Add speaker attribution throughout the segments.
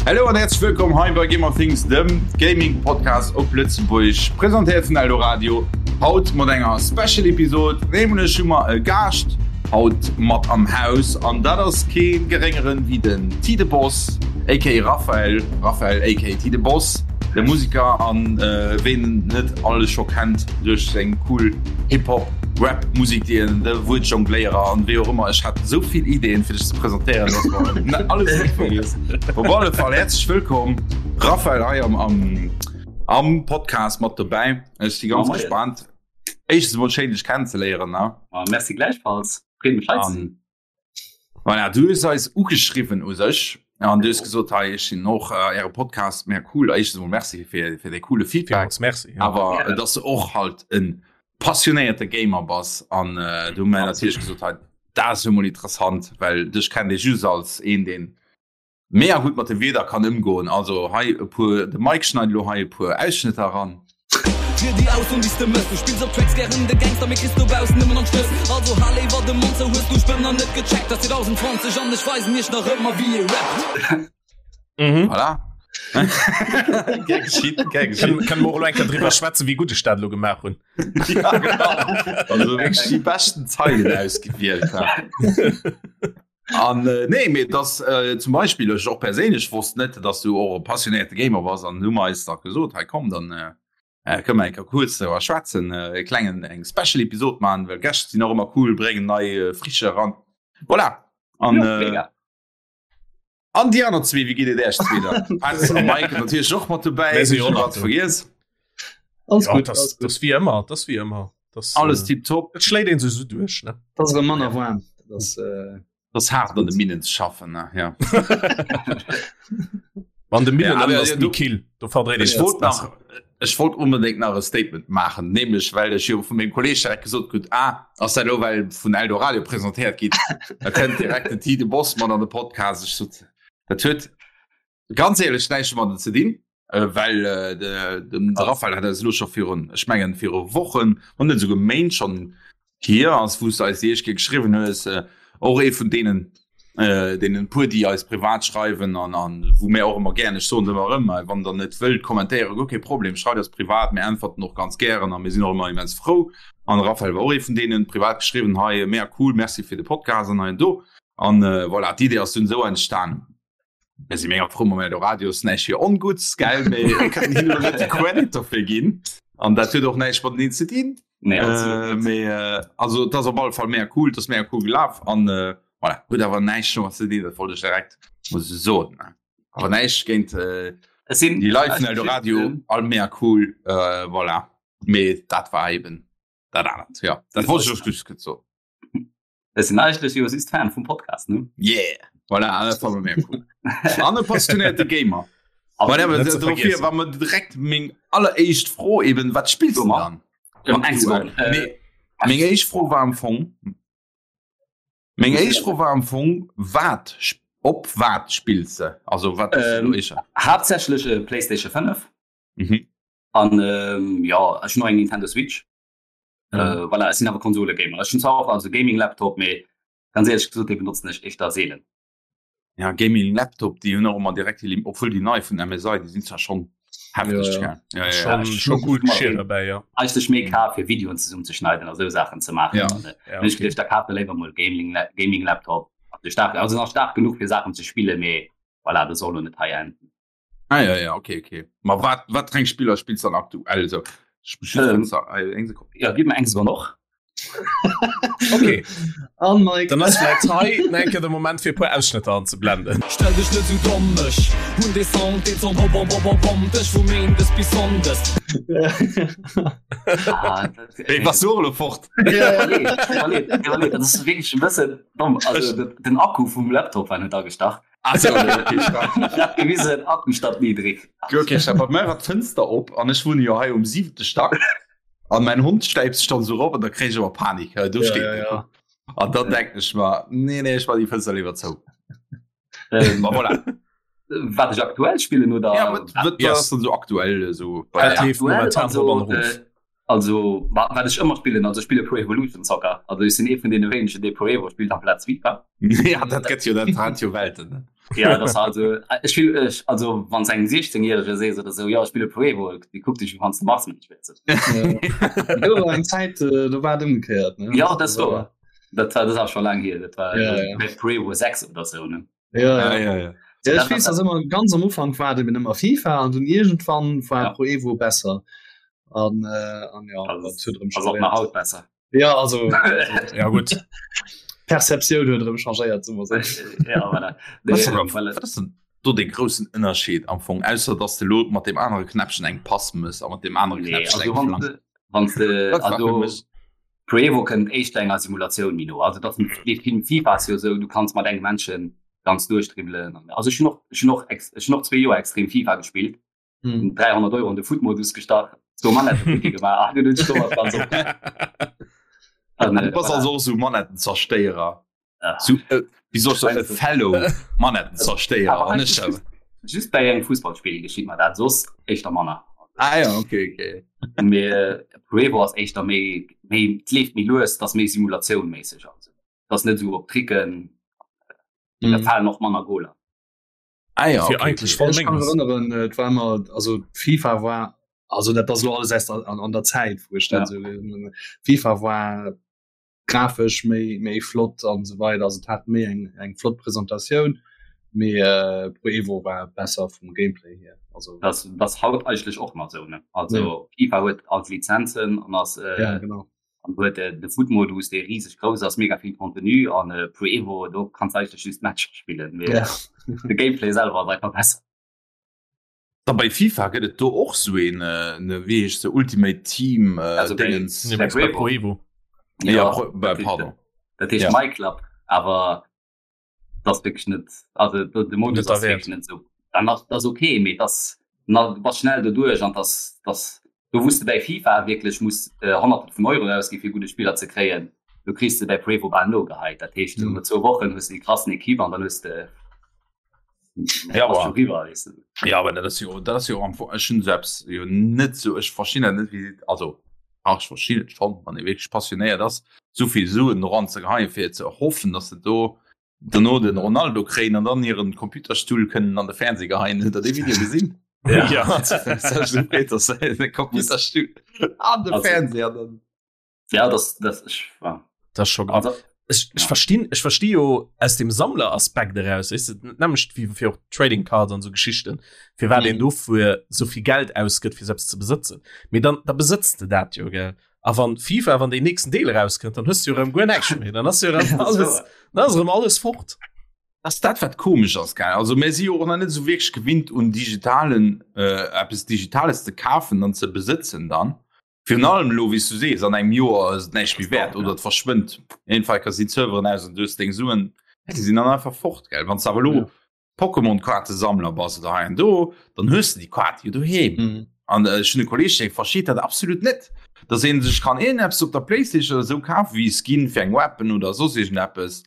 Speaker 1: Hallo an herzlich willkommen hei bei Gamer Things, dem Gaming Podcast op Lëtzebuerg, presentéiert vun Eldoradio. Haut mat enger Special Episode, nämlech hu mer e Gaascht haut mat am Haus an dat ass kee geréngeren wéi den T de Boss aka Raphael, Raphael aka T de Boss, de Musiker an ween en net alles scho kennt duerch seng cool Hip-Hop, Rap Musik, déi en, de Wuertjongléierer an wéi och ëmmer. Ech hat esou vill Ideen fir dech ze presentéieren, dass mer net alles net vergiess. Op alle Fall häerzlech wëllkomm Raphael hei am, am, am Podcast mat dobäi. Ech si ganz gespannt. Éischtens emol schéin dech kennenzeléieren, ne?
Speaker 2: Oh, merci gläichfalls. Freet mech hei ze sinn.
Speaker 1: Voilà, du hues eis ugeschriwwen u sech an du hues gesot, hei ech sinn och äh, äre Podcast mega cool. Éischtens emol merci fir, fir dee coole Feedback.
Speaker 3: Villmools merci. Ja.
Speaker 1: Awer ja. dass du och halt en passionéierte Gamer bass an äh, du hu mir natierlech gesot, hei dat ass jo mol interessant, well dech kennt ee just als een, deen Mega gutt mat de Wierder kann ëmgoen. Also hei e puer, de Mike schneit elo hei e puer Ausschnëtter eran.
Speaker 4: Fir déi aus un déi s de mëss Du spills op Tracks gären de Gangster mee kriss dobaussen nëmmen an d'Schnëss Also hal léiwer de Mond zou Hues du Spënner net gecheckt Ass 2020 an ech weisen iech nach ëmmer wéi ee rappt.
Speaker 3: Mhm.
Speaker 1: Voilà. Gär geschitt, gär geschitt.
Speaker 3: Kënne mer och elo eng Kéier driwwer schwätzen, wéi gutt ech dat elo gemaach hunn.
Speaker 1: Ja, genau. Also wierklech déi beschten Zeilen ausgewielt. An äh, nee, mee dass äh, zum Beispiel ech och perséinlech wosst net, dass du och e passionéierte Gamer bass an du mer eis da gesot, hei komm, dann äh, äh, kënne mer eng Kéier kuerz driwwer schwätzen, äh, e klengen eng Special Episod maachen, well Gäscht sinn och ëmmer cool, bréngen nei äh, Frische eran. Voilà. An,
Speaker 2: Jo,
Speaker 1: äh,
Speaker 2: mega.
Speaker 1: an déi aner zwee, wéi geet et Äech zwee dann? Petz a Mike natierlech och mat dobäi,
Speaker 3: Mir si
Speaker 1: ech
Speaker 3: och
Speaker 1: hunn
Speaker 3: nach
Speaker 1: grad
Speaker 3: do.
Speaker 1: vergiess.
Speaker 5: Alles
Speaker 3: Ja,
Speaker 5: gutt,
Speaker 3: das,
Speaker 5: alles gutt.
Speaker 3: das wie ëmmer, das wie ëmmer. Das,
Speaker 1: Alles
Speaker 3: äh,
Speaker 1: tiptop.
Speaker 3: Et schléit een sech sou duerch, ne?
Speaker 5: Dat ass erëm manner waarm. Dat ass, äh,
Speaker 1: Das hart an de Minen ze schaffen, ne? Ja.
Speaker 3: An de Minen
Speaker 1: Ja, aber
Speaker 3: ass
Speaker 1: ja,
Speaker 3: méi
Speaker 1: du-
Speaker 3: kill. Do verdréit
Speaker 1: Ech
Speaker 3: een
Speaker 1: wollt
Speaker 3: besser.
Speaker 1: nach ech wollt unbedingt nach e Statement maachen, nämlech well ech jo vu mengem Kolleg direkt gesot krut, ah, ass dat elo well vun Eldoradio presentéiert gitt, da kënnt direkt den Tide Boss mat an de Podcast. Ech sot, dat huet ganz éierlech näischt domadden ze dinn, well de de Raphael hat eis elo scho virun, ech mengen viru Wochen, wann net esouguer Méint schonn hier ass, wou s de eis déi éischt Kéier geschriwwen hues, och ee vun deenen, deenen puer, déi eis privat schreiwen an an wou mär och ëmmer gären, ech soen et ëmmer erëm, wann der net wëllt kommentéieren, guer kee Problem, schreift eis privat, mir äntwerten och ganz gären a mir sinn och ëmmer immens frou. An de Raphael war och ee vun deenen, privat geschriwwen, hei mega cool, merci fir de Podcast an hei an do. An voilà, d'Idee ass dunn esou entstanen. Mir si mega frou mam Eldoradio, ass näischt fir ongutts, gell, mee mir kënnen hinnen elo net de Credit dofir ginn an dat huet och näischt mateneen ze dinn.
Speaker 2: Nee, absolut
Speaker 1: Äh,
Speaker 2: net.
Speaker 1: mee äh, also et ass op alle Fall mega cool, et ass mega cool gelaf an äh, voilà, huet awer näischt domat ze dinn, dat wollt ech direkt mol sou soen. Ne? Awer näischt géint äh,
Speaker 2: Es sinn
Speaker 1: déi Leit vun
Speaker 2: also
Speaker 1: Eldoradio,
Speaker 2: just, ähm,
Speaker 1: all mega cool, äh, voilà. Mee dat war eben dat anert, ja. Dat wollt ech just kuerz soen.
Speaker 2: Es sinn eigentlech jo just Fan vum Podcast, ne?
Speaker 1: Yeah! Voilà, dat war mega cool. An e passionéierte Gamer.
Speaker 2: Aber
Speaker 1: Voilà,
Speaker 3: net ze
Speaker 1: dofir
Speaker 3: vergiessen.
Speaker 1: war mir direkt meng alleréischt Fro eben, wat spillst du
Speaker 2: Dummer.
Speaker 1: dann?
Speaker 2: Ähm, eng Sekonn. Äh,
Speaker 1: Nee, meng éischt Fro war am Fong, meng éischt Fro war am Fong, wat, sp- op wat spills de? Also wat ass
Speaker 2: Ähm,
Speaker 1: elo éischer?
Speaker 2: haaptsächlech äh, PlayStation 5
Speaker 1: Mhm.
Speaker 2: an ähm, ja, ech hunn och eng Nintendo Switch.
Speaker 3: Mhm.
Speaker 2: Äh, voilà, ech sinn awer Konsole-Gamer. Ech hunn zwar och also Gaming-Laptop, mee ganz éierlech gesot, dee benotzen ech éischter seelen.
Speaker 1: Ja, Gaming Laptop, déi hunn och ëmmer direkt déi Lim, obwuel déi nei vun MSI, déi sinn zwar schonn hefteg,
Speaker 5: Ja, ja.
Speaker 1: gell? Ja, ja, ja.
Speaker 3: Schon,
Speaker 2: ech
Speaker 3: schon
Speaker 2: muss
Speaker 3: cool
Speaker 2: immer
Speaker 3: Geschirr
Speaker 2: méi-
Speaker 3: dabei, ja.
Speaker 2: Eigentlech méi kaf fir Videoen zesummenzeschneiden a sou Saachen ze maachen.
Speaker 1: Ja.
Speaker 2: An, äh,
Speaker 3: Ja,
Speaker 2: ech
Speaker 3: okay.
Speaker 2: geduecht, da kaf de léiwer mol Gaming, Gaming Laptop. Also staark, also nach staark genuch fir Saachen ze spillen, mee voilà, dat soll lo net hei enden.
Speaker 1: Ah, ja, ja, okay, okay. Ma wat, wat fir eng Spiller spills du dann aktuell sou? Ech muss just
Speaker 2: Ähm,
Speaker 1: kurz, äh, eng Sekonn.
Speaker 2: Ja, gib mir eng Sekonn och.
Speaker 3: Okay,
Speaker 5: An Mike.
Speaker 3: dann ass vläit hei nach eng Kéier de Moment fir e puer Ausschnëtter anzeblenden.
Speaker 4: Stell dech net sou domm, ech hunn dee Sound, deen Sound, bom bom bom bom bom dech vu Méindes bis Sonndes.
Speaker 2: Ah, dat,
Speaker 1: Ey, was du och elo fort?
Speaker 5: Ja, ja.
Speaker 2: Nee, iwwerleet, iwwerleet, dat ass wierklech e bëssen domm. Also de, den Akku vum Laptop war net agestach.
Speaker 1: Ah, so, okay, stark.
Speaker 2: Ich hab gewisen, Akku statt niedrig.
Speaker 1: Okay, ich hab bei mir war d'Fënster op an ech wunne jo hei um siwente Stack an mein Hond stäipt sech dann so rop an da kréich ech awer Panik. Ja, do
Speaker 5: Ja,
Speaker 1: steet
Speaker 5: ja,
Speaker 1: en.
Speaker 5: ja.
Speaker 1: An dann denken ech mer, nee, nee, ech mach déi Fënster liewer zou.
Speaker 2: Ähm,
Speaker 1: Ma voilà.
Speaker 2: wat ech aktuell spillen oder
Speaker 1: Ja, wat, wat
Speaker 3: Yes.
Speaker 1: ass dann so aktuell so bei
Speaker 3: Dat
Speaker 1: der?
Speaker 3: leeft
Speaker 2: aktuell
Speaker 3: momentan
Speaker 2: also,
Speaker 3: rop an erof.
Speaker 2: äh, also wa- wat ech ëmmer spillen also ech spille Pro Evolution Soccer also ech sinn ee vun deene wéinegen dee Pro Evo spillt amplaz FIFA
Speaker 1: Ja, dat gëtt jo, dat hat jo Welten. Ne?
Speaker 2: Ja das also ech spill ech also wann engem 16-jährege sees oder sou ja ech spille Pro Evo, déi kuckt dech wéi wann s de Marsmensch wiers.
Speaker 5: Do war eng Zäit äh, do war et ëmgekéiert ne?
Speaker 2: Ja dat war dat war dat ass scho laang hier, dat war
Speaker 5: Ja, ja.
Speaker 2: bei Pro Evo 6 oder sou ne.
Speaker 5: Ja, ja.
Speaker 1: Ah, ja, ja.
Speaker 5: Ja, ech weess, dass ëmmer ganz am Ufank war et eben ëmmer FIFA an dunn iergendwann war
Speaker 2: Ja.
Speaker 5: Pro Evo besser. An, äh, an ja,
Speaker 2: Also,
Speaker 5: dat huet erëm
Speaker 2: Ass och nach haut besser.
Speaker 5: Ja also, also
Speaker 3: Ja gut.
Speaker 5: Perceptioun huet erëm changéiert soe mer sou.
Speaker 2: Ja, voilà.
Speaker 1: Was
Speaker 2: Nee,
Speaker 1: denn,
Speaker 2: voilà.
Speaker 1: wat ass denn do de groussen Ënnerscheed am Fong ausser dass de lo mat dem anere Knäppchen eng Pass mëss a mat dem anere
Speaker 2: Nee,
Speaker 1: Knäppchen
Speaker 2: also
Speaker 1: eng
Speaker 2: wann
Speaker 1: Flank?
Speaker 2: de, wann de,
Speaker 1: Dat war fir
Speaker 2: also
Speaker 1: mech
Speaker 2: Pro Evo kënnt éischter enger Simulatioun méi no. Also dat dee Film FIFA ass jo esou, du kanns mat engem Männchen ganz duerchdribbelen. Also ech hunn och, ech hunn och, ex, ech hunn och zwee Joer extrem FIFA gespillt.
Speaker 5: Hm.
Speaker 2: 300 Euro an de Footmodus gestach, zwou Manetten futti gemaach, ah, dunn hunn ech domat ganz op. An,
Speaker 1: Du
Speaker 2: äh,
Speaker 1: bass
Speaker 2: voilà.
Speaker 1: also och sou Manettenzerstéierer.
Speaker 2: Ah.
Speaker 1: Sou, äh, wéi soll ech soen, e
Speaker 2: Meinst du?
Speaker 1: Fellow Manettenzerstéierer.
Speaker 2: Awer
Speaker 1: An
Speaker 2: eigentlich
Speaker 1: ech
Speaker 2: just, just bei engem Fussballspill geschitt mer dat, soss éischter manner.
Speaker 1: Ah ja, okay, okay.
Speaker 2: Mee äh, Pro Evo ass éischter méi, méi, et leeft méi lues, dat ass méi Simulatioun-méisseg also. Dat ass net esou op Tricken, da
Speaker 5: Mhm.
Speaker 2: falen och manner Goler.
Speaker 1: Ah ja,
Speaker 3: Fir
Speaker 1: okay,
Speaker 3: eigentlich
Speaker 1: okay.
Speaker 3: voll
Speaker 5: Ech kann
Speaker 3: Menges.
Speaker 5: erinnern, äh, et war immer also FIFA war also dat ass lo alles erst an, an der Zäit wou ech dat
Speaker 2: Ja.
Speaker 5: sou gelesen hunn. FIFA war grafesch méi méi flott an sou weider, also et hat méi eng eng flott Presentatioun, mee äh, Pro Evo war besser vum Gameplay hier. Also
Speaker 2: Das, das haut eigentlech och nach sou, ne? Also FIFA huet all d'Lizenzen an ass äh,
Speaker 5: ja genau.
Speaker 2: an huet äh, de Foot-Modus, dee riseg grouss ass, mega vill Contenu an äh, Pro Evo, do kanns du eigentlech just Matcher spillen, mee
Speaker 5: Ja.
Speaker 2: de Gameplay selwer ass einfach besser.
Speaker 1: Da bei FIFA gëtt et do och sou een, äh, ne, wéi heescht se, Ultimate Team äh,
Speaker 2: Also bei-
Speaker 1: Dingens.
Speaker 3: Nee, meinst du bei Pro Evo.
Speaker 1: Ja, Pro, bei,
Speaker 2: dat heescht-
Speaker 1: pardon.
Speaker 2: Dat heescht
Speaker 1: Ja.
Speaker 2: My Club, awer das ass wierklech net, also de de Modus
Speaker 3: Net der
Speaker 2: ass wierklech
Speaker 3: Wäert.
Speaker 2: net sou. Dann ass das okay, mee das na du bass schnell doduerch an das das do wous de bäi FIFA wierklech muss äh, Honnerte vun Euro ausgi fir gudde Spiller ze kréien, do kriss de bäi Pro Evo bal nogeheit. Dat heescht
Speaker 5: Mhm.
Speaker 2: no zwou Wochen hues de déi krassen Equipe an dann hues de
Speaker 1: Ja,
Speaker 2: ass
Speaker 1: aber-
Speaker 2: scho riwwer, weess de.
Speaker 1: Ja, aber dat ass jo dat ass jo am Fong ech hunn selbst jo net sou ech verstinn dat net wéi also ach ech verstinn et schonn wann ee wierklech passionéiert ass souvill Suen eran ze geheien fir ze hoffen dass se do dono den Ronaldo kréien an dann hiren Computerstull kënnen an de Fernseh geheien. Hutt der dee Video gesinn?
Speaker 3: Ja.
Speaker 1: Ja. Computerstull an de
Speaker 2: Also-
Speaker 1: Fernseh an dann
Speaker 2: Ja, das das ich war
Speaker 3: Das ist schon grav.
Speaker 2: also,
Speaker 3: Ech, ech
Speaker 2: Ja.
Speaker 3: verstinn ech versti jo aus dem Sammleraspekt eraus weißt du, nämlich wie fir och Trading Cards an so Geschichten fir wat
Speaker 5: Mhm.
Speaker 3: een dofir so viel Geld ausgëtt fir selbst ze besëtzen mee dann da besëtzt de dat jo gell a wann FIFA wann den nächsten Deel rauskënnt dann hues du jo rëm guer näischt méi dann ass jo rëm alles dann ass rëm alles fort
Speaker 1: Das dat wat komesch ass gell also mir si jo och nach net sou wierklech gewinnt un digitalen äh, eppes Digitales ze kafen an ze besëtzen dann. Virun allem elo wéi s du sees an engem Joer ass et näischt méi wäert oder et verschwënnt. Jedenfalls ka sinn d'Serveren aus an du hues deng Suen, déi sinn dann einfach fort gell. Wann s de awer elo
Speaker 5: Ja.
Speaker 1: Pokémon-Kaartesammler bass oder hei an do, dann hues de déi Kaart jo doheem.
Speaker 5: Mhm.
Speaker 1: An ech hunn e Kolleeg dee versteet dat absolut net, dass ee sech kann iergendeppes op der Playstation oder esou kafen, wéi e Skin fir eng Weapon oder soss iergendeppes.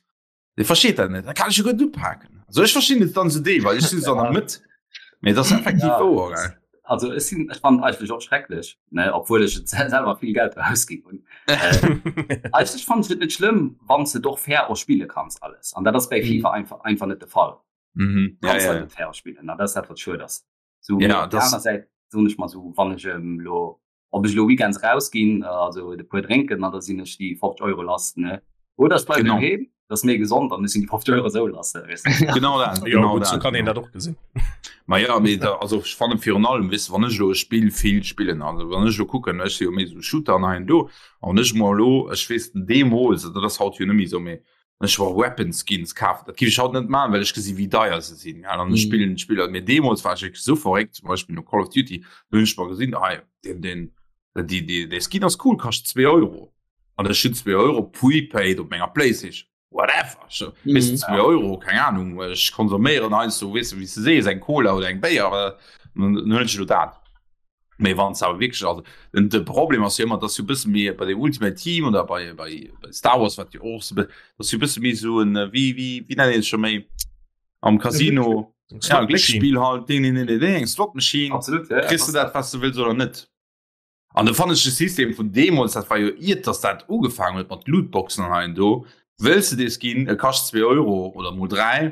Speaker 1: Dee versteet dat net. Dat kann ech jo guer net upaken. Also ech verstinn et dann esou deelweis, ech sinn esou an der Mëtt. Mee et ass effektiv
Speaker 2: Ja.
Speaker 1: wouer, gell.
Speaker 2: Also ech sinn ech fand eigentlech och schrecklech, ne, obwuel ech et selwer vill Geld ausginn hunn. Äh, eigentlech fand ech et net schlëmm, wann s de et och fair och spille kanns alles. An dat ass bei
Speaker 5: Mhm.
Speaker 2: FIFA einfach einfach net de Fall.
Speaker 1: Mhm.
Speaker 2: Du
Speaker 1: Ja,
Speaker 2: kanns
Speaker 1: ja,
Speaker 2: dat
Speaker 1: ja.
Speaker 2: net fair spillen, an dat ass dat wat schued ass. So,
Speaker 1: Ja,
Speaker 2: mee op der
Speaker 1: das-
Speaker 2: aner Säit soen ech mer sou, wann ech em lo ob ech elo weekends rausginn, also e puer drénken an da sinn ech déi 50 Euro lass, ne? Oder ech bleiwen
Speaker 1: Genau.
Speaker 2: doheem, dat ass méi gesond an ech sinn déi 50 Euro esou lass, weess de.
Speaker 1: Genau dat,
Speaker 3: Jo,
Speaker 1: genau
Speaker 3: gutt, sou
Speaker 1: dat,
Speaker 3: kann een
Speaker 1: genau.
Speaker 3: dat och gesinn.
Speaker 1: Ma ja, mee da, also ech fannen virun allem, weess de, wann ech elo e Spill vill spillen, also wann ech elo kucken, ech si jo méi esou Shooter an hei an do, an wann ech mer elo, ech weess deemools, dat ass haut jo net méi esou, mee wann ech mer Weapon Skins kafen, dat géif ech haut net maachen, well ech gesi wéi deier se sinn, ja, an ech
Speaker 5: Mhm.
Speaker 1: spillen d'Spiller, mee deemools war ech wierklech esou verréckt, zum Beispill no Call of Duty, do hunn ech mer gesinn, hei, deen, deen, déi, déi, dee Skin ass cool, kascht zwee Euro, an ech hunn zwee Euro prepaid op menger Playstation, whatever, ech, weess de,
Speaker 5: Mhm.
Speaker 1: zwee Euro, keng Ahnung, ech konsuméieren heiansdo, weess de, wéi s de sees, eng Cola oder eng Béier, dann huelen ech elo dat. Mee wann awer wierklech also den de Problem ass jo ëmmer, dass jo bësse méi bei dem Ultimate Team oder bei bei bei Star Wars wat jo och so dass jo bësse méi sou en äh, wéi wéi wéi nennt een et scho méi am Casino ja Glécksspill halt ding ding ding ding eng Slot Machine
Speaker 2: Absolut, ja, ja,
Speaker 1: kriss du dat was du wëlls oder net. An da fannen ech de System vun deemools, dat war jo iert dass dat ugefaangen huet mat Lootboxen an hei an do, wëlls de dee Skin, e kascht 2 Euro oder mol 3.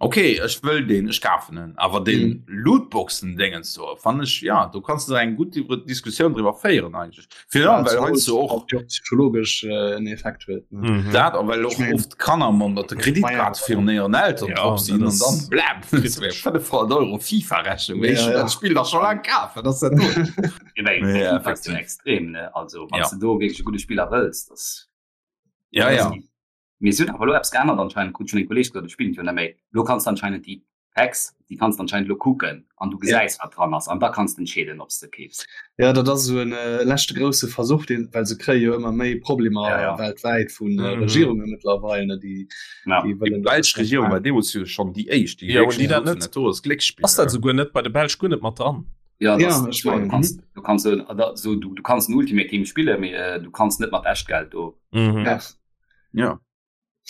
Speaker 1: Okay ech wëll deen ech kafen en awer den mm. Lootboxen Dingens do fannen ech ja do kanns du eng gutt Diskussioun driwwer féieren eigentlech. Fir ja, well heiansdo och
Speaker 5: psychologesch äh, en Effekt huet.
Speaker 1: Mhm. Dat a well och oft Kanner man dat de Kreditkaart virun hiren Eltern ja, drop sinn an dann bläm 500 Euro FIFA-Rechnung. Ja, ja. Dat Spill dach scho laang kaf, wat ass dat do?
Speaker 2: Ja, extrem ne also wann ja. du do wierklech e gudde Spiller wëlls, das
Speaker 1: ja, ja.
Speaker 2: Mee si hunn awer elo eppes geännert anscheinend, krut ech vun engem Kolleeg gesot, ech spillen et jo net méi. Elo kanns de anscheinend déi Packs, déi kanns de anscheinend elo kucken an du gesäis, wat dran ass an da kanns de entscheeden, ob s de keefs.
Speaker 5: Jo, dat ass esou en leschte grousse Versuch, deen, well se kréie jo ëmmer méi Problemer ja, ja. weltwäit vun mm. Regierunge mëttlerweil, ne, déi,
Speaker 1: ja. déi wëllen. Déi belsch Regierung war deemools jo schonn déi éischt,
Speaker 3: déi ja, déi dat net, do ass Glécksspill. Ass dat souguer net bei de Belsch guer net mat dran?
Speaker 2: Ja, das, ja, ich mein, du kannst, du kannst, so, so, du, du kannst en Ultimate Team spille, mee äh, du kannst net mat Echtgeld do.
Speaker 1: Mhm. Ja. Ja.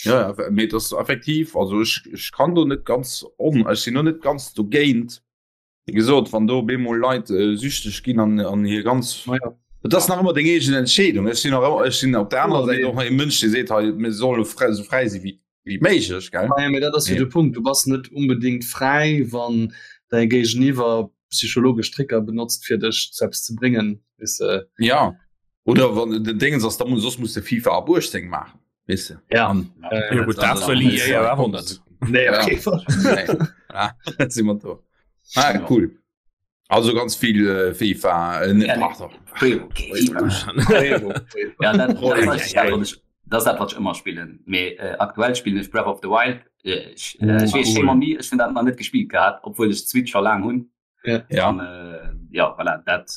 Speaker 1: Ja, ja, mee das effektiv also ich, ich kann do net ganz on ech sinn no net ganz dogéint wie gesot wann do bemol Leit äh, süchteg ginn an an hier ganz
Speaker 5: ja.
Speaker 1: Et ass nach ëmmer deng eegen Entscheedung ech sinn nach ech sinn op der anerer Säit och e Mënsch dee seet hei mir solle frei sou fräi si wéi wéi méiglech gell
Speaker 5: Ja, mee dat ass jo de Punkt, du bass net unbedingt fräi wann däi Géigeniwwer psychologesch Tricker benotzt fir dech zu eppes ze bréngen weess de.
Speaker 1: Ja oder wann den Dingens ass da muss soss muss de FIFA ab 18 maachen weess de.
Speaker 5: Ja.
Speaker 1: An,
Speaker 3: Ja, ja, gut, dat wëll EA jo awer net.
Speaker 5: Nee, op kee Fall.
Speaker 1: Nee. Ah, dat si mer do. Ah, cool. Also ganz vill äh, FIFA äh,
Speaker 2: Ja,
Speaker 1: pardon.
Speaker 2: Okay, Ja, dat, dat, ass dat, wat ech, dat ass dat, wat ech ëmmer spillen. Mee äh, aktuell spillen ech Breath of the Wild. Äh, ech, äh, ech weess,
Speaker 1: cool.
Speaker 2: shame on me, ech hunn dat nach net gespillt gehat, obwuel ech d'Switch scho laang hunn.
Speaker 5: Ja.
Speaker 1: Ja.
Speaker 2: An, äh, ja, voilà, dat,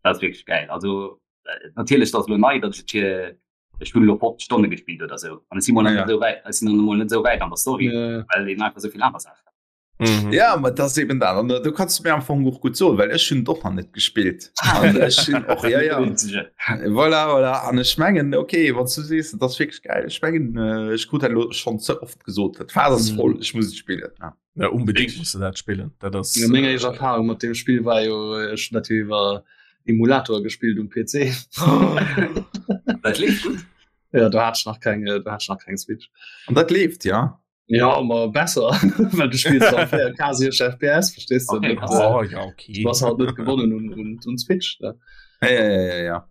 Speaker 2: dat ass wierklech gäil. Also, äh, natierlech, dat ass elo nei, datt ech et fir ech hunn elo 50 Stonne gespillt oder sou. An ech si mol nach
Speaker 1: Ja.
Speaker 2: net esou wäit, ech sinn nach mol net esou wäit an der Story,
Speaker 5: Ja.
Speaker 2: well een einfach esou vill aner Saachen.
Speaker 3: Mhm.
Speaker 1: Ja, ma das eben dat. An du kannst mir am Fong och gut soen, well ech hunn doch nach net gespillt. An ech hunn och ja, ja. Voilà, voilà. An ech mengen okay, wann du sees, dat ass wierklech geil. Ech mengen äh, ech krut dat lo schon ze oft gesot. Dat Phas ass
Speaker 5: Mhm.
Speaker 1: voll, ech muss et spillen. Ja.
Speaker 3: Ja, unbedingt musst du dat spillen. Dat ass
Speaker 5: Ja, meng éischt Erfahrung mat dem Spill war jo äh, ech hunn dat jo iwwer Emulator gespillt um PC.
Speaker 2: Dat leeft gutt.
Speaker 5: Ja, do hat ech nach keng, äh, do hat ech nach keng Switch.
Speaker 1: An dat leeft, ja.
Speaker 5: Ja ma besser well du spills dann 4K 60 FPS verstehst du
Speaker 2: Okay,
Speaker 5: net,
Speaker 2: krass.
Speaker 5: äh,
Speaker 3: Oh, ja, okay.
Speaker 5: du bass halt net gewonnen un, un, un Switch ne?
Speaker 1: Ja, ja, ja, ja, ja.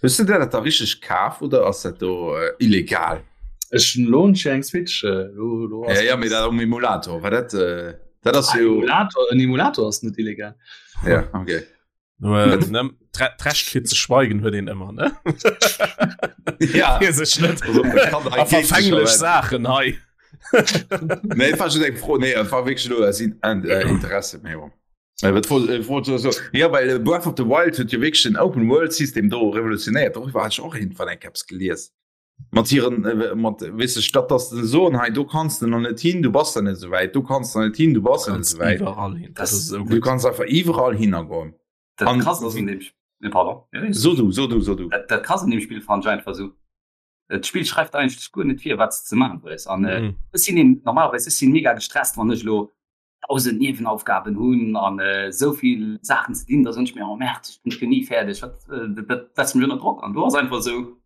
Speaker 1: Hues du der dat da richteg kaf oder ass dat do äh, illegal?
Speaker 5: Ech hunn lo hunn ech eng Switch äh, lo, lo
Speaker 1: Ja, ja, mee dat um Emulator, war dat äh, dat ass
Speaker 5: Ah,
Speaker 1: jo
Speaker 5: Emulator, en Emulator ass net illegal.
Speaker 1: ja, okay.
Speaker 3: D'Recht fir ze schweigen huet een ëmmer ne
Speaker 1: ja.
Speaker 3: sech net verfänglech Saachen hei.
Speaker 1: Nee, war schon eng Fro nee, war wirklich nur aus in, äh, Interesse méi. Äh, wat wollt, äh, wollt so, so. Ja, well äh, Breath of the Wild huet jo wirklich den Open World System do revolutionéiert. Darüber hat ich och irgendwann eng Caps gelies. Mat hiren äh, mat weess de, statt dass de soen hei do kanns de nach net hin, du bass da net esou wäit, do kanns de net hin, du bass net esou wäit.
Speaker 3: Iwwerall hin.
Speaker 2: Das
Speaker 3: Das ist so
Speaker 1: Du
Speaker 3: gut.
Speaker 1: kanns einfach iwwerall hinnergoen.
Speaker 2: Dat
Speaker 1: An-
Speaker 2: krass ass an dem Spiel, pardon. Ja,
Speaker 1: So du, so du, so du.
Speaker 2: Dat, dat krass an dem Spiel fand ich einfach so. Dat Spiel schreift eigentlech guer net vir, wat s de ze maachen hues. An äh,
Speaker 3: Mhm.
Speaker 2: ech sinn een, normalerweis ech sinn mega gestresst, wann ech lo 1000 Niewenaufgaben hunn an äh, esou vill Saachen ze dinn, da soen ech mir, oh merde, ech bin jo ni fäerdeg, wat, äh, dat, dat setzt mech ënner Drock. An do ass einfach esou,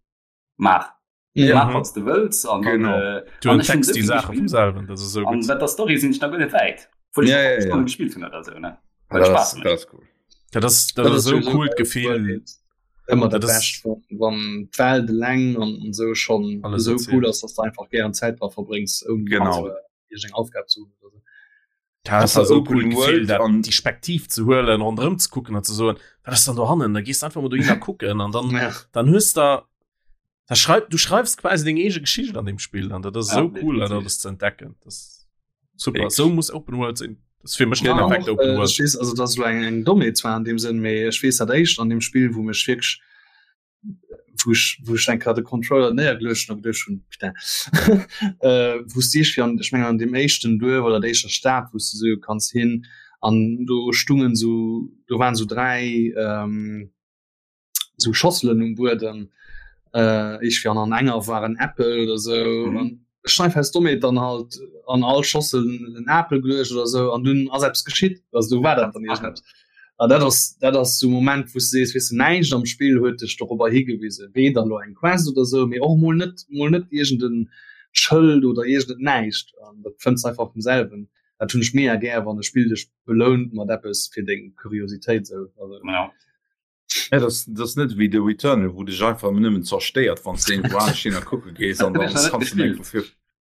Speaker 2: maach.
Speaker 1: Ja.
Speaker 2: Maach, wat du wëlls. An dann,
Speaker 1: Genau.
Speaker 2: äh,
Speaker 3: Du
Speaker 2: an ech hunn
Speaker 3: entdecks
Speaker 2: esou
Speaker 3: déi
Speaker 2: vill
Speaker 3: Saache vum
Speaker 2: gespillt.
Speaker 3: selwen, dat ass esou
Speaker 2: An
Speaker 3: gutt.
Speaker 2: wat der Story sinn ech nach guer net wäit. Obwuel ech
Speaker 1: Ja,
Speaker 2: nach
Speaker 1: ja, ja.
Speaker 2: Stonne gespillt hunn oder sou, ne? Well
Speaker 1: Das,
Speaker 2: Spaß mécht.
Speaker 1: das ist cool.
Speaker 3: Dat ass dat ass esou coolt Gefill.
Speaker 5: Ëmmer dat
Speaker 3: Dat ass-
Speaker 5: Bescht, wann, wann d'Welt eleng an, an sou schon
Speaker 3: Alles
Speaker 5: esou
Speaker 3: erzählt.
Speaker 5: cool ass, dass du einfach gären Zäit dra verbréngs, ouni
Speaker 1: Genau.
Speaker 5: zu, äh, iergend eng Aufgab zu hunn oder sou.
Speaker 3: Dat
Speaker 1: Ass
Speaker 3: ass esou
Speaker 1: Open
Speaker 3: cool Gefill,
Speaker 1: World
Speaker 3: dat
Speaker 1: an-
Speaker 3: déi Spektiv ze huelen, ronderëm ze kucken an ze soen, wat ass dann do hannen? Da gees du einfach mol dohinner kucken an dann
Speaker 5: Ja.
Speaker 3: dann hues da da schreib du schreibst quasi deng eege Geschicht an dem Spiel an dat ass
Speaker 2: Ja,
Speaker 3: esou cool dat
Speaker 2: definitiv.
Speaker 3: alles ze entdecken. Das ist super.
Speaker 1: Wirklich.
Speaker 3: Sou muss Open World sinn. Das ist fir mech
Speaker 5: Ja,
Speaker 3: perfekt
Speaker 5: och,
Speaker 3: Open
Speaker 5: äh,
Speaker 3: World.
Speaker 5: ech weess, also dat ass elo eng, eng Dommheet zwar an deem Sënn, mee ech weess dat éischt an deem Spill, wou mech wierklech wou ech, wou ech eng Kéier de Controller néiergeluecht hunn a geduecht hunn, putain, äh, wou s de iergendwéi an, ech mengen an deem éischten Duerf oder der éischter Stad, wou s de sou kanns hin an do stungen sou, do waren sou 3, ähm, sou Schosselen um Buedem, äh, iergendwéi an an enger war en Äppel oder sou
Speaker 2: Mhm.
Speaker 5: an ech hunn einfach aus Dommheet dann halt an all Schossel en Apel geluecht oder sou an dunn ass eppes geschitt, also do war dat dann iergendeppes. An dat ass dat ass sou Moment wou s de sees, weess de, näischt am Spill huet dech dorobber higewisen, weder elo eng Quest oder sou, mee och mol net mol net iergend en. Schëld oder iergend näischt an dat fënns einfach vum selwen. Dat hunn ech mega gär wann e Spill dech belount mat eppes fir deng Kuriositéit sou. Also,
Speaker 1: ja. Ja, das, das net wéi de Returnal, wou dech einfach nëmmen zerstéiert, wann du irgendwo anescht hin a kucke gees an dann kannst du net fir.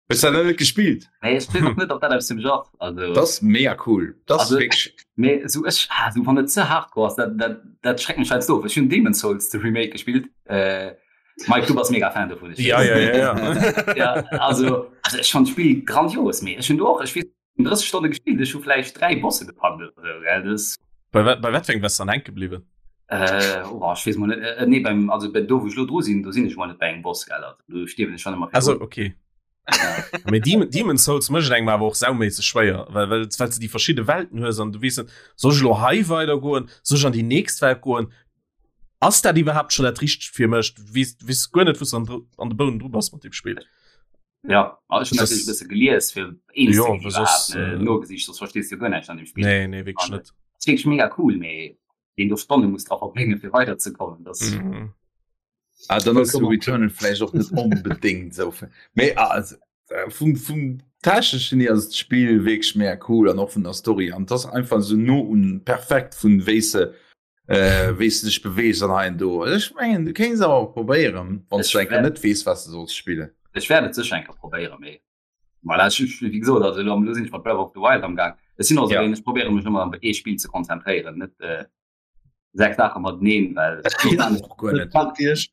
Speaker 1: Hues du dat net gespillt?
Speaker 2: Nee, ech weess och net, ob dat aus dem Genre
Speaker 1: also. Das ist mega cool. Das
Speaker 2: also, wirklich... Nee, so ech, ah, so, wann et ze hardcore ass, dat, dat, dat schreckt mech halt of. Ech hunn Demon's Souls de Remake gespillt. Äh, Mike, du bass mega Fan dovun.
Speaker 3: Ja, ja, ja,
Speaker 2: ja. ja also, also ech fand d'Spill grandios, mee ech hunn do och, ech weess 30 Stonne gespillt, ech hu vläicht 3 Bosse gepackt oder sou, gell, das.
Speaker 3: Bei wat, bei wat fir engem bass dann hänke bliwwen?
Speaker 2: Äh, oh, ech weess mol net, äh, nee, beim, also bei do wou ech lo dru sinn, do sinn ech mol net bei engem Boss, gell, also do stierwen ech schon ëmmer
Speaker 3: Also okay. Ja. Mee Demon, Demon Souls mécht engem awer och sauméisseg schwéier, well, well, well du déi verschidde Welten hues an du weess net, soll ech lo hei weidergoen, soll ech an déi nächst Welt goen? Ass dat iwwerhaapt schon dat richtegt fir mech? Du weess, du weess guer net, wou s du an, an de Bounen dru bass mat deem Spill.
Speaker 2: Ja, also ich natürlich bësse gelies fir
Speaker 3: eens ja, soss,
Speaker 2: äh, nogesicht, sonst verstehst du guer näischt an dem
Speaker 3: Spiel. Nee, nee, wirklich net.
Speaker 2: Das wirklich mega cool, mee den du Stonne muss dra verbréngen fir weiterzekommen.
Speaker 1: Das mhm. Ah, dann ass Returnal vläicht och net onbedéngt sou. Mee also, äh, vum, vum techneschen hier ass d'Spill wierklech mega cool an och vun der Story an das einfach sou no un perfekt vun wéi se äh, wéi du dech beweegst an hei do. Ech mengen du kéints awer och probéieren, wann du enker net weess, was du solls spillen.
Speaker 2: Ech wäert et sécher enker probéieren, mee voilà, ech, ech, wéi gesot, also elo sinn ech mat Breath of the Wild am Gaang. Ech sinn och esou
Speaker 1: Ja.
Speaker 2: een, ech probéiere mech ëmmer op ee Spill ze konzentréieren, net äh, sechs Saache mateneen, well
Speaker 1: Dat
Speaker 2: man
Speaker 1: och guer net.
Speaker 5: Packt Iech.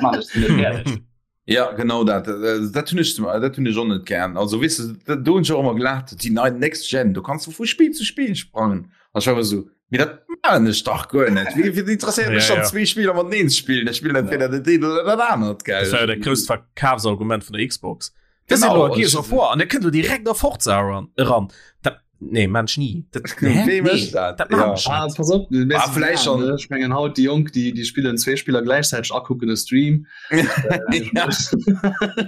Speaker 2: man ech net fäerdeg.
Speaker 1: Ja genau dat äh, dat hunn ech zum- dat hunn ech och net gern. Also weess du, dat- do hunn ech och ëmmer gelaacht, déi nei Next Gen, do kanns du vu Spill zu Spill sprangen. An ech war ëmmer esou, Mee dat maachen ech dach guer net. Wéi wéi interesséiert mech
Speaker 3: Ja,
Speaker 1: dann
Speaker 3: ja.
Speaker 1: zwee Spiller mateneen ze spillen? Ech spillen entweder dat eent oder dat anert, gell?
Speaker 3: Dat war jo dat grousst Verkafsargument vun der Xbox. Das
Speaker 1: Genau,
Speaker 3: ist Gears
Speaker 1: ech-
Speaker 3: of War an der kënnt du direkt a Forza eran. eran. Dat, nee, Mensch nie. Dat, hä?
Speaker 1: Wee
Speaker 3: Nee,
Speaker 1: mécht dat?
Speaker 3: dat machen
Speaker 1: Ja.
Speaker 3: ech
Speaker 5: Ah,
Speaker 3: net.
Speaker 5: pass op, du
Speaker 1: Ah, vielleicht schon.
Speaker 5: Ech mengen haut déi Jonk, déi, déi spillen zwee Spiller gläichzäiteg akucken e Stream.
Speaker 1: Ja.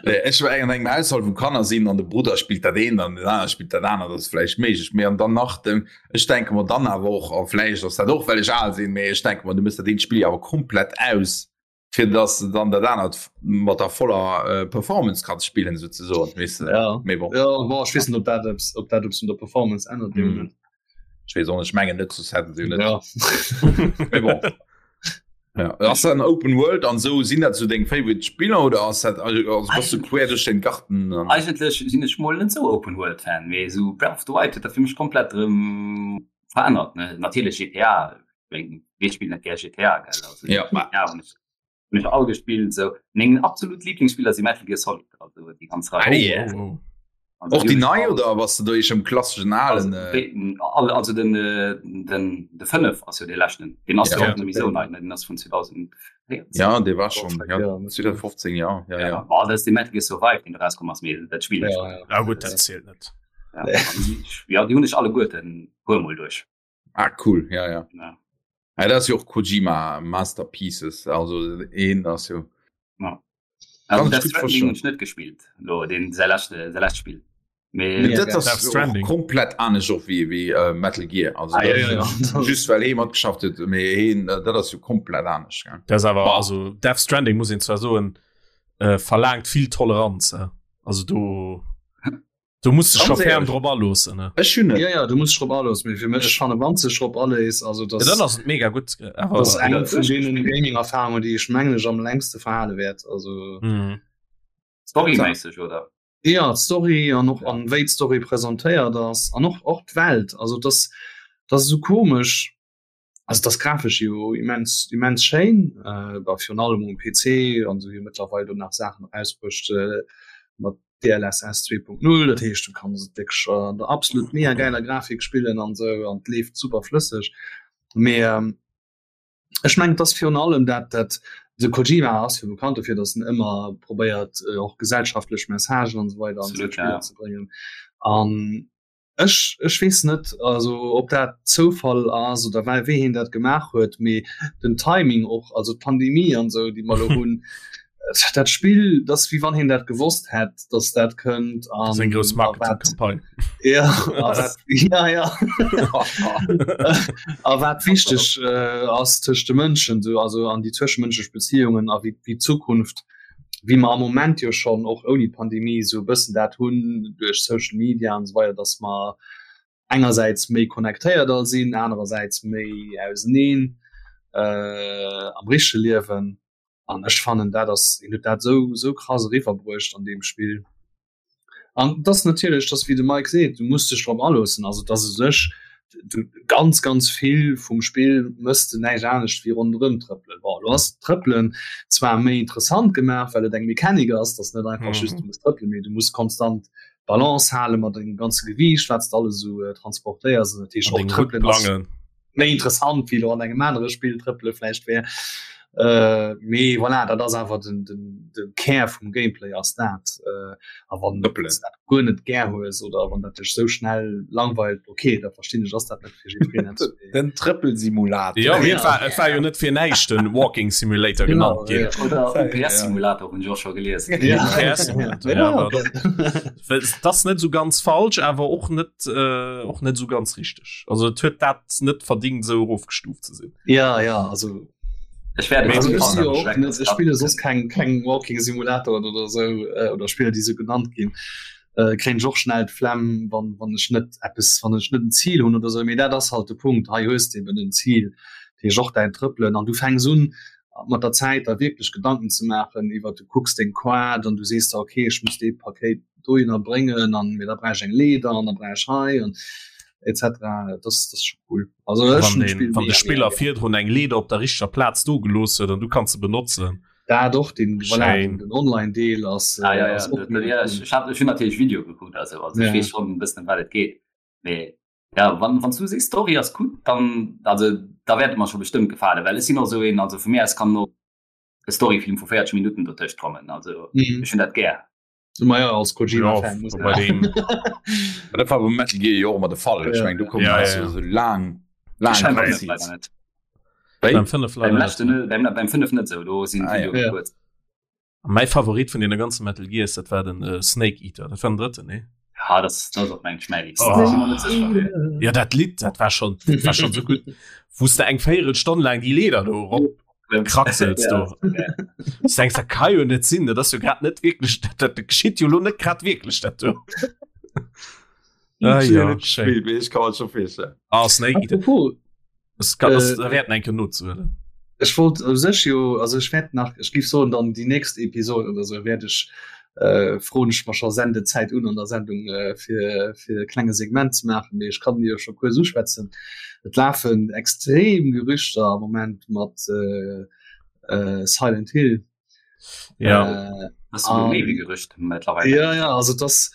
Speaker 1: Nee, Ech war eng an engem Haushalt, wou Kanner sinn an de Brudder spillt dat eent an den anere spillt dat anert, dat ass vläicht méiglech. Mee an dann nach dem, ech denke mer dann awer och, a vläicht ass dat och, well ech al sinn, mee ech denke mer, du méchs dat eent Spill awer komplett aus, fir dass de dann dat anert mat der voller äh, Performance kanns spillen souzesoen, weess de.
Speaker 5: Ja.
Speaker 1: Mee bon.
Speaker 5: Ja, bon, ech weess net, ob dat eppes, ob dat eppes un der Performance ännert.
Speaker 1: Mm.
Speaker 5: Mm.
Speaker 1: Ech weess och net, ech mengen net, soss hätten se jo net.
Speaker 5: Ja.
Speaker 1: Mee bon. Ja. Ass dat en Open World an sou? Sinn dat sou deng favorite Spiller oder ass dat also bass du quer duerch den Garten
Speaker 2: an? Eigentlech sinn ech mol net sou Open World Fan, mee sou Breath of the Wild huet dat fir mech komplett erëm verännert ne. Natierlech GTA, ween wee spillt net gär GTA gell, also
Speaker 1: Ja.
Speaker 2: GTA hunn ech hunn ech all gespillt sou. Meng absolut Lieblingsspiller si Metal Gear Solid, also déi ganz Rei.
Speaker 1: Ah, yeah.
Speaker 3: Oh, oh.
Speaker 2: Also
Speaker 1: Och déi nei
Speaker 2: all,
Speaker 1: oder bass du do eescht am klasseschen
Speaker 2: also,
Speaker 1: alen? Äh?
Speaker 2: all, also den, äh, den de 5 ass jo de leschten. Den ass
Speaker 1: Ja.
Speaker 2: jo och net méi sou nei, ne? Den ass vun 2014.
Speaker 1: Ja, dee war schon ja,
Speaker 5: Ja,
Speaker 1: 2015 ja, ja, ja.
Speaker 2: Boah, dat ass de Metal Gear Survive, deen rauskomm ass, mee dat spill ech.
Speaker 5: Ja, ja.
Speaker 3: Ah, gut, dat zielt net.
Speaker 2: Ja, an déi- ja, déi hunn ech alleguerten puer mol duerch.
Speaker 1: Ah cool, ja ja.
Speaker 2: Ja.
Speaker 1: Ja, dat ass jo och Kojima Masterpieces, also een ass jo.
Speaker 2: Ja.
Speaker 1: Kann
Speaker 2: Also
Speaker 1: ich
Speaker 2: Death
Speaker 1: gut
Speaker 2: Stranding
Speaker 1: verstehen.
Speaker 2: hunn ech net gespillt, lo den säi leschte säi lescht Spill. Mee
Speaker 1: Nee, dat
Speaker 3: Death
Speaker 1: ass och
Speaker 3: Stranding.
Speaker 1: komplett anescht och wéi wéi äh, Metal Gear. Also
Speaker 5: Ah, ja,
Speaker 1: dat
Speaker 5: ja, ja.
Speaker 1: just well hee matgeschafft huet, mee heen äh, dat ass jo komplett anescht. Gell?
Speaker 3: Das awer
Speaker 1: Bah.
Speaker 3: also Death Stranding muss een zwar soen äh, verlaangt vill Toleranz. Äh. Also do Du musst dech scho ferm drop aloossen. Ne?
Speaker 1: Ech hunn et.
Speaker 5: Ja, ja, du musst drop aloossen. Mee fir mech, ech fanne wann sech drop alees, also
Speaker 3: Ja,
Speaker 5: das,
Speaker 3: dann ass et mega gutt. Awer
Speaker 5: das ass eng vun deenen Gaming-Erfahrungen, déi ech mengen ech am längste verhale wäert. Also
Speaker 3: Mhm.
Speaker 2: Storyméisseg oder?
Speaker 5: ja, d'Story an och an wéi d'Story presentéiert ass an och och d'Welt. Also das, das ass esou komesch. Also das grafesch jo immens immens schéin, äh, bah, virun allem um PC an sou jo mëttlerweil do nach Saachen erausbruecht äh, mat DLSS 2.0, dat heescht du kanns et wierklech an der absolut mega geiler Grafik spillen an sou an et leeft super flësseg. Mee ähm, ech mengen et ass virun allem dat dat de Kojima ass jo bekannt dofir, datt en ëmmer probéiert äh, och gesellschaftlech Messagen an esou weider an seng
Speaker 2: Absolut,
Speaker 5: Spiller
Speaker 2: ja.
Speaker 5: ze bréngen an Ech ech weess net also ob dat Zoufall ass oder wei wéi hien dat gemaach huet, mee den Timing och, also d'Pandemie an esou déi mer elo hunn, dat Spill, dat ass wéi wann hien dat gewosst hätt, datt dat kënnt
Speaker 3: an Seng grouss
Speaker 5: a wat
Speaker 3: Marketingcampagne.
Speaker 5: ja a wat ja ja a wat wichteg ass tëscht de Mënschen esou, also an déi zwëschemënschlech Beziehungen a wéi wéi d'Zukunft. Wéi mer am Moment jo schonn och ouni d'Pandemie esou e bëssen dat hunn duerch Social Media an esou weider, dass mer engersäits méi connectéiert all sinn, anerersäits méi auseneen am richtege Liewen. An ech fannen dat ass, hien huet dat esou esou krass eriwwerbruecht an deem Spill. An dass natierlech, dass wéi de Mike seet, du muss dech drop aloossen. Also dass u sech du ganz ganz vill vum Spill mëss de näischt anescht wéi ronderëm trëppelen. Bon, elo ass d'Trëppelen zwar méi interessant gemaach, well et eng Mechanik ass, dass net einfach just du muss trëppelen, mee du muss konstant d'Balance hale mat dengem ganze Gewiicht, wat s de alles esou transportéiers. An dat heescht och trëppelen ass méi interessant wéi lo an engem anere Spill trëppele vläicht wär. Äh, mee voilà, dat ass awer den, den, den Kär vum Gameplay ass dat. Äh, a wann du dat guer net gär hues oder wann dat dech sou schnell langweilt, okay, da verstinn ech, ass dat net fir jiddwereen.
Speaker 1: Den Trëppelsimulator.
Speaker 3: Ja, mee et war, et war jo net fir näischt den Walking Simulator genannt
Speaker 2: ginn. Oder UPS-Simulator hunn ech och scho gelies.
Speaker 3: Ja. UPS-Simulator, ja, aber das ass net sou ganz falsch, awer och net, äh, och net sou ganz richteg. Also et huet dat net verdingt, sou erofgestuuft ze sinn.
Speaker 5: Ja, ja, also
Speaker 2: Ech werde
Speaker 5: also, ich si jo och net, ech spille soss keng, keng Walking Simulatoren oder sou, äh, oder Spiller, déi sou genannt ginn. Äh, kréien ech och schnell d'Flemm, wann, wann ech net eppes, wann ech net en Zil hunn oder sou. Mee dat ass halt de Punkt, hei hues de eben en Zil, dat heescht och däin Trëppelen an du fänks un mat der Zäit der wierklech Gedanken ze maachen iwwer, du kucks deng Quad an du sees der, okay, ech muss dee Pakéit dohinner bréngen an mee da brauch ech eng Leeder an da brauch ech hei an etc. Dat ass, dat ass scho cool.
Speaker 3: Also ech hunn d'Spill Wann de Spiller virdrun eng Leeder op der richteger Plaz do gelooss huet an du kanns se benotzen.
Speaker 5: Dat och, den, voilà, den, den Online-Deel ass,
Speaker 2: ah, ja, ja. ass och mega ja, cool. Ech hat, ech hunn natierlech Video gekuckt, also, also ja. ech weess schonn e bëssen ëm wat et geet. Mee ja, wann, wann du sees Story ass gutt, dann also da wäert et mer scho bestëmmt gefalen, well ech sinn och esou een, also vu mir aus kann och e Storyfilm vu 40 Minutten dotëscht kommen, also mhm. ech hunn dat gär.
Speaker 5: Ma ja, als Kojima-Fan muss
Speaker 1: bei dem Dat war beim Metal Gear jo och ëmmer de Fall. Ech meng, do kommen
Speaker 3: Ja,
Speaker 1: ja,
Speaker 3: ja.
Speaker 1: so laang laang
Speaker 2: Beim
Speaker 1: Cutscenes.
Speaker 2: net.
Speaker 1: Wéi?
Speaker 3: Beim 5 leider
Speaker 2: Beim
Speaker 3: net.
Speaker 2: leschten net, beim, beim 5 net sou, do sinn
Speaker 1: Ah, ja.
Speaker 2: d'Videoe kuerz.
Speaker 3: Mäi Favorit vun deene ganze Metal Gears, dat war den äh, Snake Eater. Dat war den drëtten, nee?
Speaker 2: Ja, das, das ass och meng schmäiligst.
Speaker 3: Oh.
Speaker 2: Ech si mer net sécher, mee.
Speaker 3: Ja, dat Lidd, dat war schon, dat war schon so gutt. Wou s de eng Véierelstonn laang déi Leeder do erop kratzels do. Du denkst, dat ka jo net sinn, dat ass jo grad net wierklech, dat, dat geschitt jo lo net grad wierklech dat do. Ah, ja, schéin.
Speaker 1: Spiel, ich kann mir schon vorstellen.
Speaker 3: Ah, Snake Eater.
Speaker 5: Apropos,
Speaker 3: Das kann, das,
Speaker 5: Äh,
Speaker 3: da wäerten eng Kéier nozehuelen.
Speaker 5: Ech wollt u sech jo, also ech wäert nach, ech géif soen dann déi nächst Episode oder sou wäert ech, äh, froen ech mer scho Sendezäit un an der Sendung äh, fir, fir e klenge Segment ze maachen, mee ech kann jo scho kuerz uschwätzen. Et lafen extrem Gerüchter am Moment mat äh, äh, Silent Hill.
Speaker 3: Ja.
Speaker 5: Äh,
Speaker 2: Das ist méi wéi Gerücht mittlerweile.
Speaker 5: Ja, ja, also das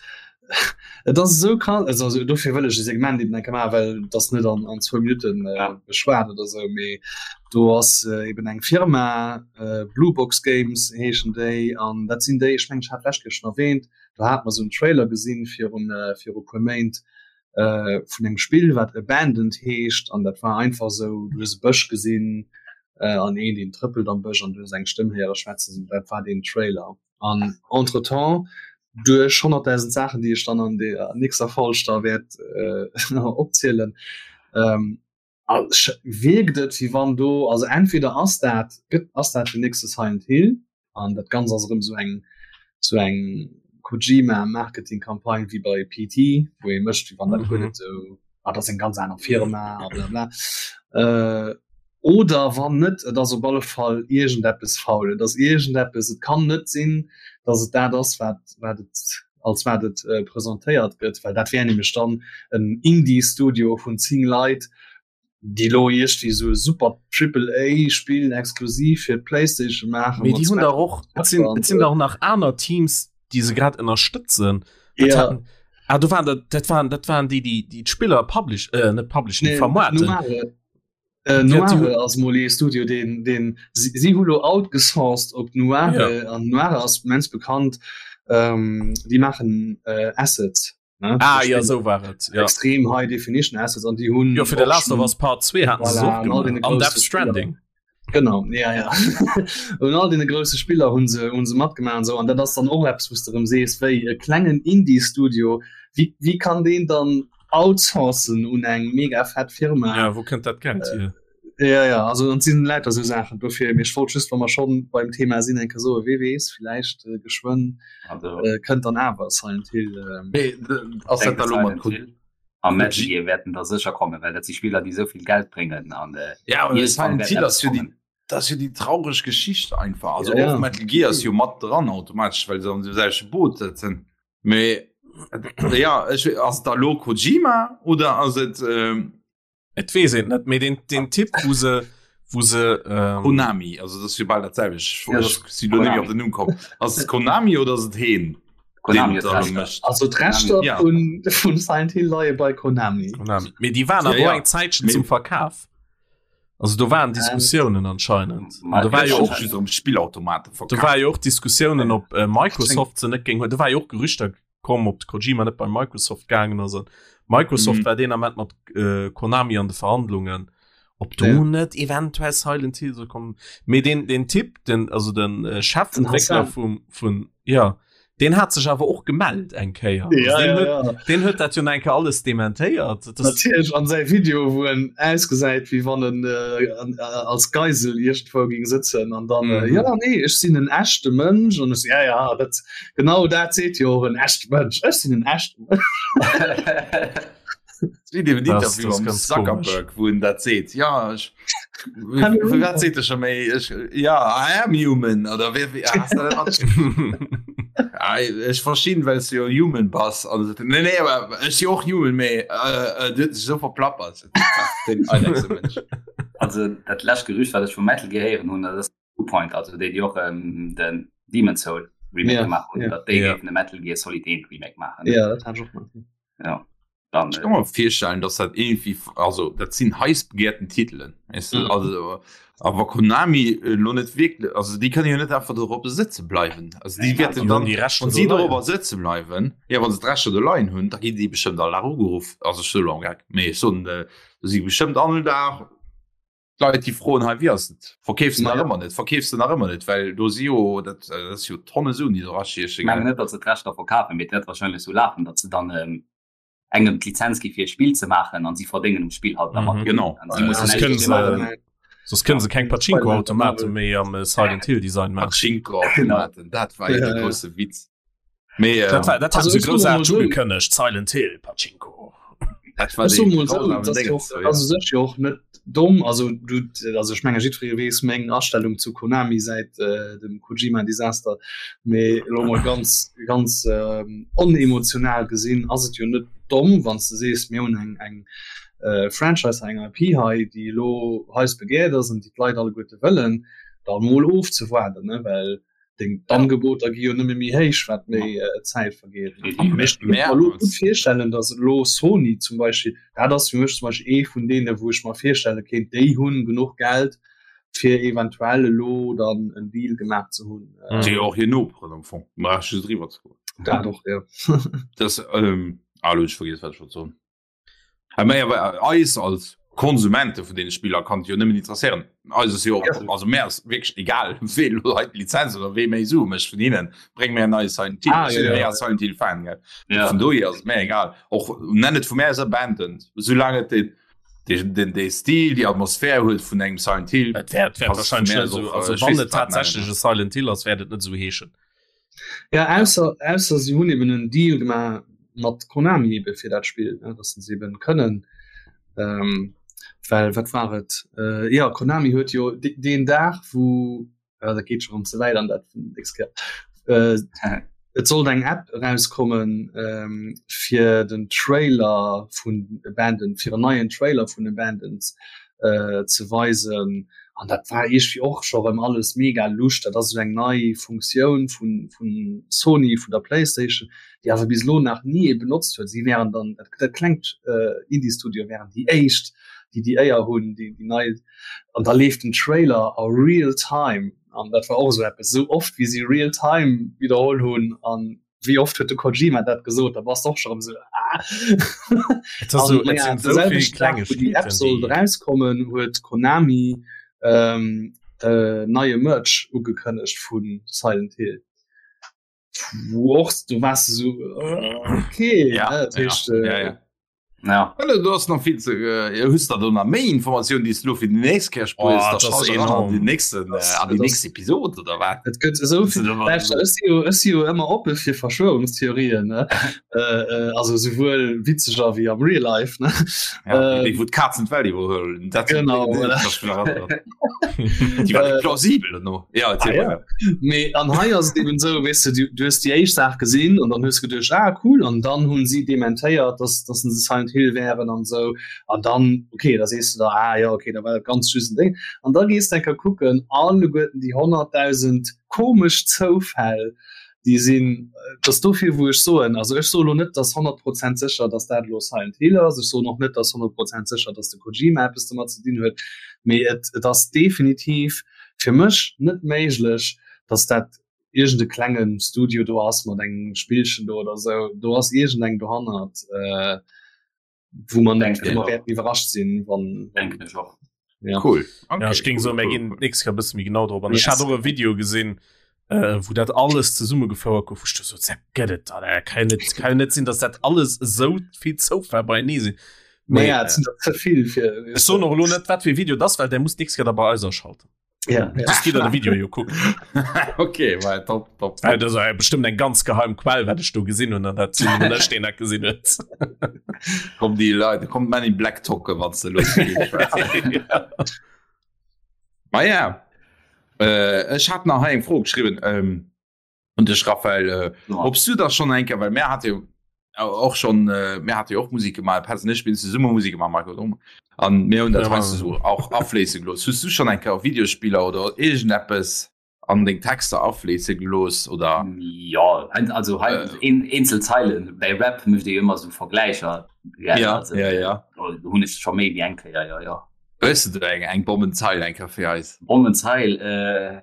Speaker 5: et ass esou krass, also, also dofir wëll ech e Segment eben enke maachen, well das net an, an zwou Minutten äh,
Speaker 2: Ja.
Speaker 5: beschwat oder sou, mee do ass äh, eben eng Firma äh, Blue Box Games heeschen déi an dat sinn déi, ech mengen ech hat d'lescht Kéier schon erwähnt, do hat mer sou en Trailer gesinn virun äh, viru puer Méint äh, vun engem Spill wat Abandoned heescht an dat war einfach sou, du hues e Bësch gesinn äh, an een deen trëppelt am Bësch an du hues eng Stëmm héiere schwätzen, dat war deen Trailer. An entretemps duerch 100.000 Saachen, déi ech dann an der nächster Folg da wäert äh, opzielen, ähm, wierkt et wéi wann do, also entweder ass dat, gëtt, ass dat den nächste Silent Hill an dat Ganzt ass erëm sou eng, sou eng Kojima-Marketing-Campagne wéi bei PT, wou ee mécht, wéi wann dat guer net sou, ah, dat ass eng ganz aner Firma a bla bla. Äh, Oder wann net, et ass op alle Fall iergendeppes faul. Et ass iergendeppes, et kann net sinn, datt et dat ass, wat, wat et, als wat et presentéiert gëtt, well dat wär nämlech dann en Indie-Studio vun 10 Leit, déi elo iergdwéi esou e super Triple-A-Spill exklusiv fir d'PlayStation maachen.
Speaker 3: Mee déi hunn dach och, et sinn, et sinn dach nach aner Teams, déi se grad ënnerstëtzen. Dat
Speaker 5: Ja.
Speaker 3: haten, ah, do waren dat, dat waren, dat waren déi, déi, déi d'Spiller publish, äh, net publishen,
Speaker 5: Nee,
Speaker 3: vermarkten.
Speaker 5: Nomare. Äh, Noire ass mol ee Studio den den si, si hu lo outgesourced op Noire ja. an Noire ass immens bekannt ähm, déi maachen äh, Assets
Speaker 3: ne? Ah, ja so war et
Speaker 5: ja. extrem high definition Assets an déi hunn
Speaker 3: jo fir de Last of Us Part 2 haten se
Speaker 5: Voilà,
Speaker 3: och
Speaker 5: an all
Speaker 3: gemaach.
Speaker 5: deene
Speaker 3: An Death
Speaker 5: grousse
Speaker 3: Stranding.
Speaker 5: Genau ja ja un all deene grousse Spiller hunn se hunn se matgemaach an sou an dat ass dann och eppes wou s de erëm sees wéi e klengen Indie Studio wéi wéi kann deen dann outsourcen un eng mega fett Firma
Speaker 3: Ja, wou kënnt dat Geld hier?
Speaker 5: Ja, ja, also an sinn lauter sou Saachen dofir mee ech wollt just wa mer schonn beim Thema sinn eng Kéier soen, wee weess villäicht äh, geschwënn
Speaker 2: Also
Speaker 5: äh, kënnt dann awer Silent Hill. Ähm,
Speaker 1: Mee ass dat
Speaker 2: denke
Speaker 1: da lo mat
Speaker 2: Silent Hill a Metal Gear wäerten da sécher kommen, well dat si Spiller déi esou vill Geld bréngen an äh,
Speaker 1: Ja, aber
Speaker 2: iergendwann
Speaker 1: Silent
Speaker 2: wäert
Speaker 1: Hill
Speaker 2: eppes
Speaker 1: ass jo déi
Speaker 2: kommen.
Speaker 1: dat ass jo déi traureg Geschicht einfach. Also
Speaker 5: Ja, ja.
Speaker 1: och Metal Gear ass jo mat dran automatesch, well se am selwechte Boot sëtzen. Mee ja, ech, ass et da lo Kojima oder ass et ähm,
Speaker 3: Et weess een net, mee den, den Tipp wou se wou se ähm,
Speaker 1: Konami, also dat ass jo bal dat selwecht.
Speaker 2: Ja,
Speaker 1: Ech si lo net méi op den Numm komm. Ass et Konami oder ass et heen?
Speaker 2: Konami
Speaker 1: deen
Speaker 2: huet
Speaker 1: da lo
Speaker 2: d'Rechter.
Speaker 1: mécht?
Speaker 5: also d'Rechter
Speaker 1: Ja.
Speaker 5: vun, vun Silent Hill leie bei Konami.
Speaker 3: Konami. Mee déi waren
Speaker 1: Ja,
Speaker 3: awer
Speaker 1: ja.
Speaker 3: och eng Zäitchen
Speaker 1: Mee-
Speaker 3: zum Verkaf. Also do waren Diskussiounen anscheinend.
Speaker 2: Ma-
Speaker 3: An do war jo
Speaker 1: och
Speaker 3: och
Speaker 1: just um Spillautomate
Speaker 3: do
Speaker 1: verkaf.
Speaker 3: war jo och Diskussiounen op äh, Microsoft se net géing huelen. Do war jo och Gerüchter komm, ob de Kojima net bei Microsoft gaangen ass. An Microsoft
Speaker 1: Mhm.
Speaker 3: war deen Ament mat äh, Konami an de Verhandlungen, ob do
Speaker 5: Ja.
Speaker 3: net eventuell Silent Hill soll kommen. Mee den, den Typ, den, also den äh, Chefentwickler
Speaker 5: Hassan.
Speaker 3: vum, vun, ja, den hat sech awer och gemellt eng Kéier. Also
Speaker 5: Ja,
Speaker 3: den
Speaker 5: ja,
Speaker 3: huet,
Speaker 5: ja.
Speaker 3: den huet dat jo nach eng Kéier alles dementéiert. Das,
Speaker 5: Natierlech an säi Video wou en ausgesäit wéi wann en äh, an, äh, als Geisel iergendwou géing sëtzen an dann äh,
Speaker 3: Mhm.
Speaker 5: ja nee ech sinn en echte Mënsch an ech ja ja dat genau dat seet jo och en echte Mënsch ech sinn en echte Mënsch.
Speaker 1: Wéi dem
Speaker 3: Das-
Speaker 1: Interview
Speaker 3: das
Speaker 1: am
Speaker 3: ganz
Speaker 1: Zuckerberg, wou en dat seet. Ja, ech,
Speaker 5: Hallo.
Speaker 1: wat seet er scho méi? Ech, ja, I am human oder wéi, wéi, ah, hast du dat matgekriegt? Ah, ech verstinn, well s du jo human bass. An se, nee, nee, awer ech si och human, mee äh, äh, du huet sech esou verplappert. Den eidechse Mënsch.
Speaker 2: Also dat lescht Gerücht wat ech vu Metal Gear héieren hunn, dat ass Bluepoint, also déi déi och ähm, den Demon's Soul Remake
Speaker 5: Ja,
Speaker 2: gemaach hunn,
Speaker 5: ja.
Speaker 2: datt déi
Speaker 3: Ja.
Speaker 2: géifen de Metal Gear Solid 1 Remake maachen.
Speaker 5: Ja dat hat ech och mat.
Speaker 2: Ja. Dann,
Speaker 1: Ich kann mir virstellen, dass dat irgendwie, also dat sinn heiß begehrten Titelen. Weißt du?
Speaker 5: Mhm.
Speaker 1: Also, awer Konami äh, lo net wirklich, also déi kënnen jo net einfach dorop sëtze bleiwen. Also déi
Speaker 2: Nee,
Speaker 1: wäerten
Speaker 3: Die
Speaker 1: dann,
Speaker 3: hunn déi Rechter
Speaker 1: wann si
Speaker 3: do leien.
Speaker 1: dorobber sëtze bleiwen, ja wann se d'Rechter do leien hunn, da ginn déi bestëmmt all Dag ugeruff. Also ech soe lo am Geck, mee ech soen, äh, do si bestëmmt all Dag Leit déi froen hei wéi ass et? Verkeefs de nach
Speaker 5: Naja.
Speaker 1: ëmmer net? Verkeefs de nach ëmmer net? Well do si jo dat, äh, dat ass jo Tonne Suen déi do
Speaker 2: Ich mengen
Speaker 1: erachieche.
Speaker 2: net, datt se d'Rechter verkafen, mee et wäert wahrscheinlech sou lafen, datt se dann ähm, engem d'Lizenz gi fir e Spill ze maachen an si verdéngen um Spill halt da mat.
Speaker 3: Mhm.
Speaker 1: Genau.
Speaker 2: An si mussen
Speaker 3: Soss
Speaker 2: näischt
Speaker 3: kënnen
Speaker 2: dofir
Speaker 3: se
Speaker 2: maachen.
Speaker 3: soss kënnen se keng Pachinko-Automate méi am äh, Silent Hill Design maachen.
Speaker 1: Pachinko-Automaten, dat war jo
Speaker 5: Ja,
Speaker 1: de
Speaker 5: ja.
Speaker 1: grousse Witz. Mee
Speaker 3: Dat war
Speaker 1: ähm,
Speaker 3: dat hat
Speaker 5: Also
Speaker 3: se
Speaker 5: ech soe mol
Speaker 3: groussaarteg
Speaker 5: sou,
Speaker 3: ugekënnegt, Silent Hill Pachinko.
Speaker 1: dat war
Speaker 5: Ech soe
Speaker 1: dee
Speaker 5: mol sou,
Speaker 1: grausamen
Speaker 5: dat ass jo
Speaker 1: Déngens
Speaker 5: och,
Speaker 1: do, ja.
Speaker 5: ass u sech jo och net domm. Also du, also ech menge jiddweree weess meng Astellung zu Konami säit äh, dem Kojima-Desaster. Mee elo mol ganz ganz ähm, onemotional gesinn ass et jo net domm, wann s de sees, mir hunn eng eng äh, Franchise, eng IP hei, déi elo heiß begehrt ass an déi d'Leit alleguerte wëllen, da mol ofzewaarden, ne, well deng d'Angeboter gi jo nëmme méi héich, wat méi äh, Zäit vergeet. Mee ech kann mer elo gutt virstellen, datt elo Sony zum Beispill, dat ass fir mech zum Beispill ee vun deene wou ech mer virstelle kéint, déi hunn genuch Geld fir eventuell elo dann en Deal gemaach ze hunn.
Speaker 3: Mhm.
Speaker 1: Déi och hir Noperen am Fong, brauch just driwwer ze goen.
Speaker 5: Dat och, ja.
Speaker 1: Das, ähm, ah, lo hunn ech vergiess, wat ech wollt soen. Mä awer eis als Konsumente vun deene Spiller kann et jo nëmmen interesséieren. Eis ass jo och, also mär ass wierklech egal, wee elo hei d'Lizenz oder wee méi Sue mécht vun hinnen. Bréng mär en neie Silent Hill.
Speaker 5: Ah,
Speaker 1: Ech
Speaker 5: jo,
Speaker 1: sinn
Speaker 5: jo.
Speaker 1: méi a Silent Hill Fan, gell.
Speaker 2: Ja.
Speaker 1: Vun dohier ass et mär egal. Och nenn et vu mär aus Abandoned, soulaang et den, den, den, dee Stil, déi Atmosphär huet vun engem Silent Hill.
Speaker 3: Et wäert wäert
Speaker 1: Passt vun
Speaker 3: wahrscheinlech
Speaker 1: mär
Speaker 3: net
Speaker 1: aus
Speaker 3: esou,
Speaker 1: och,
Speaker 3: also
Speaker 1: ech
Speaker 3: wann
Speaker 1: weess
Speaker 3: et
Speaker 1: net, wat nennen.
Speaker 3: tatsächlech e Silent Hill ass, wäert et net esou heeschen.
Speaker 5: Ja, ausser, ausser si hunn eben en Deal gemaach mat Konami ebe fir dat Spill, ne, dass se eben kënnen ähm, well wat war et? Äh, ja, Konami huet jo de, deen Dag wou äh, dat geet schon ze wäit an dat nächst Kéier. Äh, et sollt eng App erauskommen ähm, fir den Trailer vun Abandoned, fir en neien Trailer vun Abandoned äh, ze weisen. An dat war iergendwéi och scho rëm alles mega lusch. Dat ass esou eng nei Funktioun vun, vun Sony, vun der Playstation, déi awer bis elo nach ni ee benotzt huet. Si wären dann, dat, dat klengt äh, Indie-Studio wären déi éischt, déi déi Éier hunn, déi, déi nei. An da leeft den Trailer a real time. An dat war och esou eppes, esou oft wéi si real time widderholl hunn an wéi oft huet de Kojima dat gesot, da bass de och scho rëm esou ah.
Speaker 3: Et ass so,
Speaker 5: An
Speaker 3: et
Speaker 5: naja,
Speaker 3: sinn
Speaker 5: de
Speaker 3: esou vill
Speaker 5: selwechten Dag, wou déi App
Speaker 3: Klengegkeeten,
Speaker 5: sollt
Speaker 3: déi
Speaker 5: erauskommen, huet Konami ähm, äh, neie Merch ugekënnegt vu Silent Hill. Wou och du waars du esou äh, okay,
Speaker 1: Ja,
Speaker 5: ne, dat
Speaker 1: ja,
Speaker 5: heescht äh,
Speaker 1: ja, ja.
Speaker 2: Ja.
Speaker 1: Ja, du hast nach viel zu äh, hues da do nach méi Informatioun, déi s du lo fir déi nächst Kéier spuers,
Speaker 3: Oh,
Speaker 1: da
Speaker 3: das ass
Speaker 1: schalt eran an
Speaker 3: enorm.
Speaker 1: déi nächsten, äh, an déi
Speaker 5: Das-
Speaker 1: nächst Episode oder wat?
Speaker 5: Et gëtt esou vill Lauschter, ech si jo, ech si jo ëmmer oppe fir Verschwörungstheorien, ne? äh, äh, also souwuel witzeger wéi am Real Life, ne?
Speaker 1: Ja,
Speaker 5: Ähm,
Speaker 1: déi wou d'Kazen d'Welt iwwerhuelen. Dat
Speaker 5: Genau, voilà.
Speaker 1: Déi war net plausibel no. Ja, erzähl
Speaker 5: Ah, ja.
Speaker 1: weiter.
Speaker 5: Mee an hei ass et eben esou, weess de, du, du hues déi éischt Saach gesinn an dann hues geduecht, ah cool, an dann hunn si dementéiert, dass, dass se Silent Hill wären an esou. An dann, okay, da sees du der, ah ja, okay, da war dat ganz just en Ding. An da gees de eng Kéier kucken, alleguerten déi 100.000 komesch Zoufäll, déi sinn, et ass dofir wou ech soen, also ech soe lo net, dass 100 Prozent sécher, dass dat elo Silent Hill ass, ech soen och net, dass 100 Prozent sécher, dass de Kojima eppes domat ze dinn huet, mee et, et ass definitiv fir mech net méiglech, dass dat iergend e klenge Studio do ass mat engem Spillchen do oder esou. Do ass iergend eng dohannert, wou mer net
Speaker 2: Denken
Speaker 5: wou mer
Speaker 2: ech och.
Speaker 5: wäerten iwwerrascht sinn, wann, wann
Speaker 2: Denken ech och.
Speaker 5: ja.
Speaker 1: Cool. Okay,
Speaker 3: Ja, ech géing
Speaker 1: cool,
Speaker 3: soen, mir
Speaker 1: cool,
Speaker 3: ginn
Speaker 1: cool.
Speaker 3: d'nächst Kéier e bësse méi genau drop an. Ech
Speaker 5: Yes.
Speaker 3: hat och e Video gesinn, äh, wou dat alles zesummegefouert gouf, wou ech du sot, dat gëtt et dann, äh, kann jo net, kann jo net sinn, dass dat alles esou vill Zoufäll beienee sinn. Mee,
Speaker 5: Naja, et sinn der ze vill fir.
Speaker 3: ech soen och elo net, wat fir e Video dat ass, well där muss d'nächst Kéier da bei eis aschalten.
Speaker 5: Ja, ja.
Speaker 3: Das geht de Video jo kucken.
Speaker 1: Okay, war top, top,
Speaker 3: Äh,
Speaker 1: top.
Speaker 3: das ass bestimmt eng ganz geheim Quell, wat ech do gesinn hunn, an dat sinn nëmmen ech, deen dat gesinn huet.
Speaker 1: Kommt déi Leit, kommt Man in Black tocke, wann se los Ma ja, äh, ech hat nach hei eng Fro geschrieben. Ähm, un dech Raphael, äh,
Speaker 2: Ja.
Speaker 1: ob's du da schon eng Kéier, well mär hat jo och schon äh, mär hat jo och Musik gemaach, Petz an ech mir hunn zesumme Musik gemaach, Marco och, an mir hunn dat
Speaker 3: Ja.
Speaker 1: heiansdo sou och afléisse gelooss. Hues du schon eng Kéier Videospiller oder iergendeppes an deng Texter afléisse gelooss oder?
Speaker 2: Ja, also hei
Speaker 1: Äh.
Speaker 2: een, eenzel Zeilen. Bei Rap mécht ee jo ëmmer sou Vergläicher. Ja,
Speaker 1: Ja,
Speaker 2: also,
Speaker 1: ja, ja.
Speaker 2: do hunn ech scho méi wéi eng Kéier, ja, ja.
Speaker 1: Hues du do eng, eng Bommenzeil eng Kéier fir eis?
Speaker 2: Bommenzeil, äh,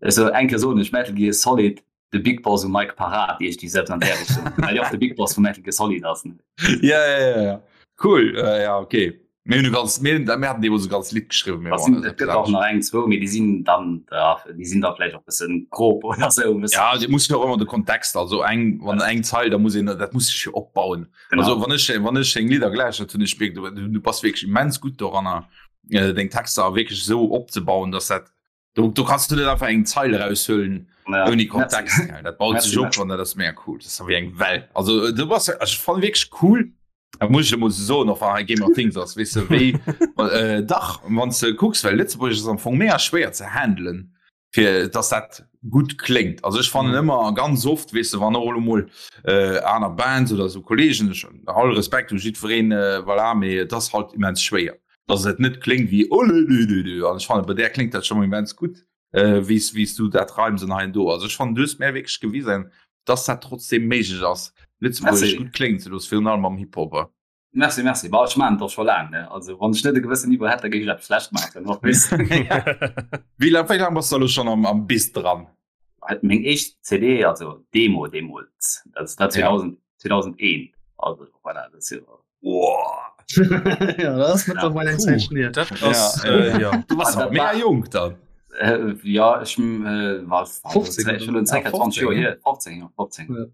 Speaker 2: Also eng Kéier soen ech Metal Gear Solid de Big Boss um Mic parat iech déi selbst an där Richtung well jo och de Big Boss vu Metal Gear Solid ass.
Speaker 1: Ja, ja, ja, ja. Cool äh, ja okay. Mir hunn e ganz mir mir haten deemools e ganz Lidd geschriwwen, mir
Speaker 2: Was
Speaker 1: waren
Speaker 2: sinn,
Speaker 1: dat
Speaker 2: et gëtt och nach eng zwou, mee déi sinn dann ja, déi sinn da vläicht och bëssen grob oder sou e bëssen.
Speaker 1: Ja, dir muss jo och ëmmer de Kontext, also eng wann eng Zeil, da muss een dat muss sech jo opbauen.
Speaker 2: Genau.
Speaker 1: Also wann ech wann ech deng Lidder geläuschtert hunn, ech mierken, du du bass wierklech immens gutt doranner äh, deng Texter wierklech esou opzebauen, dass dat Du, du kannst du net einfach eng Zeil raushuelen
Speaker 2: ja.
Speaker 1: ouni Kontext. Ja, dat baut sech op an dat ass mega cool. Das ass wéi eng Well. Also äh, du bass ech fan wierklech cool. Da muss ich muss so noch war Game of Things ass wis du wéi äh, dach wann du kucks well Lëtzebuerg ass am Fong mega schwéier ze handelen fir dass dat gut kléngt. Also ech fannen mhm. ëmmer ganz oft wis du wann och mol äh, aner Bands oder so Kollegen all Respekt u jiddwereen äh, voilà, mee das halt immens schwéier. dass et net kléngt wéi olelelele an ech fannen bei där kléngt dat scho mol immens gutt äh, wéis wéis du dat reims an hei an do. Also ech fannen du hues mär wierklech gewisen, dass dat trotzdem méiglech ass Lëtzebuergesch
Speaker 2: Merci.
Speaker 1: gutt kléngen ze loossen, virun allem am Hip-Hop.
Speaker 2: Merci, merci. Bah, ech maachen et och scho laang, ne? Also wann ech net e gewëssen Niveau hätt, da géif ech eppes schlecht maachen, och weess.
Speaker 1: Wéi laang wéi laang bass du elo schonn am am Biz dran?
Speaker 2: Meng éischt CD, also Demo deemools, dat war 2000, 2001, also voilà, dat ass jo.
Speaker 1: Wow.
Speaker 5: ja, dat ass mittlerweile eng Zäit hier.
Speaker 3: Dat ass,
Speaker 1: Ja,
Speaker 3: äh, ja.
Speaker 1: Du warst
Speaker 2: Ah,
Speaker 1: awer mega jonk dann.
Speaker 2: Äh, ja, ech äh, war
Speaker 5: 15
Speaker 2: schon
Speaker 5: oder?
Speaker 2: circa
Speaker 1: Ja,
Speaker 2: 20 Joer
Speaker 1: 15,
Speaker 2: hier, 15, ja, 15.
Speaker 5: Ja.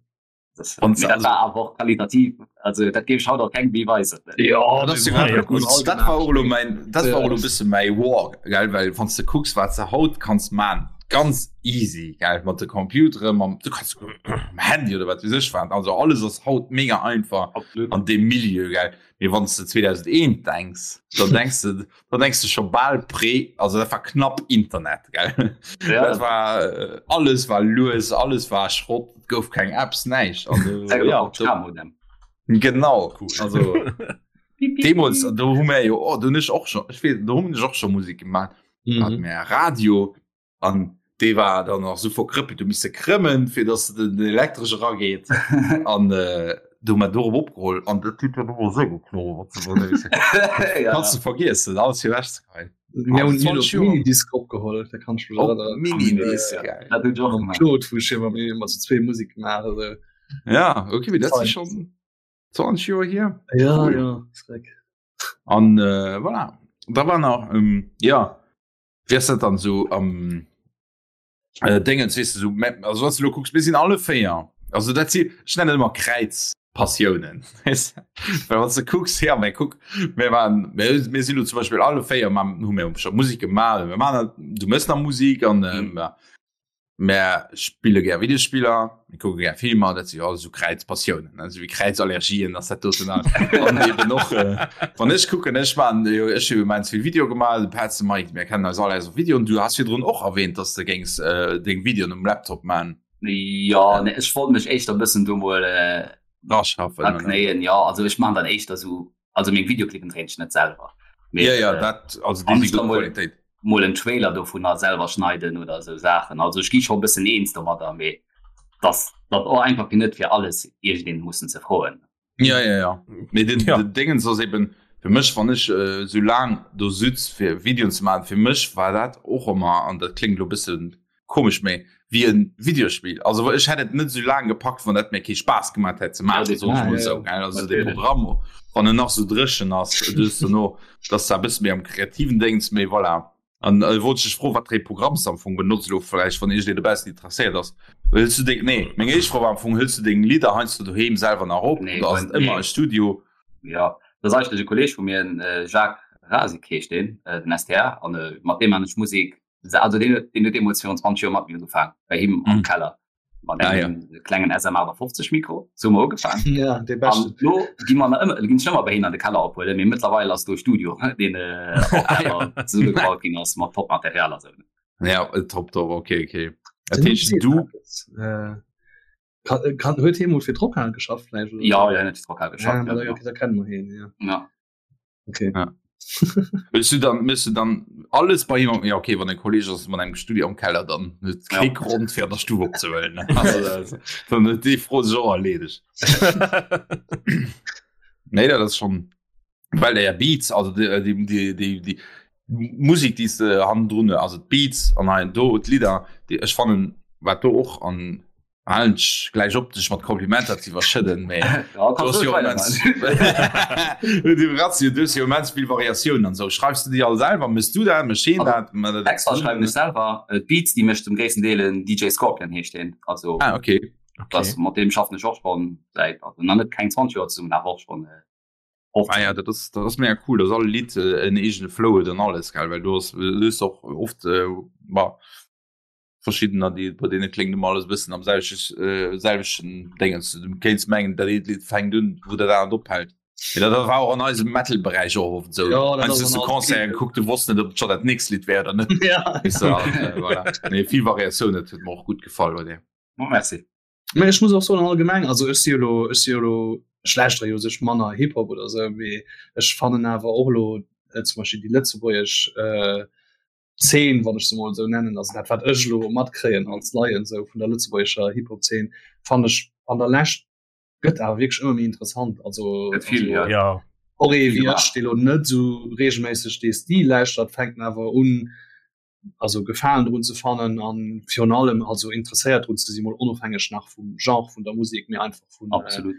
Speaker 2: Das,
Speaker 1: Und
Speaker 2: mee dat
Speaker 1: also-
Speaker 2: war awer och qualitativ, also dat géif ech haut och kengem méi weisen.
Speaker 5: Ja,
Speaker 1: Dat ass
Speaker 5: mir
Speaker 1: ja
Speaker 5: haben
Speaker 1: gut.
Speaker 5: all
Speaker 1: Dat war och elo mäin, dat war och elo
Speaker 5: Ja.
Speaker 1: bësse mäi War, gell, well wann s de kucks, wat s de haut kanns man, ganz easy, gell, mat de Computere, mam, du kanns mam Handy oder wat weess ech wat, also alles ass haut mega einfach
Speaker 2: Absolut.
Speaker 1: an deem Milieu, gell. Mee wann s de 2001 denks, dann denks de, dann denks de scho bal pré, also dat war knapp Internet, gell.
Speaker 2: Ja,
Speaker 1: Dat war, äh, alles war lues, alles war Schrott, et gouf keng Apps, näischt. Also,
Speaker 2: ja,
Speaker 1: ja,
Speaker 2: och
Speaker 1: do,
Speaker 2: K-Modem.
Speaker 1: genau,
Speaker 3: Cool.
Speaker 1: also. Deemols do hu mär jo oh, do hunn ech och schon ech weess do hunn ech och schon Musik gemaach mm. hat mär Radio an dee war dann nach sou verkrëppelt du misse krëmmen fir dass den elektresch erageet an äh, do hu mer dorop opgeholl an dat huet dann ëmmer sou geknurrt
Speaker 2: ja.
Speaker 1: kannst du vergiessen alles fir ewech ze geheien
Speaker 5: Mir hunn
Speaker 1: 20 Joer.
Speaker 5: Minidisc opgeholl, da kann ich mich
Speaker 1: Op
Speaker 5: erinnern.
Speaker 1: Minidisc
Speaker 5: Äh,
Speaker 1: geil
Speaker 2: Dat hunn ech och
Speaker 5: Mam
Speaker 2: gemaach.
Speaker 5: Claude, wou ech immer immer zu zwee Musik gemaach also.
Speaker 1: ja okay mee dat si
Speaker 5: Fein.
Speaker 1: schon 20 Joer hier
Speaker 5: Ja,
Speaker 1: Cool.
Speaker 5: ja, schreck.
Speaker 1: An äh, voilà. Da war nach ähm, ja wéi ass dat dann so am äh, Dingens weess du so also was du lo kucks mir sinn alle véier also dat si ech nennen ëmmer Kräiz. Passiounen. Well wann s de kucks, ja mä kuck, mir waren, mir, mir sinn lo zum Beispill alle 4 mam hu mir scho Musek gemaach, mir man dat, du mëss nach Musik an ähm, ja. Mär spille gär Videospiller, mir kucke gär Filmer, dat si jo alles esou Kräizpassiounen, ne, esou wéi Kräizallergien ass dat doten alt. An eben och äh, wann ech kucken, ech man jo, ech hu immens vill Video gemaach, de Petz, de Mike, mir kennen eis all aus Videoen. Du has virdrun och erwähnt, dass de géings äh, deng Videoen um Laptop man.
Speaker 2: Ja ne, ech wollt mech éischter bëssen do mol äh,
Speaker 1: Raschaffen, oder?
Speaker 2: knéien ja also ech man dann éischter so also meng Videoclippen dréint ech net selwer
Speaker 1: Mee, Ja, ja, äh, dat also déi
Speaker 2: an
Speaker 1: si
Speaker 2: ech da
Speaker 1: gutt
Speaker 2: mol
Speaker 1: Qualitéit.
Speaker 2: mol en Trailer dovunner selwer schneiden oder sou Saachen also ech gi scho bëssen eens domadder mee dass dat och einfach fir net fir alles iergendeen mussen ze froen.
Speaker 1: Ja, ja, ja. Mee den,
Speaker 3: Ja.
Speaker 1: den Dingens ass eben fir mech, wann ech äh, sou laang do sutz fir Videoen ze maachen, fir mech war dat och ëmmer, an dat kléngt elo bëssen komesch, mee wéi en Videospill. Also ech hätt et net sou laang gepackt, wann dat mir kee Spaass gemaat hätt ze
Speaker 2: Ja,
Speaker 1: maachen, soen ech
Speaker 5: Ah,
Speaker 1: mol
Speaker 5: ja,
Speaker 1: sou,
Speaker 5: ja.
Speaker 1: gell. Also de
Speaker 2: Natierlech.
Speaker 1: Programm, wann en nach sou dréchen ass, dus dono, dass da e bësse méi am kreativen Déngens, mee voilà. An äh, wollt ech dech froen, wat fir ee Programm s de am Fong benotz elo vläicht, wann iergendeen dobaussen interesséiert ass. Hëls du deng, nee, meng éischt Fro war am Fong, hëls du deng Lidder heiansdo doheem selwer nach op
Speaker 2: Nee,
Speaker 1: oder ass et
Speaker 2: nee.
Speaker 1: ëmmer e Studio?
Speaker 2: Ja, dat ass eigentlech e Kolleeg vu mir, den äh, Jacques Rasik heescht deen, äh, den STR, an äh, mat deem man ech Musek, also deen huet, deen huet deemools virun 20 Joer mat mir ugefaang, bei him am
Speaker 1: Mhm.
Speaker 2: Keller. Mat
Speaker 1: Ah, ja.
Speaker 2: engem klengen SM58 Mikro, sou hu mer ugefaang.
Speaker 5: Ja, dee
Speaker 2: An
Speaker 5: beschten.
Speaker 2: lo gi mer nach ëmmer, ginn ech ëmmer bei hien an de Keller ophuelen, mee mëttlerweil ass do e Studio, deen äh, och
Speaker 1: Ah, ja.
Speaker 2: selwer zesummegebaut ginn ass mat Top-Material a sou.
Speaker 1: Ja, äh, top, top, okay, okay. Dat
Speaker 5: Den Numm
Speaker 1: heescht,
Speaker 5: seet
Speaker 1: du,
Speaker 5: eppes. Äh, kann, kann, huet hie mol fir d'Rockhal geschafft vläicht oder
Speaker 2: Ja,
Speaker 5: sou?
Speaker 2: ja, hien huet fir d'Rockhal
Speaker 5: Ja,
Speaker 2: geschafft, ja,
Speaker 5: da,
Speaker 2: genau.
Speaker 5: okay, da kennen mer hien, ja.
Speaker 2: Ja.
Speaker 5: Okay.
Speaker 1: Ja. Willst du dann müsst du dann alles bei ihm ja okay wann en Kolleg ass mat engem Studio am Keller dann huet
Speaker 2: Ja.
Speaker 1: kee Grond fir an der Stuf opzehuelen ne? Also, das, dann huet déi Fro sech och erleedegt. Nee, dat ass schon well der ja Beats also déi déi déi déi déi Musik déi s de hannendrun also d'Beats an hei an do d'Lidder déi ech fannen wat do och an Halen ech gläich op dech mat Komplimenter ze iwwerschëdden, mee
Speaker 2: Ja,
Speaker 1: du
Speaker 2: kannst
Speaker 1: hast
Speaker 2: du
Speaker 1: jo immens du hues jo immens vill Variatiounen an sou. Schreifs du déi all selwer? Mëss du dat? Mécht heen
Speaker 2: Also,
Speaker 1: dat? Mat dat
Speaker 2: Texter schreiwen ech
Speaker 1: zesummen?
Speaker 2: selwer, äh, d'Beats déi mécht zum gréissten Deel en DJ Scorpion heescht deen. Also
Speaker 1: Ah, okay.
Speaker 3: Okay.
Speaker 2: das, mat deem schaffen ech och schonn säit, also nach net keng 20 Joer zesummen, awer och schonn äh,
Speaker 1: Ah ja,
Speaker 2: 15.
Speaker 1: dat ass dat ass mega cool, dass all Lidd äh, en eegene Flow huet an alles, gell? Well du hues du hues och oft äh, ma verschiddener déi bei deene kléngt ëmmer alles e bëssen am selwechten äh, selwechten Déngens. Du kéints mengen dat eent Lidd fänkt un wou dat anert ophält. Mee dat war och an eisem Metal-Beräich och oft esou.
Speaker 5: Ja, dat
Speaker 1: Heiansdo
Speaker 5: ass
Speaker 1: hues
Speaker 5: an
Speaker 1: du
Speaker 5: all
Speaker 1: Concerten
Speaker 5: Clip.
Speaker 1: gekuckt, du wosst net ob et scho dat nächst Lidd wär oder net.
Speaker 5: Ja.
Speaker 1: Weess de, an, äh, voilà. Nee, vill Variatioun, dat huet mer och gutt gefall bei dir.
Speaker 2: Oh, merci.
Speaker 5: Mä ech muss och soen allgemeng, also ech si jo lo, ech si jo lo, ech lauschtere jo u sech manner Hip-Hop oder esou, mee ech fannen awer och elo äh, zum Beispill déi lëtzebuergesch äh, Zeen, wann ech se mol esou nennen, also dat wat ech elo matkréien als Laien esou vun der lëtzebuergescher Hip-Hop-Zeen, fannen ech an der Lescht gëtt awer wierklech ëmmer méi interessant. Also,
Speaker 2: Gëtt vill,
Speaker 5: also
Speaker 2: ja.
Speaker 3: Ja.
Speaker 5: och ee
Speaker 2: Vill
Speaker 5: wéi
Speaker 2: gemaach.
Speaker 5: ech, dee lo net esou reegelméisseg dee Stil lauschtert, fänkt en awer un, also Gefalen drun ze fannen an virun allem also interesséiert drun ze sinn, mol onofhängeg nach vum Genre vun der Musek, mee einfach vun, äh,
Speaker 2: Absolut.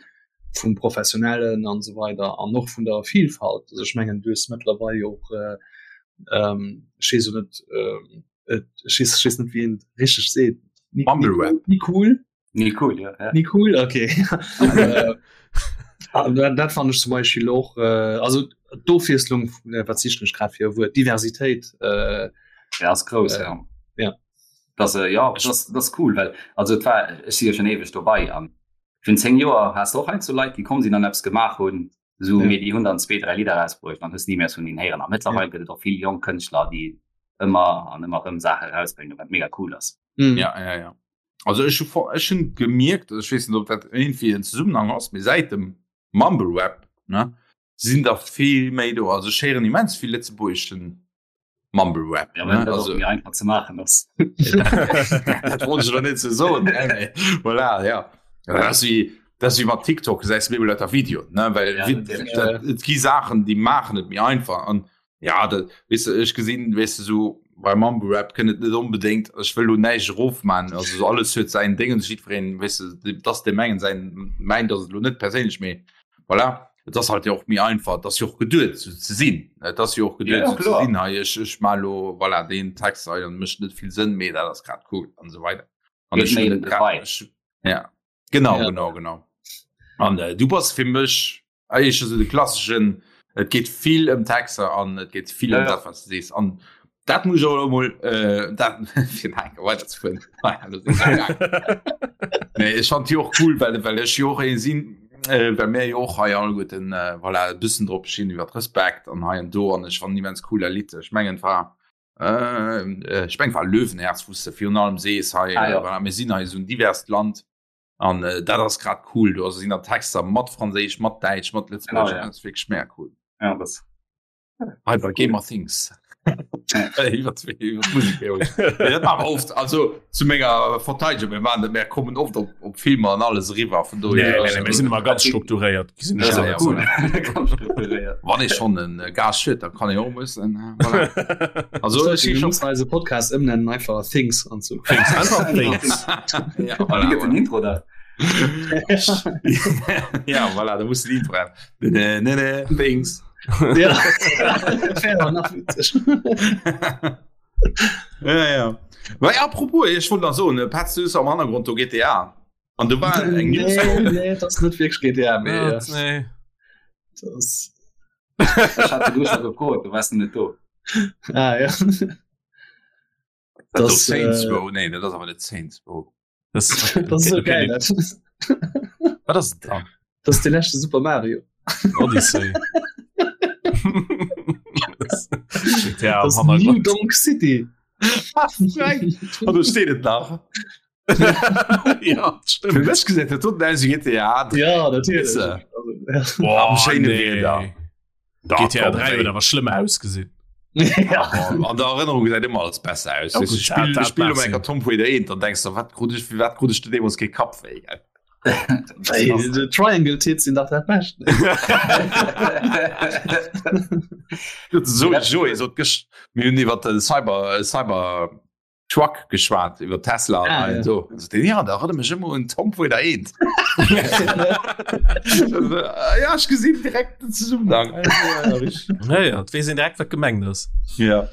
Speaker 5: vum Professionellen an esou weider an och vun der Vielfalt. Also ech mengen, du hues mëttlerweil jo och äh, ähm, ech weess jo net, ähm, et, ech weess, ech weess net, wéi een et richteg seet. Ni, ni
Speaker 1: Mumble
Speaker 5: cool,
Speaker 1: Rap.
Speaker 5: ni cool?
Speaker 2: Ni cool, ja, ja.
Speaker 5: Ni cool, okay. äh, ah, dat, dat fand ech zum Beispiel och, äh, also d'Ofwiesslung, äh, wat sichen ech grad fir e Wuert, Diversitéit, äh,
Speaker 2: Ja, ass grouss,
Speaker 5: äh,
Speaker 2: ja.
Speaker 5: ja.
Speaker 2: Das, äh, ja, das, das cool, well also et war, ech si jo schon eweg dobei an vun 10 Joer has de och heiansdo Leit, déi komm sinn an eppes gemaach hunn, esou,
Speaker 5: Ja.
Speaker 2: mee déi hunn dann zwee, dräi Lidder erausbruecht an hues ni méi eppes vun hinnen héieren. A mëttlerweil
Speaker 5: Ja.
Speaker 2: gëtt et och vill jonk Kënschtler, déi ëmmer an ëmmer erëm Saache erausbréngen, wat mega cool ass.
Speaker 5: Mhm.
Speaker 1: Ja, ja, ja. Also ech hu vor- ech hunn gemierkt, ech weess net, ob dat irgendwie en Zusammenhang ass, mee säit dem Mumble Rap, ne, sinn der vill méi do. Also ech héieren immens vill lëtzebuergeschen Mumble Rap.
Speaker 2: Ja,
Speaker 1: ne?
Speaker 2: well dat och
Speaker 1: Also
Speaker 2: méi einfach ze maachen ass.
Speaker 1: dat wollt ech elo net sou soen, ne, mee voilà, ja. Dat ass wéi, dat ass wéi mat TikTok, gesäis du méi lauter Videoen, ne, well
Speaker 2: Ja,
Speaker 1: wi-
Speaker 2: natierlech.
Speaker 1: dat, et gi Saachen, déi maachen et méi einfach an ja, dat, weess de, ech gesinn, weess de, sou bei Mumble Rap kënnt et net onbedéngt, ech wëll lo näischt erofman, also sou alles huet säin Déngens, jiddwereen, weess de, dass deem engen säin mäint ass et elo net perséinlech, mee voilà, et ass halt jo och méi einfach, et ass jo och geduet sou ze sinn, et ass jo och
Speaker 2: Ja,
Speaker 1: geduet
Speaker 2: ja,
Speaker 1: sou ze
Speaker 2: kloer.
Speaker 1: sinn, hei ech ech maa lo voilà deen Text hei an mécht net vill Sënn, mee dat ass grad cool an esou weider. An
Speaker 2: Geet
Speaker 1: ech
Speaker 2: méi
Speaker 1: hunn
Speaker 2: ëm
Speaker 1: et
Speaker 2: de
Speaker 1: grad
Speaker 2: Vibe.
Speaker 1: ech ja genau
Speaker 5: Ja.
Speaker 1: genau genau. An äh, du bass fir mech eigentlech esou de klasseschen, et geet vill ëm Texter an et geet vill ëm ja, ja. dat, was du sees. An dat muss ich och emol äh, dat fir nach eng Kéier weiderzefueren. Nee, ech fand déi och cool, well, well ech jo och ee sinn, äh, well mir jo och hei alleguerten äh, voilà, e bëssen drop stinn iwwer Respekt an hei an do an ech fand immens cool dat Lidd. Ech mengen et war äh, ech meng war Löwenherz, wou s de virun allem sees hei, ah, ja. voilà, mir sinn hei esou en diverst Land. An äh, dat ass grad cool, do sinn der Texter mat Franséisch, mat Däitsch, mat Lëtzebuergesch, ja, ja. dat wierklech mega cool.
Speaker 2: Ja, das.
Speaker 1: Hei bei Gamer Things. oft also zu menger Verteidigung mir waren net mehr kommen oft op, op Filmer an alles eriwwer vun do
Speaker 3: nee, nee, nee, sinn immer ganz strukturéiert
Speaker 1: ja, cool. Wann ich schon en äh, Gas schütt, dann kann ich auch müssen äh, voilà.
Speaker 5: also ich schon eise Podcast ëmnennen einfach Things an zu
Speaker 3: Things, einfach Things.
Speaker 1: ja, voilà,
Speaker 2: voilà. Intro da
Speaker 1: ja voilà, da muss Intro haben. Ne, ne, ne, Things.
Speaker 5: Ja. nach witzig.
Speaker 1: ja, ja. Well, apropos, ich wollte noch so, ne, Patz, du am Hannergrund do GTA. An du war eng
Speaker 5: News. Nee, nee, das net wirklich GTA
Speaker 3: mee. Ja, nee.
Speaker 5: Das...
Speaker 2: Ich hatte du schon gefrot, du warst net do.
Speaker 5: Ah, ja.
Speaker 1: Das, das Saints äh, Row, nee, dat ass awer net Saints Row.
Speaker 3: Das,
Speaker 5: das ist so geil. Das,
Speaker 3: Wat ass da?
Speaker 5: Das ist de leschte Super Mario.
Speaker 3: Odyssey.
Speaker 5: GTA das New Donk City.
Speaker 1: An do steet et nach.
Speaker 3: ja,
Speaker 1: stimmt. Fir mech gesäit dat doten aus wéi GTA
Speaker 5: 3. Ja, natierlech.
Speaker 3: Boah,
Speaker 1: Am schéine
Speaker 3: nee.
Speaker 1: Wieder. Da,
Speaker 3: GTA
Speaker 1: komm,
Speaker 3: 3
Speaker 1: ey.
Speaker 3: huet awer schlëmm ausgesinn.
Speaker 5: Ja.
Speaker 1: An der Erënnerung gesäit ëmmer alles besser aus.
Speaker 3: Ja,
Speaker 1: Weißt du,
Speaker 3: gut,
Speaker 1: Spiel,
Speaker 3: dat- dat
Speaker 1: Spiel
Speaker 3: mag
Speaker 1: um
Speaker 3: sinn.
Speaker 1: enker Tomb Raider 1, dann denkst du, wat krut ich, fir wat krut ich de deemools kee Kapp wéi, gell?
Speaker 5: Ey, de Triangle Tits sinn dach dat Bescht.
Speaker 1: So, Joé sot gëscht, mir hunn iwwer de Cyber, Cyber Truck geschwat iwwer Tesla ah, ja. so. also, den, ja, da erinnere mich immer un Tomb Raider 1 ja ich gesinn direkt den Zusammenhang
Speaker 3: ja, ja, wees direkt wat gemengt ass
Speaker 1: ja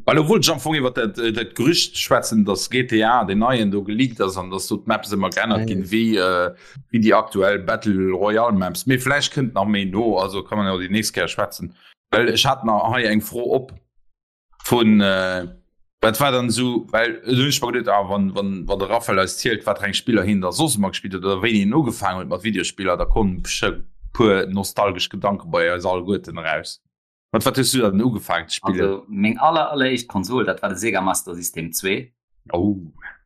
Speaker 1: Well obwohl ich am Anfang iwwer dat, äh, dat Gerücht schwätzen, dass GTA den neien do geleakt ass an dass do d'Maps ëmmer geännert ginn, wéi äh, wéi déi aktuell Battle Royale Maps. Mee vläicht kënnt nach méi no, also kann man jo déi nächst Kéier schwätzen. Well ech hat nach hei eng Fro op. Vun äh, wat war dann esou, well do hunn ech mer geduet, ah, wann, wann, wann de Raphael eis zielt, wat fir eng Spiller hien da soss ëmmer gespillt huet oder wéini hien ugefaangen huet mat Videospiller, da kommen besche puer nostalgesch Gedanke bei eis alleguerten eraus. Mat wat hues du dann ugefaangen ze spillen?
Speaker 2: Also meng aller alleréischt Konsol, dat war de Sega Master System 2.
Speaker 1: Oh.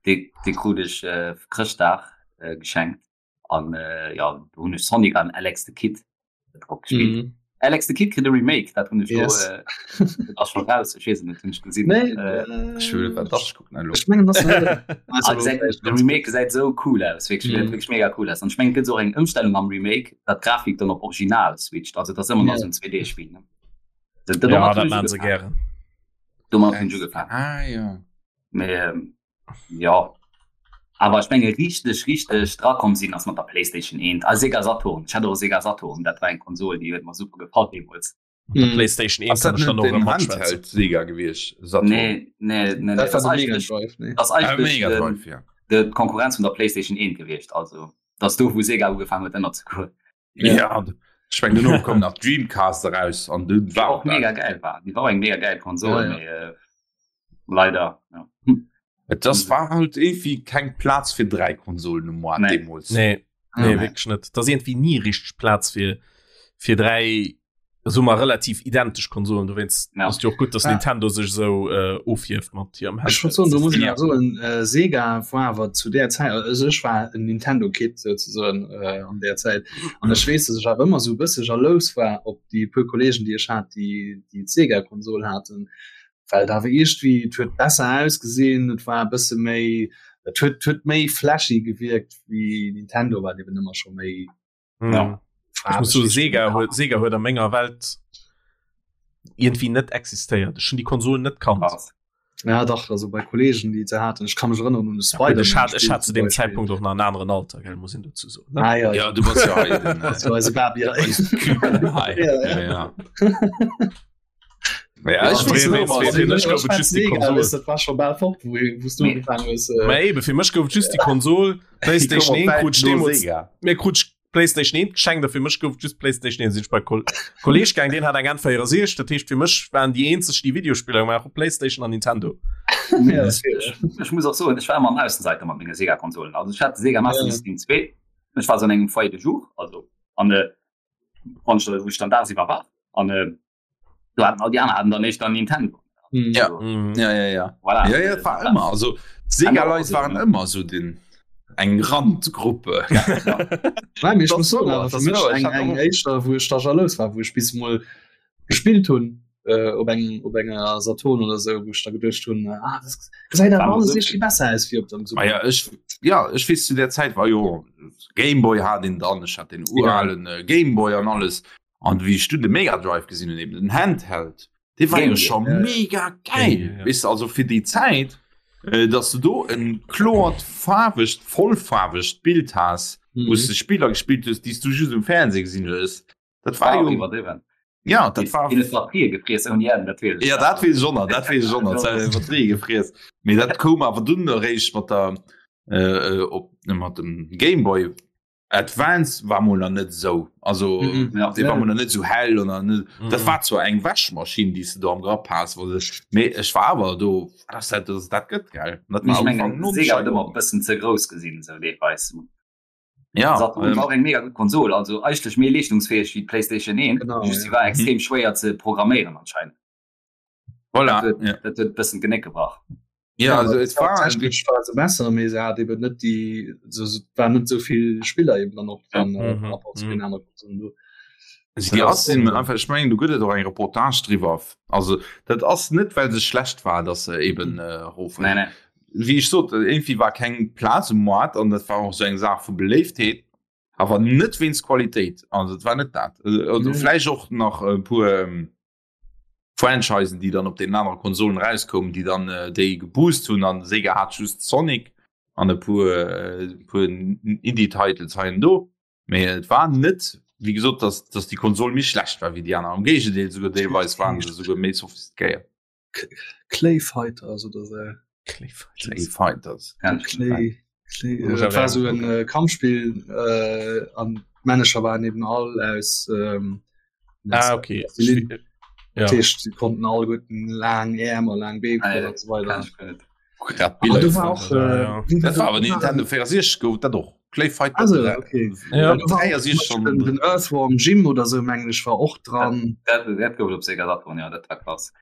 Speaker 2: Dee, dee krut ech äh, Chrëschtdag äh, geschenkt. An äh, ja, do hunn ech Sonic an Alex the Kid drop gespielt. Mhm. Alex the Kid kritt e Remake, dat hunn ech
Speaker 5: yes.
Speaker 2: lo, äh, ass schon raus, ech weess et net, hunn ech gesinn.
Speaker 5: Nee,
Speaker 2: äh,
Speaker 1: ech will wat das gucken elo.
Speaker 5: Ech mengen das
Speaker 2: also, gesäit, de Remake gesäit sou cool aus, wierklech, mm. wierklech mega cool aus. An ech mengen, et gëtt och eng Ëmstellung am Remake, dat d'Grafik dann op Original switcht, also dat ass ëmmer nach sou en 2D-Spill. Ne?
Speaker 3: Dat, dat ja, dat maan se gären.
Speaker 2: Domat hunn ech ugefaangen.
Speaker 1: Ah, ja.
Speaker 2: Mee, ähm, Ja awer ech menge richteg richteg drakomm sinn ass mat der Playstation 1 a Sega Saturn. Ech hat och e Sega Saturn, dat war eng Konsol déi huet mer super gefall deemools.
Speaker 3: Mat der Playstation 1
Speaker 1: Ass
Speaker 3: kann
Speaker 1: dat
Speaker 3: ech dann
Speaker 1: net
Speaker 3: och
Speaker 1: den
Speaker 3: erëm matschwätzen.
Speaker 1: Handheld Sega gewiescht? Saturn?
Speaker 2: Nee nee nee nee
Speaker 5: Dat war
Speaker 2: ass
Speaker 5: de Mega
Speaker 2: eigentlech
Speaker 5: Drive, nee.
Speaker 2: ass
Speaker 1: Ah,
Speaker 2: eigentlech
Speaker 1: Mega
Speaker 2: den
Speaker 1: Drive, ja.
Speaker 2: de d'Konkurrenz vun der Playstation 1 gewiescht. Also dat ass do wou Sega ugefaangen huet ënner ze goen.
Speaker 1: Ja, ech meng duerno koum nach Dreamcast eraus an dunn
Speaker 2: Déi
Speaker 1: war
Speaker 2: och mega geil war. Déi war och eng mega geil Konsol,
Speaker 5: Ja, ja.
Speaker 2: mee äh, leider ja.
Speaker 1: Et das war halt irgendwie keng Plaz fir dräi Konsolen um Moart
Speaker 2: Nee.
Speaker 1: deemools.
Speaker 3: Nee, nee,
Speaker 2: Nee.
Speaker 3: wierklech net. Da ass irgendwie nie richteg Plaz fir fir dräi so mal relativ identesch Konsolen. Dowéinst
Speaker 2: Ja.
Speaker 3: ass jo och gutt, dass
Speaker 5: Ah.
Speaker 3: Nintendo sech esou äh, ofhieft mat hirem
Speaker 5: Ech wollt soen, do muss ich
Speaker 1: Ja.
Speaker 5: awer soen, äh, Sega war awer zu der Zäit, also ech war en Nintendo Kid souzesoen äh, an der Zäit an ech weess, dass ech awer ëmmer sou e bësse jalous war op déi puer Kollegen, déi ech hat, déi déi d'Sega Konsol haten, well et awer iergendwéi, et huet besser ausgesinn, et war e bësse méi, et huet huet méi flashy gewierkt wéi Nintendo, wat eben ëmmer scho méi
Speaker 3: Mhm.
Speaker 2: Ja.
Speaker 3: Ich muss so Sega huet Sega huet a menger Welt irgendwie net existéiert. Ech hun die Konsol net kannt.
Speaker 2: Krass.
Speaker 5: Ja dach, also bei Kollegen, déi se haten, ech kann mech erënneren un de
Speaker 3: Ja,
Speaker 5: Spider-Man.
Speaker 3: ich hat, ich hat zu
Speaker 5: zum
Speaker 3: dem
Speaker 5: Beispiel.
Speaker 3: Zeitpunkt och nach en aneren Alter, gell, muss een dazu soen. Ne?
Speaker 5: Ah, ja, ja.
Speaker 1: Ja, du bass ja hei den,
Speaker 5: Das war eise Baby.
Speaker 1: eis Küken hei.
Speaker 5: Ja,
Speaker 1: Ja, ja. Ja, ich
Speaker 3: wees net, was fir mech gouf et just déi Konsol.
Speaker 5: Dat war scho bal fort, wou wou du ugefaangen hues.
Speaker 3: Mä eben, fir mech gouf et just déi Konsol, PlayStation 1 krut ech deemools, mir krut ech PlayStation 1 geschenkt a fir mech gouf et just PlayStation 1. Sinn ech bei Kol Kolleg gaang, deen hat eng N64, dat heescht fir mech waren déi eenzeg déi Videospiller gemaach hu PlayStation an Nintendo.
Speaker 2: Ja, ech muss och soen, ech war ëmmer en Aussenseiter mat menge Sega-Konsolen. Also ech hat de Sega Master System 2, ech war sou an engem Foyer de jour, also an wann ech wou ech dann dagsiwwer war an do haten all déi aner haten dann éischter Nintendo.
Speaker 1: Mhm. Ja.
Speaker 3: Mhm.
Speaker 1: Ja, ja, ja.
Speaker 2: Voilà.
Speaker 1: Ja, ja, dat war ëmmer also Sega Leit waren ëmmer so den eng Randgruppe.
Speaker 5: Nein, ich
Speaker 1: Das
Speaker 5: muss soen,
Speaker 1: wouer,
Speaker 5: awer
Speaker 1: das
Speaker 5: fir mech
Speaker 1: wouer. Ich
Speaker 5: eng
Speaker 1: hat
Speaker 5: eng
Speaker 1: och-
Speaker 5: éischter wou ech da jalous war, wou ech bis mol gespillt hunn äh, op eng op enger Saturn oder sou, wou ech da geduecht hunn, ah, das gesäit awer
Speaker 2: War
Speaker 5: alles
Speaker 2: so-
Speaker 5: irgendwie besser aus wéi op dem
Speaker 1: Ah
Speaker 5: Super.
Speaker 1: ja, ech, ja, ech weess zu der Zäit war jo Gameboy hat een dann, ech hat den uralen äh, Gameboy an alles. An wéi ech du de Mega Drive gesinn hunn, eben den Handheld, dee war jo
Speaker 2: Game Gear,
Speaker 1: scho
Speaker 5: ja, ja.
Speaker 1: mega geil.
Speaker 3: Game Gear, ja.
Speaker 1: Weess de, also fir déi Zäit, äh, dass du do en kloert faarwegt, vollfaarwegt Bild has, wou s
Speaker 5: Mhm.
Speaker 1: de Spiller gespillt hues, déi s du just um Fernseh gesinn hues. Dat war
Speaker 2: War
Speaker 1: jo,
Speaker 2: iwwerdriwwen.
Speaker 1: ja, dat war
Speaker 2: Deen huet Batterië gefriess ouni Enn, dat weess ech
Speaker 1: Ja,
Speaker 2: nach.
Speaker 1: dat weess ech och nach, dat weess ech och nach, dat Batterië gefriess. Mee dat koum awer dunn eréischt mat der, äh, op, mat dem Gameboy Advance war mol nach net esou, also
Speaker 5: Mhm.
Speaker 2: Ja.
Speaker 1: dee war mol nach net esou hell an net, dat
Speaker 3: Mhm.
Speaker 1: war zwar eng Wäschmaschinn, déi s de do am Grapp has, wou de, mee ech war awer do, dass dat, dass dat gëtt, gell. Dat
Speaker 2: Mee
Speaker 1: war
Speaker 2: ech
Speaker 1: am
Speaker 2: mengen,
Speaker 1: Ufank no
Speaker 2: Sega huet ëmmer e bëssen ze grouss gesinn, esou deelweis.
Speaker 1: Ja,
Speaker 2: Saturn
Speaker 1: ähm,
Speaker 2: war och eng mega gutt Konsol, also eigentlech méi leeschtungsfäeg wéi d'PlayStation 1,
Speaker 5: Genau,
Speaker 2: just
Speaker 5: ja.
Speaker 2: si war extrem schwéier ze programméieren anscheinend.
Speaker 1: voilà,
Speaker 2: Dat huet,
Speaker 1: ja.
Speaker 2: dat huet e bëssen d'Genéck gebrach.
Speaker 1: Ja, also et war
Speaker 5: technesch war se besser, mee se hat eben net déi, so, so, war net souvill Spiller eben dann och dran,
Speaker 3: Ja.
Speaker 5: äh,
Speaker 3: Mhm,
Speaker 5: par rapport zu
Speaker 3: mhm.
Speaker 5: den anere Konsolen do.
Speaker 1: Also déi ass sinn einfach, ech mengen, do gëtt et och eng Reportage driwwer. Also dat ass net, well se schlecht war, dass se eben äh, erof.
Speaker 2: Nee, nee.
Speaker 1: Wéi ech sot, irgendwie war keng Plaz um Moart an dat war och sou eng Saach vu Beléiftheet, awer net wéinst Qualitéit. Also et war net dat. Also
Speaker 5: Nee.
Speaker 1: vläicht och nach e puer ähm, Franchisen, déi dann op den anere Konsolen rauskoumen, déi dann äh, déi geboost hunn an Sega hat just Sonic an e puer, äh, puer Indie-Titles hei an do. Mee et war net, wéi gesot, dass, dass déi Konsol méi schlecht war wéi déi aner. Am Géigendeel, souguer deelweis waren se souguer méi sophistiquéiert.
Speaker 5: Clay Fighters oder sou.
Speaker 3: Clay Fighters.
Speaker 1: Clay Fighters.
Speaker 2: Kenn ech net.
Speaker 5: Clay, Clay,
Speaker 3: Muss
Speaker 5: äh,
Speaker 3: awer
Speaker 5: war so
Speaker 3: gucken.
Speaker 5: en äh, Kampfspiel äh, an d'Männecher waren eben all aus ähm,
Speaker 3: Ah, okay.
Speaker 5: Plastilin.
Speaker 3: Ja.
Speaker 5: Dat heescht, sie konnten all guten lang Äerm a lang Been
Speaker 2: Ah, ja,
Speaker 5: und so weiter.
Speaker 2: Kenn ech guer net.
Speaker 1: Grad
Speaker 5: Ah,
Speaker 1: Biller
Speaker 5: du war auch,
Speaker 3: Ja,
Speaker 5: äh,
Speaker 3: ja.
Speaker 5: wie
Speaker 1: Dat war awer
Speaker 5: war-
Speaker 1: Nintendo 64 gouf dat och. Clay Fighter
Speaker 5: Also,
Speaker 1: 3.
Speaker 5: okay.
Speaker 3: Ja.
Speaker 5: Du war auch
Speaker 1: 63
Speaker 5: zum Beispiel den, den Earthworm Jim oder so mengen ech war och dran.
Speaker 2: Dat, dat gouf et op Sega Saturn, ja, dat war krass.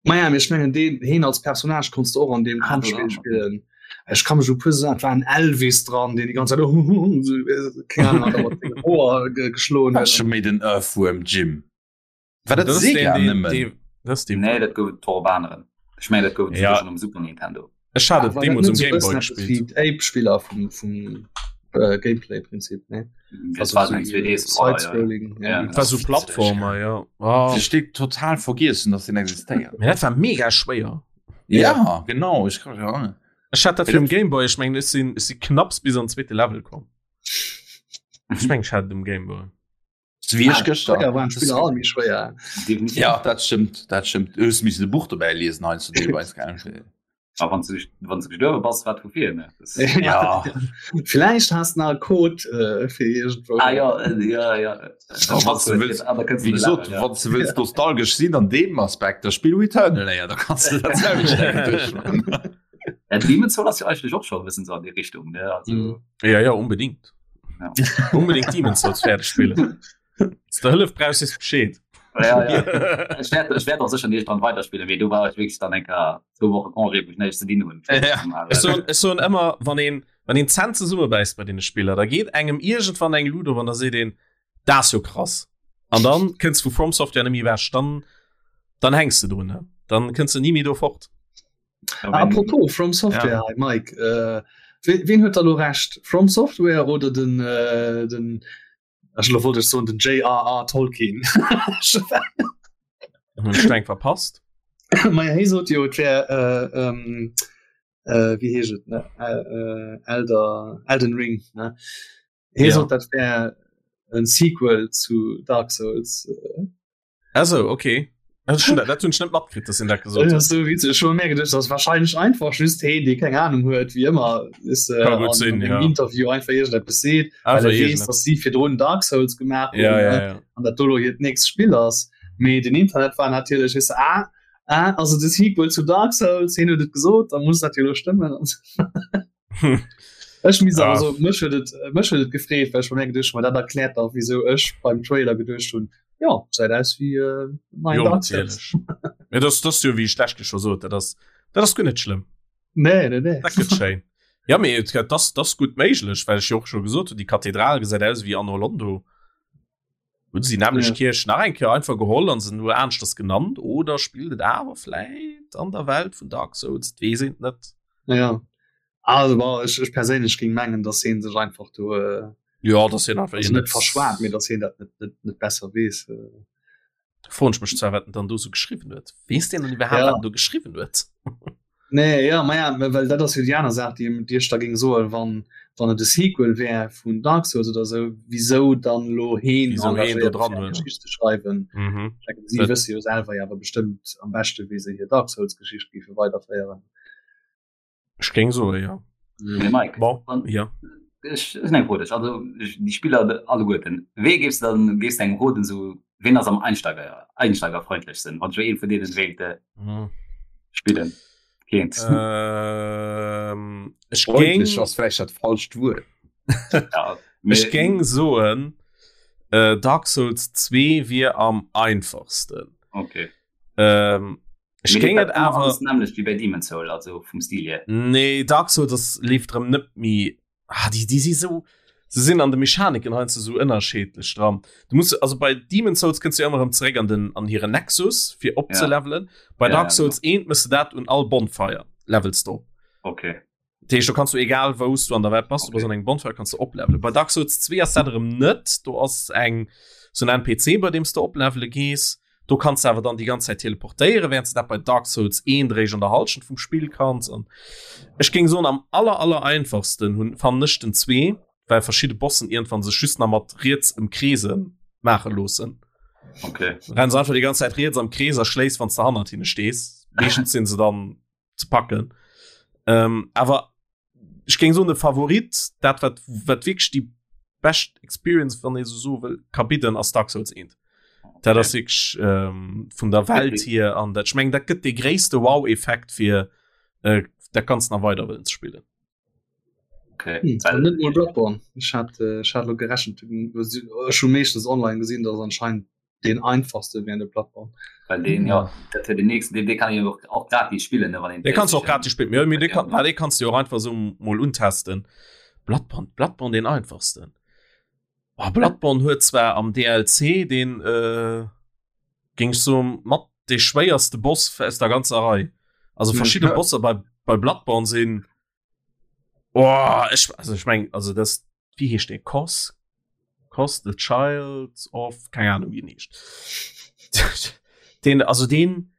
Speaker 5: Maja, mee ech mengen deen heen als Personnage konntst du och an deem
Speaker 2: Ah,
Speaker 5: Kampfspiel
Speaker 2: dran,
Speaker 5: spillen. Ech kann mech u puer Saachen, et war en Elvis dran, deen déi ganz Zäit sou, keng Ahnung, hat mat sengem Hoer ge geschloen
Speaker 1: War
Speaker 5: huet.
Speaker 1: scho méi den Earthworm Jim. War dat
Speaker 3: Das ist
Speaker 1: Sega
Speaker 3: den, den,
Speaker 1: nëmmen?
Speaker 3: den, das ist den.
Speaker 2: Nee, dat gouf et och op aneren. Ech mengen, dat gouf et
Speaker 3: Ja.
Speaker 2: souguer schonn um Super Nintendo.
Speaker 3: Ech hat et
Speaker 5: War dat
Speaker 3: deemools
Speaker 5: net
Speaker 3: um
Speaker 5: sou e
Speaker 3: Game Boy
Speaker 5: bëssen eppes wéi
Speaker 3: gespielt.
Speaker 5: d'Ape-Spiller vum, vum äh, Gameplay-Prinzip, ne?
Speaker 2: Dat war eng 2D-Scroller, ja.
Speaker 5: Side-Scrolling, ja.
Speaker 2: Ja.
Speaker 3: Dat war so Plattformer, ja. Oh.
Speaker 1: Ech steet total vergiessen, dass den existéiert.
Speaker 3: Mee dat war mega schwéier.
Speaker 1: Ja, genau, ech kann ja.
Speaker 3: Ech hat dat fir um Game Boy, ech mengen, ech sinn, ech si knapps bis an zweete Level komm. Ech mengen, ech hat et um Game Boy.
Speaker 1: Wéi ech gëschter.
Speaker 5: Fréier waren d'Spiller all méi schwéier.
Speaker 2: Definitiv.
Speaker 1: Ja, dat stëmmt, dat stëmmt. Du hues missen e Buch dobäi liesen heiansdo deelweis, gell?
Speaker 2: A wann du wann du gestuerwe bass, wat vu vir, ne? Das,
Speaker 1: Ja.
Speaker 5: Vielleicht hast du nach einen Code äh, fir irgendwo.
Speaker 2: ah ja, äh, ja, ja.
Speaker 1: wann du wëlls-
Speaker 2: Ah, da kënns du
Speaker 1: Wéi gesot,
Speaker 2: Level, ja.
Speaker 1: wann du wëlls nostalgesch sinn an deem Aspekt, da spill Returnal éier, da kanns du dat selwecht eng duerchmachen.
Speaker 2: Ja, Demon's Souls ass jo eigentlech och scho e bëssen sou an déi Richtung, ne? Also,
Speaker 5: Mhm.
Speaker 3: Ja, ja, unbedingt.
Speaker 2: Ja.
Speaker 3: Unbedingt Demon's Souls fäerdeg spillen. Wann du Hëllef brauchs, sees Bescheed.
Speaker 2: Ja, ja. Ech wäert, ech wäert och sécher nicht dran weiterspillen, mee do war ech wierklech dann eng Kéier zwou Woche Congé, wou ech näischt ze dinn hunn.
Speaker 1: Ja.
Speaker 3: Ech soen, ech soen ëmmer, wann een, wann een d'Zänn zesummebäisst bei deene Spiller, da geet engem iergendwann eng Luut op an da seet een, dat ass jo krass. An dann kënns vu From Software net méi ewech, dann, dann hänks de drun, ne? Dann kënns de ni méi do fort.
Speaker 2: Ja, wenn-
Speaker 5: Apropos From Software, ja. Mike, äh, wen huet da lo Recht? From Software oder den, äh, den ech lo wollt ech soen den J.R.R. Tolkien?
Speaker 3: Hunn ech eng verpasst?
Speaker 5: Maja hie sot jo et wär äh, ähm, äh, wéi heescht et ne äh, äh, Elder Elden Ring ne hie
Speaker 3: Ja.
Speaker 5: sot dat wär en Sequel zu Dark Souls.
Speaker 3: Also okay. Dat hunn ech net matkritt, dass en dat gesot huet.
Speaker 5: So witzeg. Ech hu mir geduecht, dat ass wahrscheinlech einfach just heen, dee keng Ahnung huet, wéi ëmmer is äh,
Speaker 3: Ka gutt
Speaker 5: an
Speaker 3: sinn,
Speaker 5: engem
Speaker 3: ja.
Speaker 5: Interview einfach iergendeppes seet, well
Speaker 3: Einfach
Speaker 5: e weess,
Speaker 3: iergendeppes.
Speaker 5: dass si virdrun Dark Souls gemaach hunn,
Speaker 3: Ja, ja,
Speaker 5: ne?
Speaker 3: ja.
Speaker 5: an dat do lo hiert nächst Spill ass. Mee den Internet war natierlech is ah, ah, also de Sequel zu Dark Souls, heen huet et gesot, da muss dat jo lo stëmmen. Ech mis
Speaker 3: Ah.
Speaker 5: also mech huet et mech huet et gefreet, well ech mir geduecht hunn, ma dat erkläert dach wieso ech beim Trailer geduecht hunn, ja gesäit aus wéi äh, neien
Speaker 3: Jo,
Speaker 5: Dark Souls.
Speaker 3: natierlech. Ja, das, das jo wéi ech d'lescht Keer scho sot, dat ass, dat ass guer net schlëmm.
Speaker 5: Nee, nee, nee.
Speaker 3: Dat gëtt schéin. Ja, mee et gëtt, das, das gutt méiglech, well ech jo och scho gesot hunn, déi Kathedral gesäit aus wéi Anor Londo. Hunn se déi nämlech
Speaker 5: Ja.
Speaker 3: Kierch nach eng Kéier einfach geholl an se nur aneschters genannt oder spillt et awer vläit an der Welt vun Dark Souls? Et weess een et net.
Speaker 5: Ja. Also bon, ech, ech perséinlech géing mengen, dass heen sech einfach do äh,
Speaker 3: Ja, dass hien einfach
Speaker 5: also net verschwat, mee dass heen dat net, net, net besser weess. Äh.
Speaker 3: Froen ech mech zwar, wat en dann do sou geschriwwen huet. Weess deen dann iwwerhaapt,
Speaker 5: Ja.
Speaker 3: wat en do geschriwwen huet?
Speaker 5: Nee, ja, ma ja, well dat ass jo déi aner Saach, déi, déi ech da géing soen, wann, wann et e Sequel wär vun Dark Souls oder sou, wisou dann elo heen
Speaker 3: Wisou heen do
Speaker 5: engagéiert
Speaker 3: dran
Speaker 5: fir eng
Speaker 3: huet.
Speaker 5: Geschicht ze schreiwen.
Speaker 3: Mhm.
Speaker 5: Ech denken, si
Speaker 3: Dat-
Speaker 5: wësse jo selwer jo awer bestëmmt am beschte, wéi se hir Dark Souls-Geschicht géife weiderféieren.
Speaker 3: Ech géing soen, jo.
Speaker 2: Mee Mike,
Speaker 3: Bon,
Speaker 2: wann,
Speaker 3: ja.
Speaker 2: ech, ech hunn eng Fro un dech. Also, ech, déi Spiller alleguerten, wee géifs de dann, géifs de engem roden, sou, ween ass am Einsteiger, einsteigerfreundlechsten, wann ech elo ee vun deenen wéilt
Speaker 3: Mhm.
Speaker 2: spillen kéint?
Speaker 3: Ähm, ech géing,
Speaker 1: Freundlech ass vläicht dat falscht Wuert.
Speaker 2: Ja,
Speaker 3: ech
Speaker 2: mee,
Speaker 3: géing soen, äh, Dark Souls 2 wier am einfachsten.
Speaker 2: okay.
Speaker 3: Ähm, Ech
Speaker 2: Mee
Speaker 3: géing
Speaker 2: leeft
Speaker 3: et
Speaker 2: dat ëmmer
Speaker 3: awer
Speaker 2: alles nämmlecht wéi bei Demon's Soul, also vum Stil hier?
Speaker 3: Nee, Dark Souls ass leeft erëm net méi ah, déi, déi si sou se sinn an de Mechaniken heiansdo sou ënnerscheedlech dran. Du muss also bei Demon's Souls kënns du jo ëmmer erëm zeréck an den an hiren Nexus fir
Speaker 2: Ja.
Speaker 3: opzelevelen. Bei
Speaker 2: Ja,
Speaker 3: Dark
Speaker 2: ja,
Speaker 3: Souls
Speaker 2: genau.
Speaker 3: 1 mëss de dat un all Bonfire levels du op.
Speaker 2: Okay.
Speaker 3: Dat heescht, do kanns du egal wou s du an der Welt bass, du bass
Speaker 2: Okay.
Speaker 3: an engem Bonfire kanns du oplevelen. Bei Dark Souls 2 ass dat erëm net, do ass eng sou en NPC bei deem s du oplevele gees. Do kanns du awer dann déi ganz Zäit teleportéieren, während s du dat bei Dark Souls 1 eréischt an der Hallschent vum Spill kanns. An ech géing soen, am aller aller einfachsten hunn fannen ech den 2, well verschidde Bossen iergendwann sech just nach mat riets ëmkreese maache loossen.
Speaker 2: Okay.
Speaker 3: Renns einfach déi ganz Zäit riets am Krees a schléis, wann s de hannert hinne stees. Meeschtens sinn se dann ze packen. Ähm, awer ech géing soen de Favorit, dat wat wat wierklech déi bescht Experience, wann ee sou soe wëll, ka bidden, ass Dark Souls 1. Dat ass wierklech ähm, vun der Welt hier an dat ech mengen, dat gëtt dee gréisste Wow-Effekt fir äh, dat Ganzt nach weider wëllen ze spillen.
Speaker 2: Okay.
Speaker 5: Hm, also net mol Bloodborne. Ech hat, äh, ech hat lo gerechent, ech hu meeschtens online gesinn, dass anscheinend den einfachste wär de Bloodborne.
Speaker 2: Well den ja dat wär den nächsten, den, den kann een och, och gratis spillen, ne, wann een
Speaker 3: Den kannst du och
Speaker 2: PlayStation
Speaker 3: gratis spillen. Ja, mee den
Speaker 2: Ja.
Speaker 3: kann, ah, den kannst du jo och einfach so mol untesten. Bloodborne, Bloodborne den einfachsten. Oh, Bloodborne huet zwar am DLC den äh, géing ech soen mat de schwéierste Boss aus der ganzer Rei. Also verschidde
Speaker 1: Ja.
Speaker 3: Bosser bei, bei Bloodborne sinn oh, ech, also ech meng also das wéi heescht dee Kos Kos the Child of keng Ahnung wéi en heescht. Den also den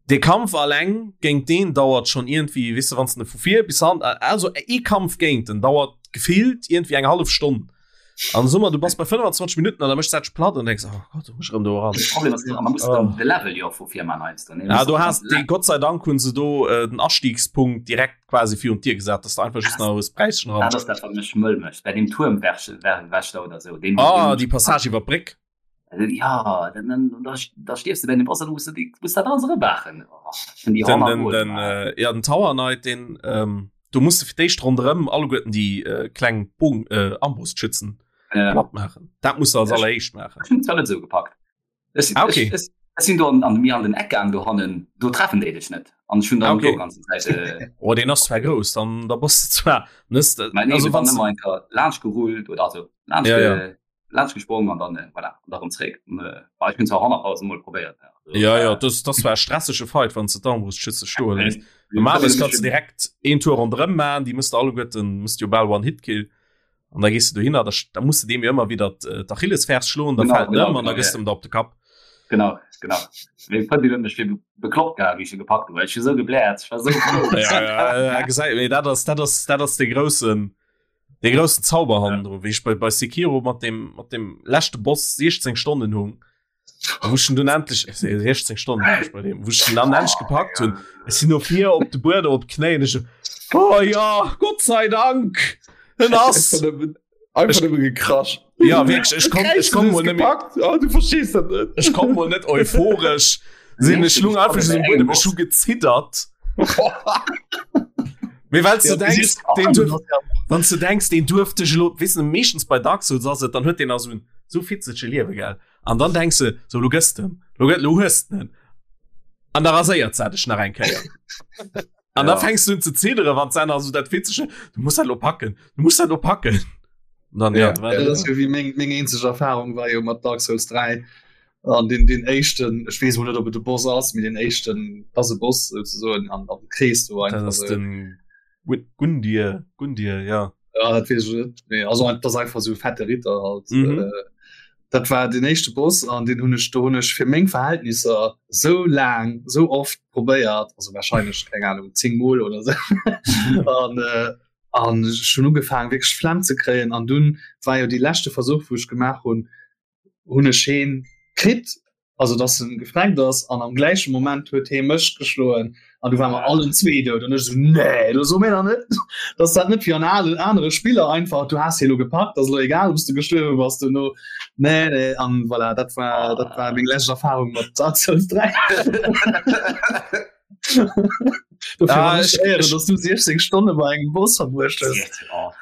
Speaker 3: de Kampf alleng géint deen dauert schon irgendwie weess de wann s de vu vir bis han also ee Kampf géint en dauert gefillt irgendwie eng hallef Stonn. An so du bass bei 25 Minuten an da méchs dat dech platt an denks oh Gott, muss ech erëm do eran.
Speaker 2: De Problem ass, man muss
Speaker 3: Oh.
Speaker 2: de Level jo vu vir man heiansdo, ne?
Speaker 3: Ja, du hast den Gott sei Dank hunn se do äh, den Astiegspunkt direkt quasi virun d'Dier gesat, dass du einfach just nach hues Präischen
Speaker 2: Dat
Speaker 3: ran.
Speaker 2: ass dat wat mech mëll mécht bei dem Tuermwächter oder sou. Deen
Speaker 3: Ah, déi Passage iwwer d'Bréck.
Speaker 2: Ja, dann, dann, da, da stierfs du bei dem Boss, dann musst du die, musst dat alles erëmaachen. Oh, ich find die
Speaker 3: Den,
Speaker 2: hammer
Speaker 3: den,
Speaker 2: gut,
Speaker 3: den,
Speaker 2: man.
Speaker 3: äh, ja, den Tower Knight, den, ähm, du musst du fir d'éischt ronderëm alleguerten déi äh, kleng Bogen, äh, Armbrustschützen
Speaker 2: Ja.
Speaker 3: platt maachen. Dat musst du als
Speaker 2: Ja, ich-
Speaker 3: alleréischt maachen.
Speaker 2: Ech hunn zwar net sou gepackt. Ech,
Speaker 3: Ah, okay.
Speaker 2: ech, ech, ech sinn do an, an mir an den Eck gaang do hannen, do treffen déi dech net. An ech hunn dann
Speaker 3: Ah, okay.
Speaker 2: do ganzen Zäit äh,
Speaker 3: Oh, den ass zwar grouss, dann da bass du zwar nëss,
Speaker 2: Mä nee,
Speaker 3: also
Speaker 2: also,
Speaker 3: wann
Speaker 2: dann ëmmer eng Kéier laanscht gerullt oder also laanscht,
Speaker 3: Ja, ja.
Speaker 2: ge, laanscht gesprong an dann äh, voilà, an da rëm zréck. An, äh, ah, ech hunn zwar 100.000 Mol probéiert. Ja, also,
Speaker 3: Ja, ja,
Speaker 2: äh,
Speaker 3: das, das war e stressege Fight, wann du d'Armbrustschütze stoen
Speaker 2: äh,
Speaker 3: hues. Normalerweis
Speaker 2: ich
Speaker 3: kannst du direkt een Tour ronderëm maachen, déi musst du alleguerten, musst du jo bal One-Hit-Kill. An da gees du dohinner, da, da musst du deem jo ëmmer wieder äh, d'Achillesfers schloen, da
Speaker 2: Genau,
Speaker 3: fält en
Speaker 2: genau,
Speaker 3: ëm an da
Speaker 2: genau,
Speaker 3: gëss
Speaker 2: ja.
Speaker 3: du em da op de Kapp.
Speaker 2: Genau, genau. Meng Frëndin huet mech fir bekloppt gehat, wéi ech e gepackt hunn, well ech hu sou gebläert, ech war sou frou.
Speaker 3: Ja, ja, ja, gesäit, mee dat ass, dat ass, dat ass de groussen, de groussen Zauber hannendru. Wéi ech bei, bei Sekiro mat dem, mat dem leschte Boss 16 Stonnen hung. Wou ech dunn endlech 16 Stonnen war ech bei deem, wou ech den dann endlech gepackt hunn. Ech sinn no vir op de Buedem op d'Knéien, ech so, oh ja, Gott sei Dank, en ass.
Speaker 1: Einfach nëmme gekrasch.
Speaker 3: Ja wierklech, ech konnt, ech konnt mol net méi.
Speaker 1: Oh, du verstees dat net.
Speaker 3: Ech konnt mol net euphoresch sinn, ech lung einfach just um Buedem, ech hu geziddert. Mee well s du denkst, deen duerf, wann s du denkst, deen duerf dech elo, weess de, meeschtens bei Dark Souls ass et, dann huet deen nach esou en esou fitzege Liewe, gell? An dann denkst du, so, lo gëss de, lo gëtt, lo hues de en. An da raséiert se dech nach eng Kéier. An ja. da fängst du un ze ziddere, wann se nach so dat fitzege, du muss dat lo packen, du muss dat lo packen. Und dann, ja,
Speaker 5: ja, ja, das wie meng, meng eenzeg Erfahrung war jo mat Dark Souls 3 an den den éischten ech weess mol net ob et de Boss ass mee den éischten ass e Boss souzesoen an an Krees do
Speaker 3: einfach
Speaker 5: das
Speaker 3: ist den Gundir Gundir ja
Speaker 5: ja dat weess ech net mee also das einfach sou fette Ritter halt mhm. äh, dat war den éischte Boss an den hunn ech do hunn ech fir meng Verhältnisser sou laang sou oft probéiert also wahrscheinlech keng Ahnung 10 mol oder sou an äh, an ech hunn ugefaangen wierklech Flemm ze kréien an dunn war jo déi leschte Versuch wou ech gemaach hunn hunn ech heen kritt, also dass en gefreckt ass an am gläiche Moment huet hee mech geschloen an du war mer allen zwee dout an ech so nee, lo so mir da net, dass dat net wéi an alen anere Spiller einfach du has hie lo gepackt, ass lo egal ob s du gestuerwe bass duerno. Nee nee an voilà, dat war dat war meng lescht Erfahrung mat Dark Souls 3.
Speaker 3: Ah, ich,
Speaker 5: ich, dass du 16 Stonne bei engem Boss verbruecht hues.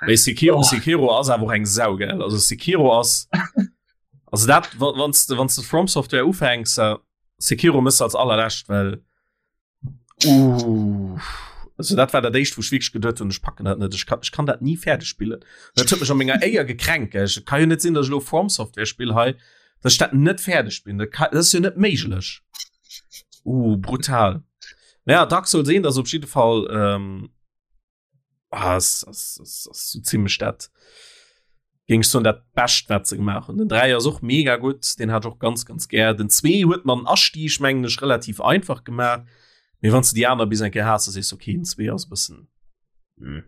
Speaker 3: Mee Sekiro, oh. Sekiro ass awer och eng Sau gell also Sekiro ass also dat wann du wann du From Software ufänks äh, Sekiro mëss als allerläscht well uh, also dat war dat éischt wou ech wierklech geduet hunn ech packen dat net ech kann ech kann dat nie fäerdeg spillen dat huet mech an menger Éier gekränkt gell ech kann jo net sinn dass ech lo From Software spill hei dass ech dat net fäerdeg spillen dat kann dat ass jo net méiglech Uh, brutal. Naja, Dark Souls 1 ass op jidde Fall ähm, ah, ass, ass, ass, ass so ziemlech dat géing ech soen dat bescht wat se gemaach hunn. Den 3 ass och mega gutt, den hat ech och ganz ganz gär. Den 2 huet man den Astieg mengen ech relativ einfach gemaach, mee wann s de déi aner bis eng Kéier has, da sees du okay, den 2 ass e bëssen hm.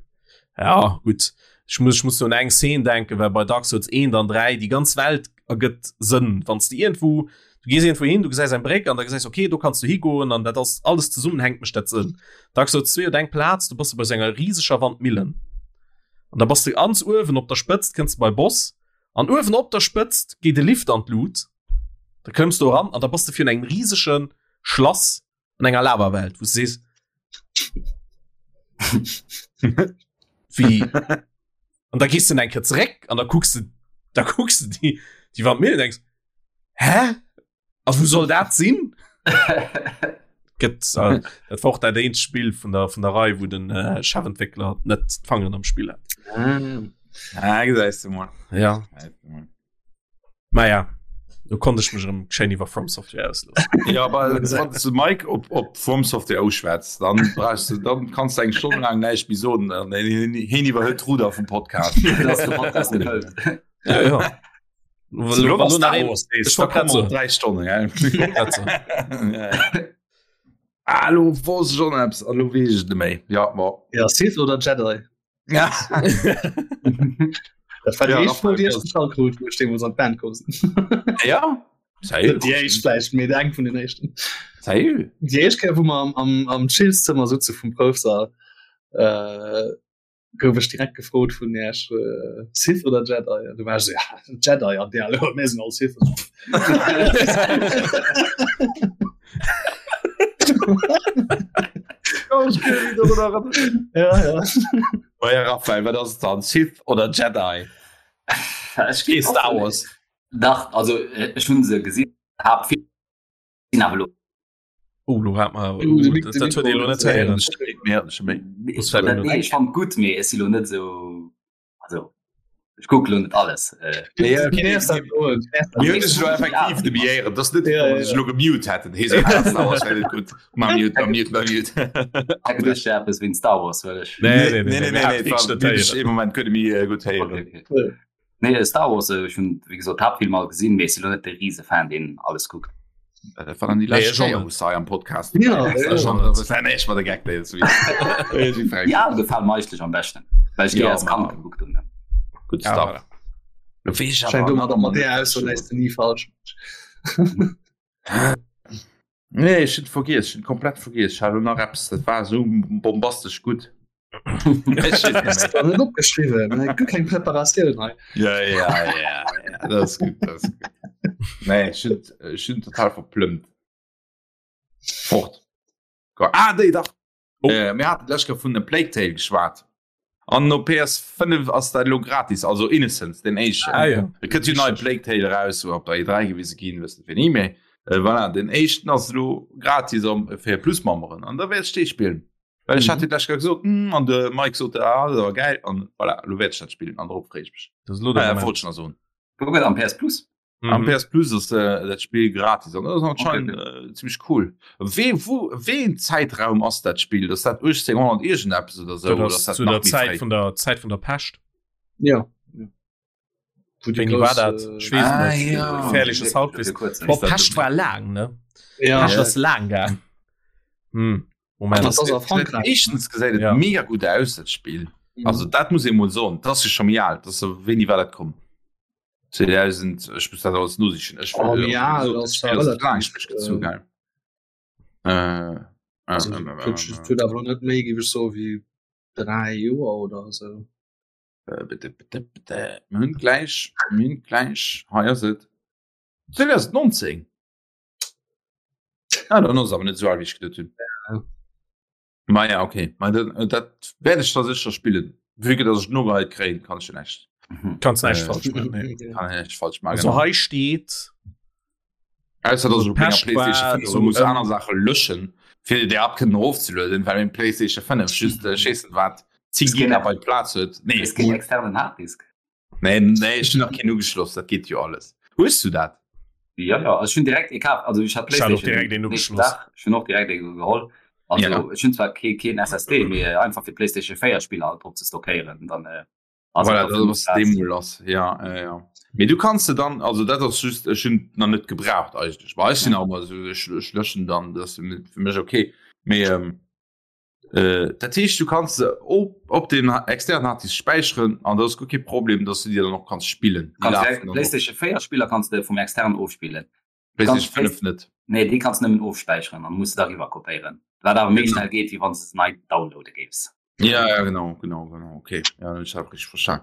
Speaker 3: Ja gutt, ech muss ech muss do un eng Szene denken, well bei Dark Souls 1 an 3 déi ganz Welt ergëtt Sënn, wann s de iergendwou du gees iergendwou hin, du gesäis eng Bréck an da gesäis okay, do kanns du higoen an dat ass alles zesummenhänkt mécht dat Sënn. Dark Souls 2 huet eng Plaz, do bass de bei sou enger riseger Wandmillen an da bass de ganz uewen op der Spëtzt, kënns de bei Boss an uewen op der Spëtzt geet e Lift an d'Lut, da klëmms du eran an da bass de virun engem risege Schlass an enger Lavawelt, wou s du sees Wéi? An da gees du eng Kéier zeréck an da kucks du, da kucks du déi, déi Wandmillen an denks, Hä? A wou soll dat sinn? Gëtt, äh, dat war och dat eenzegt Spill vun der, vun der Rei, wou den äh, Chefentwéckler net d'Fangeren am Spill hat.
Speaker 1: Ah, gesäis du mol.
Speaker 3: Ja. Naja, do konnt ech mech erëm schéin iwwer From Software ausloossen.
Speaker 1: Ja, aber wann du Mike op, op From Software ausschwätzt, dann brauchst du, dann kannst du eng Stonn lang näischt méi soen, dann heen iwwerhëlt d'Ruder vum Podcast.
Speaker 2: Das ist der Podcast gefällt.
Speaker 3: Ja, ja.
Speaker 1: So,
Speaker 3: Wa lo nach een-
Speaker 1: Ich war
Speaker 3: grad so.
Speaker 1: drei Stonnen ja.
Speaker 3: grad so.
Speaker 1: Ja, ja. Ah, lo wosst ich schon eppes, ah, lo weess ich net méi. Ja, ma.
Speaker 5: Ja, Sith oder Jedi?
Speaker 1: Ja.
Speaker 5: Dat war déi
Speaker 1: Ja,
Speaker 5: éischt Fro, déi ech
Speaker 1: Raphael,
Speaker 5: gestallt krut, wou ech deemools an d'Band koum sinn.
Speaker 1: Ja? Salut.
Speaker 5: Déi éischt vläicht, mee eng vun den éischten.
Speaker 1: Salut.
Speaker 5: Déi éischt Kéier, wou mer am, am, am Chillszëmmer sutze vum Proufsall, äh, gouf ech direkt gefrot vun Iech, äh, Sith oder Jedi? An du war ech sou, ja, Jedi, an déi alle, mir sinn all Sith. Ja, ja.
Speaker 1: Oh ja, Raphael, wat ass et dann? Sith oder Jedi?
Speaker 2: Ech
Speaker 1: Kee Star Wars.
Speaker 2: Dach, also äh, ech hunn se gesinn, hab vill sinn awer lo
Speaker 3: Oh, lo hat mer
Speaker 5: Uh, de Mic-
Speaker 3: dat
Speaker 5: de
Speaker 3: dat huet ee lo net héieren.
Speaker 1: Mir hatten schon méi.
Speaker 3: Muss vielleicht
Speaker 2: Nee,
Speaker 3: net.
Speaker 2: ech fand gutt, mee ech si lo net sou also ech kucke lo net alles. Äh,
Speaker 1: Ja, okay.
Speaker 5: Nee, dat
Speaker 1: Mir hunn sech lo effektiv de Biéieren. Das net,
Speaker 5: Ja, ja,
Speaker 1: sech lo gemute hätten. Hee so, ah, Star Wars wär net gutt. Ma mute, ma mute, ma mute.
Speaker 2: hat geduecht, ja, eppes wéint Star Wars, well ech
Speaker 3: Nee, nee,
Speaker 1: Nee, nee, nee, nee,
Speaker 3: nee,
Speaker 1: war wirklich im Moment kënne mir gutt héieren.
Speaker 2: Okay, okay. Nee, Star Wars, äh, ech hunn wéi gesot d'Haaptfilm all gesinn, mee ech si lo net de Risefan, deen alles kuckt.
Speaker 1: Dat war dann déi
Speaker 3: Nee,
Speaker 1: lescht
Speaker 3: ech och
Speaker 1: Kéier,
Speaker 3: net.
Speaker 1: wou s hei am Podcast
Speaker 5: Ja,
Speaker 1: dabei warst.
Speaker 5: ja.
Speaker 1: Das war das war echt mal der Gag, der jetzt wieder.
Speaker 2: Ja, gefalen mir eigentlich am besten, weil ich die
Speaker 1: Ja,
Speaker 2: als Kand
Speaker 1: Mann.
Speaker 2: geguckt habe.
Speaker 1: Good
Speaker 3: Ja,
Speaker 1: stuff.
Speaker 3: voilà.
Speaker 1: Lo weess ich
Speaker 5: Scheint
Speaker 1: awer
Speaker 5: domat
Speaker 1: nach
Speaker 5: mat
Speaker 1: net,
Speaker 5: där Ausso läis de ni falsch.
Speaker 1: Nee, ech hunn vergiess, ech hunn komplett vergiess. Ech hat elo nach eppes, dat war esou bombastesch gutt.
Speaker 5: Net opgeschriwwen, ne? Guer keng Preparatioun hei.
Speaker 1: Ja, ja, ja, ja, dat ass gutt, dat ass gutt. Nee, ech hunn, ech hunn total verplëmmt. Fort. Ah, déi dach. Oh. Äh, mir haten d'lescht Kéier vun A Plague Tale geschwat. An op PS5 ass dat elo gratis, also Innocence, den éischten.
Speaker 3: Ah, ja.
Speaker 1: Et kënnt jo nei Plague Tale raus, wou op der E3 gewise ginn, wëssen fir ni méi. Äh, voilà, den éischten ass elo gratis am, fir Plus-Memberen. An da wäert ech dee spillen. Well ech hat jo d'lescht Kéier gesot, hm, an de Mike sot, ah, dat war geil. An voilà, elo wäert ech dat spillen an dorop freeë ech mech.
Speaker 3: Dat ass elo de
Speaker 1: Ah, ja,
Speaker 3: Moment.
Speaker 1: wollt ech nach soen.
Speaker 2: Wou gëtt am PS Plus?
Speaker 3: Mhm.
Speaker 1: Am PS Plus ass äh, dat Spiel gratis an das anscheinend
Speaker 2: Okay.
Speaker 1: äh, ziemlich cool. We, wo, ween Zeitraum ass dat Spiel? Ass dat 1800 irgendeppes oder so?
Speaker 3: Dat
Speaker 1: Oder
Speaker 3: ass
Speaker 1: ass dat
Speaker 3: zu
Speaker 1: nach
Speaker 3: der
Speaker 1: méi
Speaker 3: Zäit
Speaker 1: fréi?
Speaker 3: vun der Zäit vun der Pescht.
Speaker 5: Ja. Wo die
Speaker 3: Wéini war
Speaker 5: grouss,
Speaker 3: dat?
Speaker 5: äh,
Speaker 3: Ech weess
Speaker 1: Ah,
Speaker 3: net.
Speaker 1: ja.
Speaker 3: Gefährliches Halbwissen. Boah,
Speaker 1: dat
Speaker 3: Pescht war laang, ne?
Speaker 5: Ja.
Speaker 3: Pescht ass laang gaang. Hm. Moment.
Speaker 5: Das ass a Frankräich.
Speaker 1: Éischtens gesäit et
Speaker 3: Ja.
Speaker 1: mega gutt aus dat Spiel.
Speaker 5: Mhm.
Speaker 1: Also dat muss ee mol soen, dat ass jo scho méi al. Dat ass so, wéini war dat komm? 2000 ech muss dat alles nosichen. Ech
Speaker 5: Oh,
Speaker 1: äh,
Speaker 5: ja,
Speaker 1: so,
Speaker 5: dat ass
Speaker 1: Spiel ass
Speaker 5: relativ,
Speaker 1: laang nicht gezu,
Speaker 5: äh,
Speaker 1: gell. Äh, äh,
Speaker 5: Also,
Speaker 1: äh, äh,
Speaker 5: huet huet awer net méi géif ech soe wéi 3 Joer oder sou.
Speaker 1: äh, bitte, bitte, bitte. Mir hunn gläich, mir hunn gläich, hei ass et 2019. Ah, dann ass awer net sou al wéi ech geduet hunn.
Speaker 5: Ja.
Speaker 1: Ma ja, okay. Ma dat, äh, dat werde ich da sicher spielen. Wie dass ich nur halt kréien, kann ich näischt.
Speaker 2: Mhm.
Speaker 3: Kannst näischt
Speaker 1: Äh,
Speaker 3: falsch machen. Nee.
Speaker 1: Kann ich näischt falsch machen.
Speaker 3: Also
Speaker 1: Genau.
Speaker 3: hei steet
Speaker 1: Ausser dass ich op menger
Speaker 3: Pescht
Speaker 1: PlayStation
Speaker 3: war
Speaker 1: 5
Speaker 3: so,
Speaker 1: muss
Speaker 3: ähm,
Speaker 1: aner Sache löschen, fir déi App kënnen erofzelueden, well meng PlayStation 5 just äh, scheessen wat 10
Speaker 2: Es geht
Speaker 1: Gigabyte Platz huet. Nee,
Speaker 2: Es keen externen Harddisk.
Speaker 1: nee, nee, ich hun nach keen ugeschloss, dat geet jo alles. Hues du dat?
Speaker 2: Ja, ja, also ech hunn direkt ee kaf, also ech hat
Speaker 3: Ech hat och
Speaker 2: PlayStation
Speaker 3: direkt een
Speaker 2: nächsten
Speaker 3: ugeschloss.
Speaker 2: Dag, ech hunn och direkt ee geholl. Also
Speaker 1: Ja.
Speaker 2: ech hunn zwar kee keen SSD, mee einfach fir PlayStation 4 Spiller alt drop ze stockéieren, dann äh, ass
Speaker 1: Voilà,
Speaker 2: et
Speaker 1: dat ass
Speaker 2: Platz.
Speaker 1: deemol ass. Ja, ja, ja. Mee du kanns se dann, also dat ass just, ech hunn nach net gebraucht eigentlech. Well ech sinn auch immer so, ech, ech löschen dann, dat ass fir fir mech okay. Mee ähm, äh, dat heescht, du kanns se op, op dem externen Harddisk späicheren an dat ass guer kee Problem, dass du déi dann och kanns spillen. Déi
Speaker 2: Kanns
Speaker 1: lafen
Speaker 2: direkt
Speaker 1: dann och.
Speaker 2: PlayStation 4 Spiller kanns de vum externen ofspillen.
Speaker 1: PlayStation
Speaker 2: Kanns
Speaker 1: 5 net.
Speaker 2: Nee, déi kanns nëmmen ofspäicheren an muss de da riwwer kopéieren. Wat awer méi
Speaker 1: Genau.
Speaker 2: schnell geet, wéi wann s de se nei downloade géifs.
Speaker 1: Ja, ja, genau, genau, genau, okay. Ja, dann hu ech dat richteg verstan.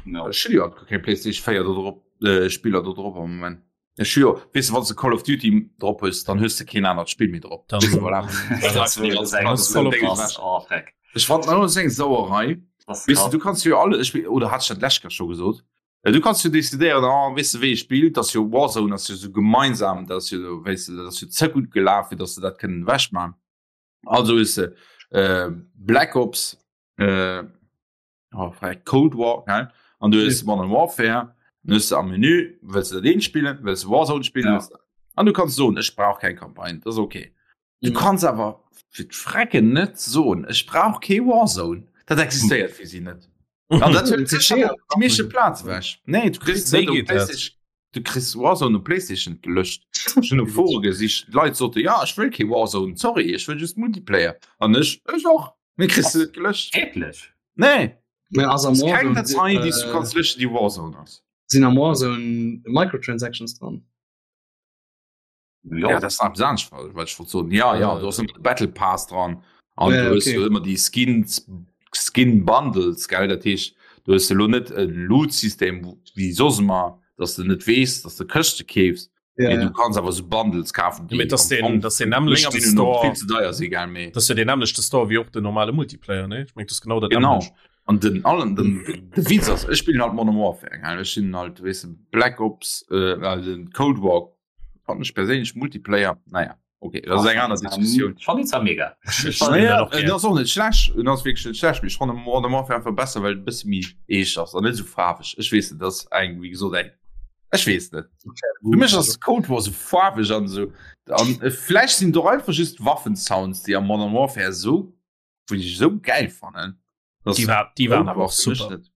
Speaker 2: Ja.
Speaker 1: Ech hunn jo guer keng PlayStation 4 do drop, äh, Spiller do drop am Moment. Ech hu jo, weess de, wann s de Call of Duty drop hues, dann hues de keen anert Spill méi drop.
Speaker 3: Dann-
Speaker 1: Weess de, voilà.
Speaker 2: Das
Speaker 1: Das
Speaker 2: wär
Speaker 1: die ganze
Speaker 2: eng
Speaker 1: Platz
Speaker 3: Call of
Speaker 1: Ding
Speaker 3: Duty.
Speaker 1: ewech.
Speaker 2: Oh, freck.
Speaker 1: Ech fand dat ass eng Sauerei.
Speaker 2: Das ist
Speaker 1: Weess de,
Speaker 2: krass.
Speaker 1: du kanns jo alle, ech, oder hat ech dat d'lescht Kéier scho gesot? Äh, Du kanns jo decidéieren, oh, weess de, wéi ee spillt, dass jo Warzone ass jo sou gemeinsam, dat ass jo, weess de, dat ass jo ze gutt gelaf, fir dass se dat kënnen ewechmachen. Also hues de äh, Black Ops, äh, oh, vielleicht Cold War, gell? An du hues Modern Warfare, dann hues du am Menü, wëlls du dat eent spillen, wëlls du Warzone spillen,
Speaker 2: Ja.
Speaker 1: wëlls du- an du kanns soen, ech brauch keng Campagne, dat ass okay. Du
Speaker 5: Mhm.
Speaker 1: kanns awer fir d'Frecken net soen, ech brauch kee Warzone. Dat existéiert fir si net. An dat huet sécher déi meeschte Plaz ewech. Nee, du kriss
Speaker 3: Wéi
Speaker 1: net op
Speaker 3: geet dat?
Speaker 1: PlayStation, du kriss Warzone op PlayStation gelöscht. Ech hunn op Fore gesicht, d'Leit sote, ja, ech wëll kee Warzone, sorry, ech wëll just Multiplayer. An ech, ech och. Mee kriss du net gelöscht.
Speaker 2: Wierklech?
Speaker 1: Nee,
Speaker 5: Mä ass am
Speaker 1: ass keng
Speaker 5: Warzone,
Speaker 1: Datei, déi s du
Speaker 5: äh,
Speaker 1: kanns löschen, déi Warzone ass.
Speaker 5: sinn am Warzone Microtransactions dran?
Speaker 1: Ja, dat ass nach eppes anescht, wat ech wollt soen. Ja, ja, du hast ëmmer de Battle Pass dran an
Speaker 5: Ja,
Speaker 1: du hues
Speaker 5: okay.
Speaker 1: jo ëmmer déi Skins, Skin Bundles, gell? Dat heescht, du hues elo net e Loot-System wéi soss ëmmer, dass du net weess, dass du Këschte keefs,
Speaker 5: Ja,
Speaker 1: mee
Speaker 5: ja.
Speaker 1: du kanns awer sou Bundles kafen,
Speaker 3: Mee
Speaker 1: déi
Speaker 3: dat ass
Speaker 1: am
Speaker 3: den,
Speaker 1: Fong
Speaker 3: dat ass den
Speaker 1: menger
Speaker 3: nämmlechte
Speaker 1: Meenung no
Speaker 3: Store,
Speaker 1: vill ze deier si, gell? Mee
Speaker 3: dat ass jo den nämmlechte Store wéi och den normale Multiplayer, ne? Ech meng, dat ass genau dat
Speaker 1: Genau.
Speaker 3: nämmlecht.
Speaker 1: An den allen den, de Witz ass, ech spillen halt Modern Warfare, gell? Ech sinn halt, weess de, Black Ops, äh, den Cold War Fand ech perséinlech Multiplayer, naja, okay, dat ass eng aner Diskussioun.
Speaker 2: Ech fannen déi zwar mega.
Speaker 3: Ech fannen
Speaker 1: Naja,
Speaker 3: dat och
Speaker 1: en
Speaker 3: gär.
Speaker 1: ass och net schlecht, en ass wierklech net schlecht, mee ech fannen Modern Warfare einfach besser, well et e bësse méi eescht ass an net esou faarweg. Ech weess net, dat ass eng, wéi gesot, eng, ech weess net. Fir mech ass Cold War esou faarweg an esou, an vläicht sinn et och einfach just d'Waffensounds, déi am Modern Warfare esou, wou ech esou gäil fannen, dass
Speaker 3: Déi war, déi waren
Speaker 1: Cold
Speaker 3: awer
Speaker 1: War
Speaker 3: och
Speaker 1: fir mech
Speaker 3: super.
Speaker 1: net.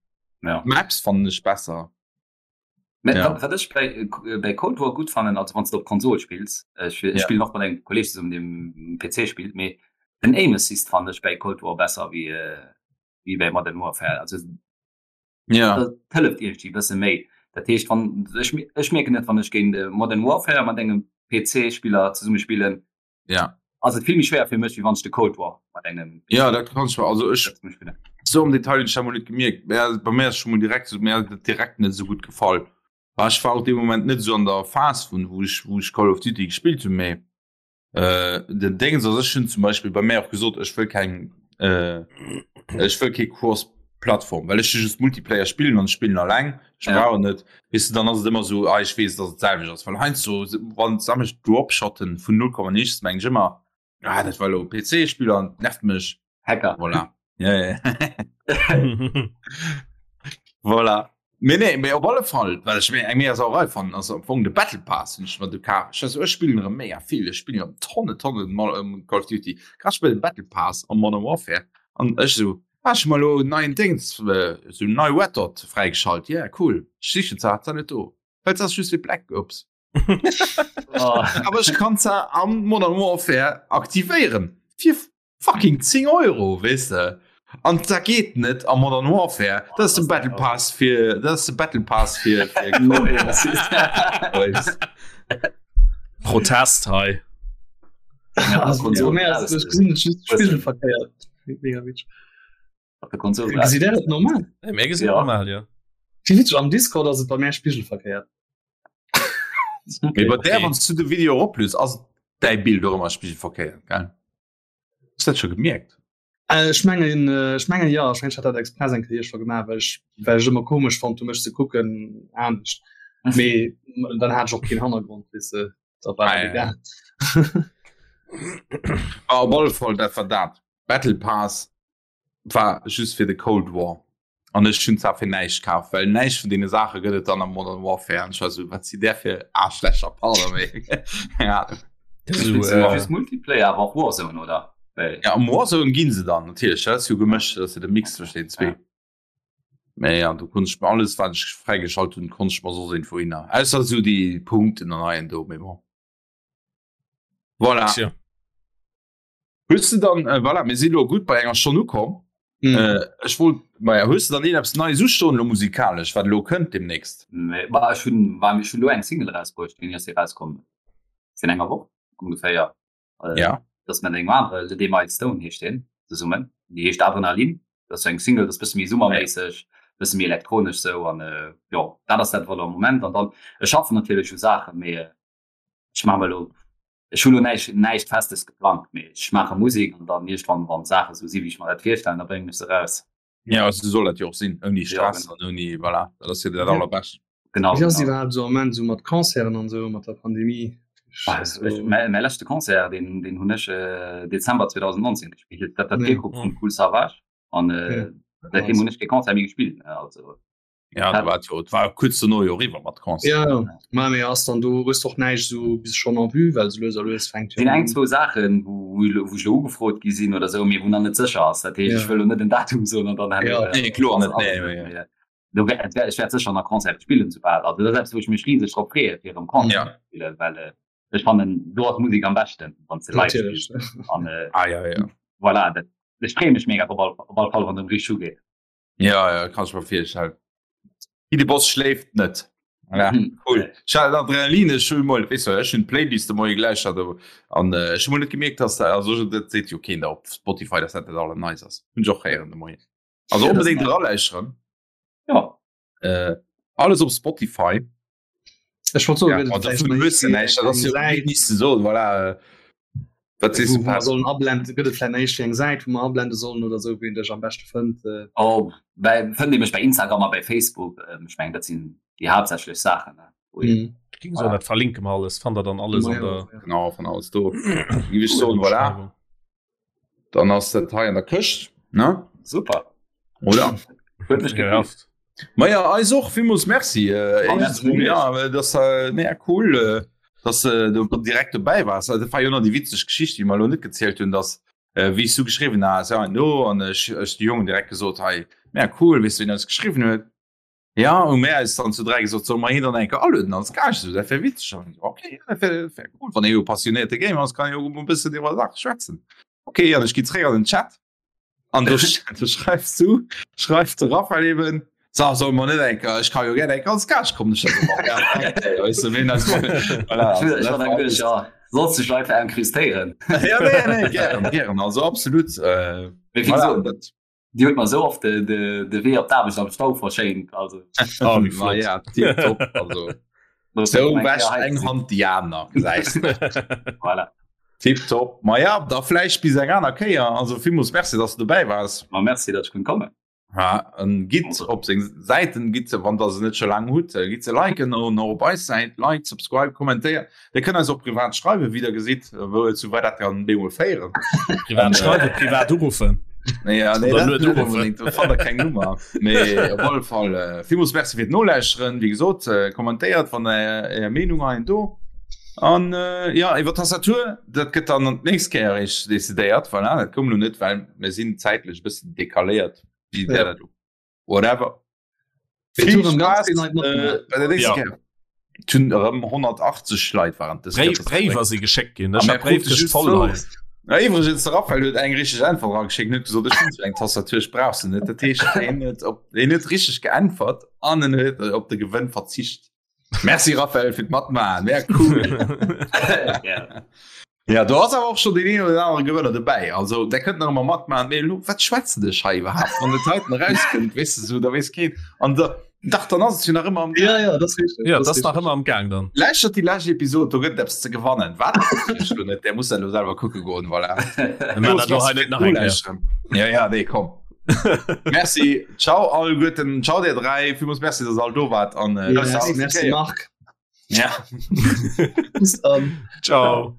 Speaker 2: Ja.
Speaker 1: D'Maps fannen ech besser.
Speaker 2: Mä
Speaker 1: Ja.
Speaker 2: wat, wat ech bei, bei Cold War gutt fannen, also wann s de op Konsol spills, ech, ech
Speaker 1: Ja.
Speaker 2: spillen och mat engem Kolleg zesummen, deen um PC spillt, mee den Aim Assist fannen ech bei Cold War besser wéi, wéi bei Modern Warfare. Also
Speaker 1: Ja.
Speaker 2: dat hëlleft iergendwéi e bësse méi. Dat heescht wann ech, ech mierken et wann ech géint äh, Modern Warfare mat engem PC-Spiller zesumme spillen,
Speaker 1: ja.
Speaker 2: ass et vill méi schwéier fir mech wéi wann ech de Cold War mat engem
Speaker 1: Ja, dat kann ich also ech
Speaker 2: zesumme spillen.
Speaker 1: so am Detail hunn ech dat mol net gemierkt. Mä bei mir ass schon mol direkt so, mir ass dat direkt net esou gutt gefall. War ech war och dee Moment net esou an der Phas vun wou ech wou ech Call of Duty gespillt hunn, mee äh, den Déngens ass ech hunn zum Beispill bei mir och gesot, ech wëll keng äh, ech wëll kee Cross Plattform, well ech just Multiplayer spillen an ech spillen alleng, ech
Speaker 2: Ja.
Speaker 1: brauch net weess de, dann ass et ëmmer esou, ah ech weess, dass et d'selwecht ass, well heiansdo wann sammeg Dropshotten vun 0, Komma nichts meng ech ëmmer, ah dat war elo e PC-Spiller an nervt mech.
Speaker 2: Hacker.
Speaker 1: Voilà. Ja, ja. Voilà. Mee nee, mee op alle Fall, well ech mir eng mega Sauerei fannen, ass am Fong de Battle Pass, hunn ech mer du kaf. Ech also, ech spillen erëm mega vill, ech spillen erëm Tonne, Tonne Mo- ähm, Call of Duty. Grad spillen den Battle Pass am Modern Warfare an ech esou, ah, ech hu mer elo en neien Déngs, äh, esou nei Red Dot fräigeschalt, yeah, cool. Ech sichen se, hat se net do. Well se ass just fir Black Ops.
Speaker 2: Oh.
Speaker 1: Awer ech kann se am Modern Warfare aktivéieren. Fir fucking 10 Euro, weess de. An dat geet net am Modern Warfare. Dat ass de Battle Pass fir, dat ass de Battle Pass fir, fir
Speaker 3: Protest hei.
Speaker 5: Ja, also, mehr als ich gesinn just spiegelverkehrt. Mega witzig.
Speaker 2: Op der Konsol.
Speaker 5: Gesitt der dat normal?
Speaker 3: Hey, mir gesinn
Speaker 2: Ja.
Speaker 3: normal, ja.
Speaker 5: Wie witzig, am Discord ass et bei mir spiegelverkehrt.
Speaker 1: Mee bei där,
Speaker 3: Okay.
Speaker 1: wann du de Video eroplues, ass däi Bild och ëmmer spiegelverkehrt, gell? Hues du dat scho gemierkt?
Speaker 5: Äh, ech mengen, äh, ech mengen ja, ech mengen, ech hat dat express eng Kéier scho gemaach, well ech, well ech ëmmer komesch fonnt hu mech ze kucken anescht. Mee dann hat ech och keen Hannergrond, weess de, da war
Speaker 1: Ah,
Speaker 5: dat
Speaker 1: ja.
Speaker 5: egal.
Speaker 1: Ah, op alle Fall, dat war dat. Battle Pass war just fir de Cold War. An ech hunn zwar fir näischt kaf, well näischt vun deene Saache gëtt et dann am Modern Warfare. An ech war sou, wat si där fir Aarschlächer, pardon, mee keng Ahnung.
Speaker 3: So,
Speaker 2: äh,
Speaker 3: äh,
Speaker 2: just Multiplayer, awer och Warzone, oder? Well,
Speaker 1: Ja, am Warzone ginn se dann natierlech, dat ass jo gemëscht, dat ass jo de Mix zwëschen den zwee.
Speaker 2: Ja.
Speaker 1: Mee ja, do konnt ech mir alles, wat ech fräigeschalt hunn, konnt ech mer soss iergendwou hinner. Ausser sou déi Punkten an hei an do, mee bon. Voilà.
Speaker 3: Tja.
Speaker 1: Hues du dann, äh, voilà, mir sinn elo gutt bei enger Stonn ukomm.
Speaker 5: Mhm.
Speaker 1: Äh, ech wollt, maja, hues du dann een eppes Neies ustoen elo musikalesch, wat elo kënnt demnächst?
Speaker 2: Nee, bah, ech hunn, bah, ech hunn elo eng Single erausbruecht, déi ass erauskomm virun enger Woch ongeféier. Äh,
Speaker 1: Ja.
Speaker 2: Dat ass mat engem anere, Le D. Milestone heescht deen, zesummen. Déi heescht Adrenalin. Dat ass sou eng Single, dat ass bësse méi summerméisseg, bësse méi elektronesch sou an äh, jo, dat ass dat wat am Moment. An dann, ech schaffen natierlech u Saachen, mee äh, ech maache mer elo, ech hunn elo näischt, näischt Festes geplangt, mee ech maache Musek an dann iergendwann, wann d'Saache sou si wéi ech mer dat virstellen, da bréngen ech se raus.
Speaker 1: Ja, also sou soll dat jo och sinn, ouni
Speaker 2: Ja,
Speaker 1: Stress
Speaker 2: genau.
Speaker 1: an ouni, voilà, dat ass jo dat
Speaker 5: Ja.
Speaker 1: allerbescht.
Speaker 2: Genau,
Speaker 5: Wéi ass
Speaker 2: genau.
Speaker 5: iwwerhaapt sou am Moment sou mat Concerten an sou, mat der Pandemie?
Speaker 2: Bah,
Speaker 5: Also,
Speaker 2: ech, mäi, mäi leschte Concert, deen, deen hunn ech äh, Dezember 2019 gespillt. Dat war
Speaker 5: Ja.
Speaker 2: d'Virgrupp vum Kool Savage an äh,
Speaker 5: Ja.
Speaker 2: seitdeem hunn ech kee Concert méi gespillt. Also
Speaker 1: Ja, da war jo, et war kuerz dono jo eriwwer mat Concert.
Speaker 5: Ja, ja. Ma mee ass dann do hues och näischt sou bis schonn en vue, well sou lues a lues fänkt jo
Speaker 2: sinn eng
Speaker 5: un.
Speaker 2: zwou Saachen, wou, wou elo- wou ech elo ugefrot gi sinn oder sou, mee wou nach net sécher ass. Dat heescht,
Speaker 5: Ja.
Speaker 2: ech wëll elo net en Datum soen an dann
Speaker 5: Ja.
Speaker 2: herno,
Speaker 1: Nee, kloer
Speaker 2: ass
Speaker 1: net,
Speaker 2: ass
Speaker 1: nee,
Speaker 2: et net.
Speaker 1: nee.
Speaker 2: Mee, do wär, et wär, ech wäert sécher nach Concerte spillen soubal. Also dat ass eppes, wou ech mech riseg drop freeë fir erëm Concerte
Speaker 1: Ja.
Speaker 2: ze spillen, well äh, ech fannen, do ass Musek am beschten, wann s de live
Speaker 5: Natierlech.
Speaker 2: spills. An äh,
Speaker 1: Ah, ja, ja.
Speaker 2: voilà, dat, ech freeë mech mega drop, op all, op all Fall, wann et erëm richteg ugeet.
Speaker 1: Ja, ja, kann ich mir vorstellen. De Boss schläft net. Ja,
Speaker 2: Mhm.
Speaker 1: cool. Ich hatte Adrenalin, ich schon mal, weißt du, ich schon Playlist de Moien gleich hatte an äh, ich schon mal net gemerkt, dass da also dat seet jo keen da op Spotify, dass dat net alle nice ass. Hun ich och héieren de Moien. Also
Speaker 2: Ja, das
Speaker 1: unbedingt
Speaker 2: nice.
Speaker 1: eraläuscheren.
Speaker 2: Ja.
Speaker 1: Äh, alles op Spotify.
Speaker 5: Ech wollt soen,
Speaker 1: Ja,
Speaker 5: gëtt et
Speaker 1: also
Speaker 5: vläicht
Speaker 1: vun
Speaker 5: nach
Speaker 1: hues du
Speaker 5: iergendwéi
Speaker 1: näischt, dat ass
Speaker 5: eng
Speaker 1: jo
Speaker 5: Säit,
Speaker 1: nicht ze soen, voilà. äh, Wat sees
Speaker 5: wou
Speaker 1: du,
Speaker 5: wou mer
Speaker 1: Pat?
Speaker 5: sollen ablenden, gëtt et vläicht nach iergendwéi eng Säit, wou mer ablende sollen oder sou, wou een dech am beschte fënnt? Äh,
Speaker 2: Oh, bei, fënnt ee mech bei Instagram a bei Facebook. Ähm, ech mengen, dat sinn déi haaptsächlech Saachen, ne, wou een,
Speaker 5: mhm.
Speaker 3: Ich ging so, dat verlinke mer alles, fannt der dann alles
Speaker 5: Ma
Speaker 3: an
Speaker 5: ja,
Speaker 3: der
Speaker 5: ja.
Speaker 1: Genau, von alles do. Géif ech soen, voilà.
Speaker 3: Beschreibung.
Speaker 1: Dann ass dat hei an der Këscht, ne?
Speaker 2: Super.
Speaker 1: Oder?
Speaker 2: Huet mech
Speaker 3: Ja.
Speaker 2: gefreet.
Speaker 1: Ma ja, eis och villmools Merci. Äh,
Speaker 2: Ah,
Speaker 1: éischtens
Speaker 2: merci
Speaker 1: mol,
Speaker 2: mech.
Speaker 1: ja, dass äh, mega cool, äh, dass äh, du direkt dobäi wars. Also, dat war jo nach déi witzeg Geschicht, déi mer elo net gezielt hunn, dass äh, wéi ech du geschriwwen has, ja, no, an ech, ech de Jongen direkt gesot, hei, mega cool, weess du, wien eis geschriwwen huet? Ja, hu mär eis dann zu 3 gesot, solle mer hien dann eng Kéier alueden als Gaascht, esou, dat wär witzeg. An okay, ja, dat wär, wär cool, wann ee jo passionéierte Gamer ass, kann e jo e bëssen iwwer Sache schwätzen. Okay, an ech gi zréck an den Chat an do, do schreifs du, schreift de Raphael eben. So, soll man net enker ech kann jo gerne eng ganz Gasch kommen
Speaker 2: Sollst du einfach enkrustéieren
Speaker 1: ja, nee, nee, gern, gern. also absolut äh,
Speaker 2: voilà, dat Dir huet mer sou oft de, de, de Wee op d'Aarbecht am Stau verschéint. Also.
Speaker 1: Oh, wéi flott. Ja, tipptopp. Also, sou wäscht eng Hand déi aner, gesäis de.
Speaker 2: Voilà.
Speaker 1: Tipptopp. Ma ja, da vläicht bis eng aner Kéier. Also villmools Merci, dass du dobäi waars.
Speaker 2: Ma merci, datt ech konnt kommen.
Speaker 1: Ja, an gitt op seng Säiten, gitt se, wann der se net scho laang hutt, gitt se liken an och op eis Säit, like, subscribe, kommentéiert. Dir kënnt eis och privat schreiwen, wéi der gesitt, wou zu wat dat kann bemol féieren.
Speaker 3: Privat schreiwen, privat uruffen.
Speaker 1: Ja, nee, dat net unbedingt, do fannt der keng Nummer. Mee op alle Fall äh, villmools Merci fir d'Nolauschteren. Wéi gesot, äh, kommentéiert, wann der Är Meenung hei do. An äh, ja, iwwer Tastatur, dat gëtt dann an d'nächst Kéier eréischt decidéiert. Voilà, dat koum lo net, well mir sinn zäitlech e bëssen decaléiert. Wéi wär dat lo? Whatever. Vill Spaß äh, bei der nächsten ja. Tun erëm 180 Leit waren
Speaker 3: das Bréiwer si geschéckt ginn
Speaker 1: Na iwwregens de Raphael huet eng richteg Äntwert erageschéckt, huet gesot ech hunn eng Tastatur, ech brauch se net. Dat heescht hien huet op hien huet richteg geäntwert an en huet op de Gewënn verzicht. Merci Raphael fir d'Matmaachen, wär cool. Ja do ass awer och schon deen een oder anere Gewënner dobäi. Also der kënnt nach ëmmer matmaachen. Mee elo wat schwätzen ech hei iwwerhaapt? Wann et heiten erauskënnt, weess de sou, da weess keen. An da dach dann ass et jo nach ëmmer am
Speaker 5: Gaang. Ja, ja, dat ass richteg.
Speaker 3: Ja, dat ass nach ëmmer am Gaang dann.
Speaker 1: Lauschtert déi lescht Episod, do gëtt et eppes ze gewannen. Wat? Ech lo net, där muss dat elo selwer kucke goen, voilà.
Speaker 3: Mir maachen dat elo hei net nach eng Kéier.
Speaker 1: Ja, ja, nee, komm. Merci, ciao alleguerten, ciao dir 3, villmools Merci, dass der all do waart an
Speaker 5: äh, bis
Speaker 1: Merci,
Speaker 5: nächste merci
Speaker 1: Kéier.
Speaker 5: Marc.
Speaker 1: Ja.
Speaker 5: Bis dann.
Speaker 3: Ciao.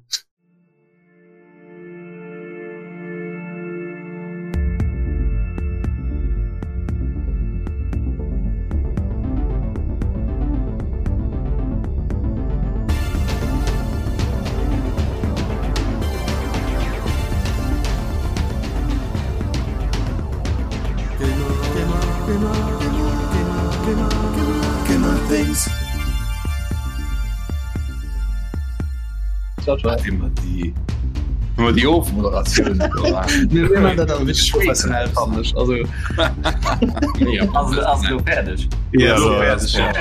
Speaker 5: Ciao, ciao.
Speaker 1: Immer die immer die Ofmoderatioun
Speaker 5: Mir mir man dat awer wierklech professionell fannen ech. Also
Speaker 2: Ass ass lo fäerdeg.
Speaker 1: Ja,
Speaker 3: so,
Speaker 1: fäerdeg, ja.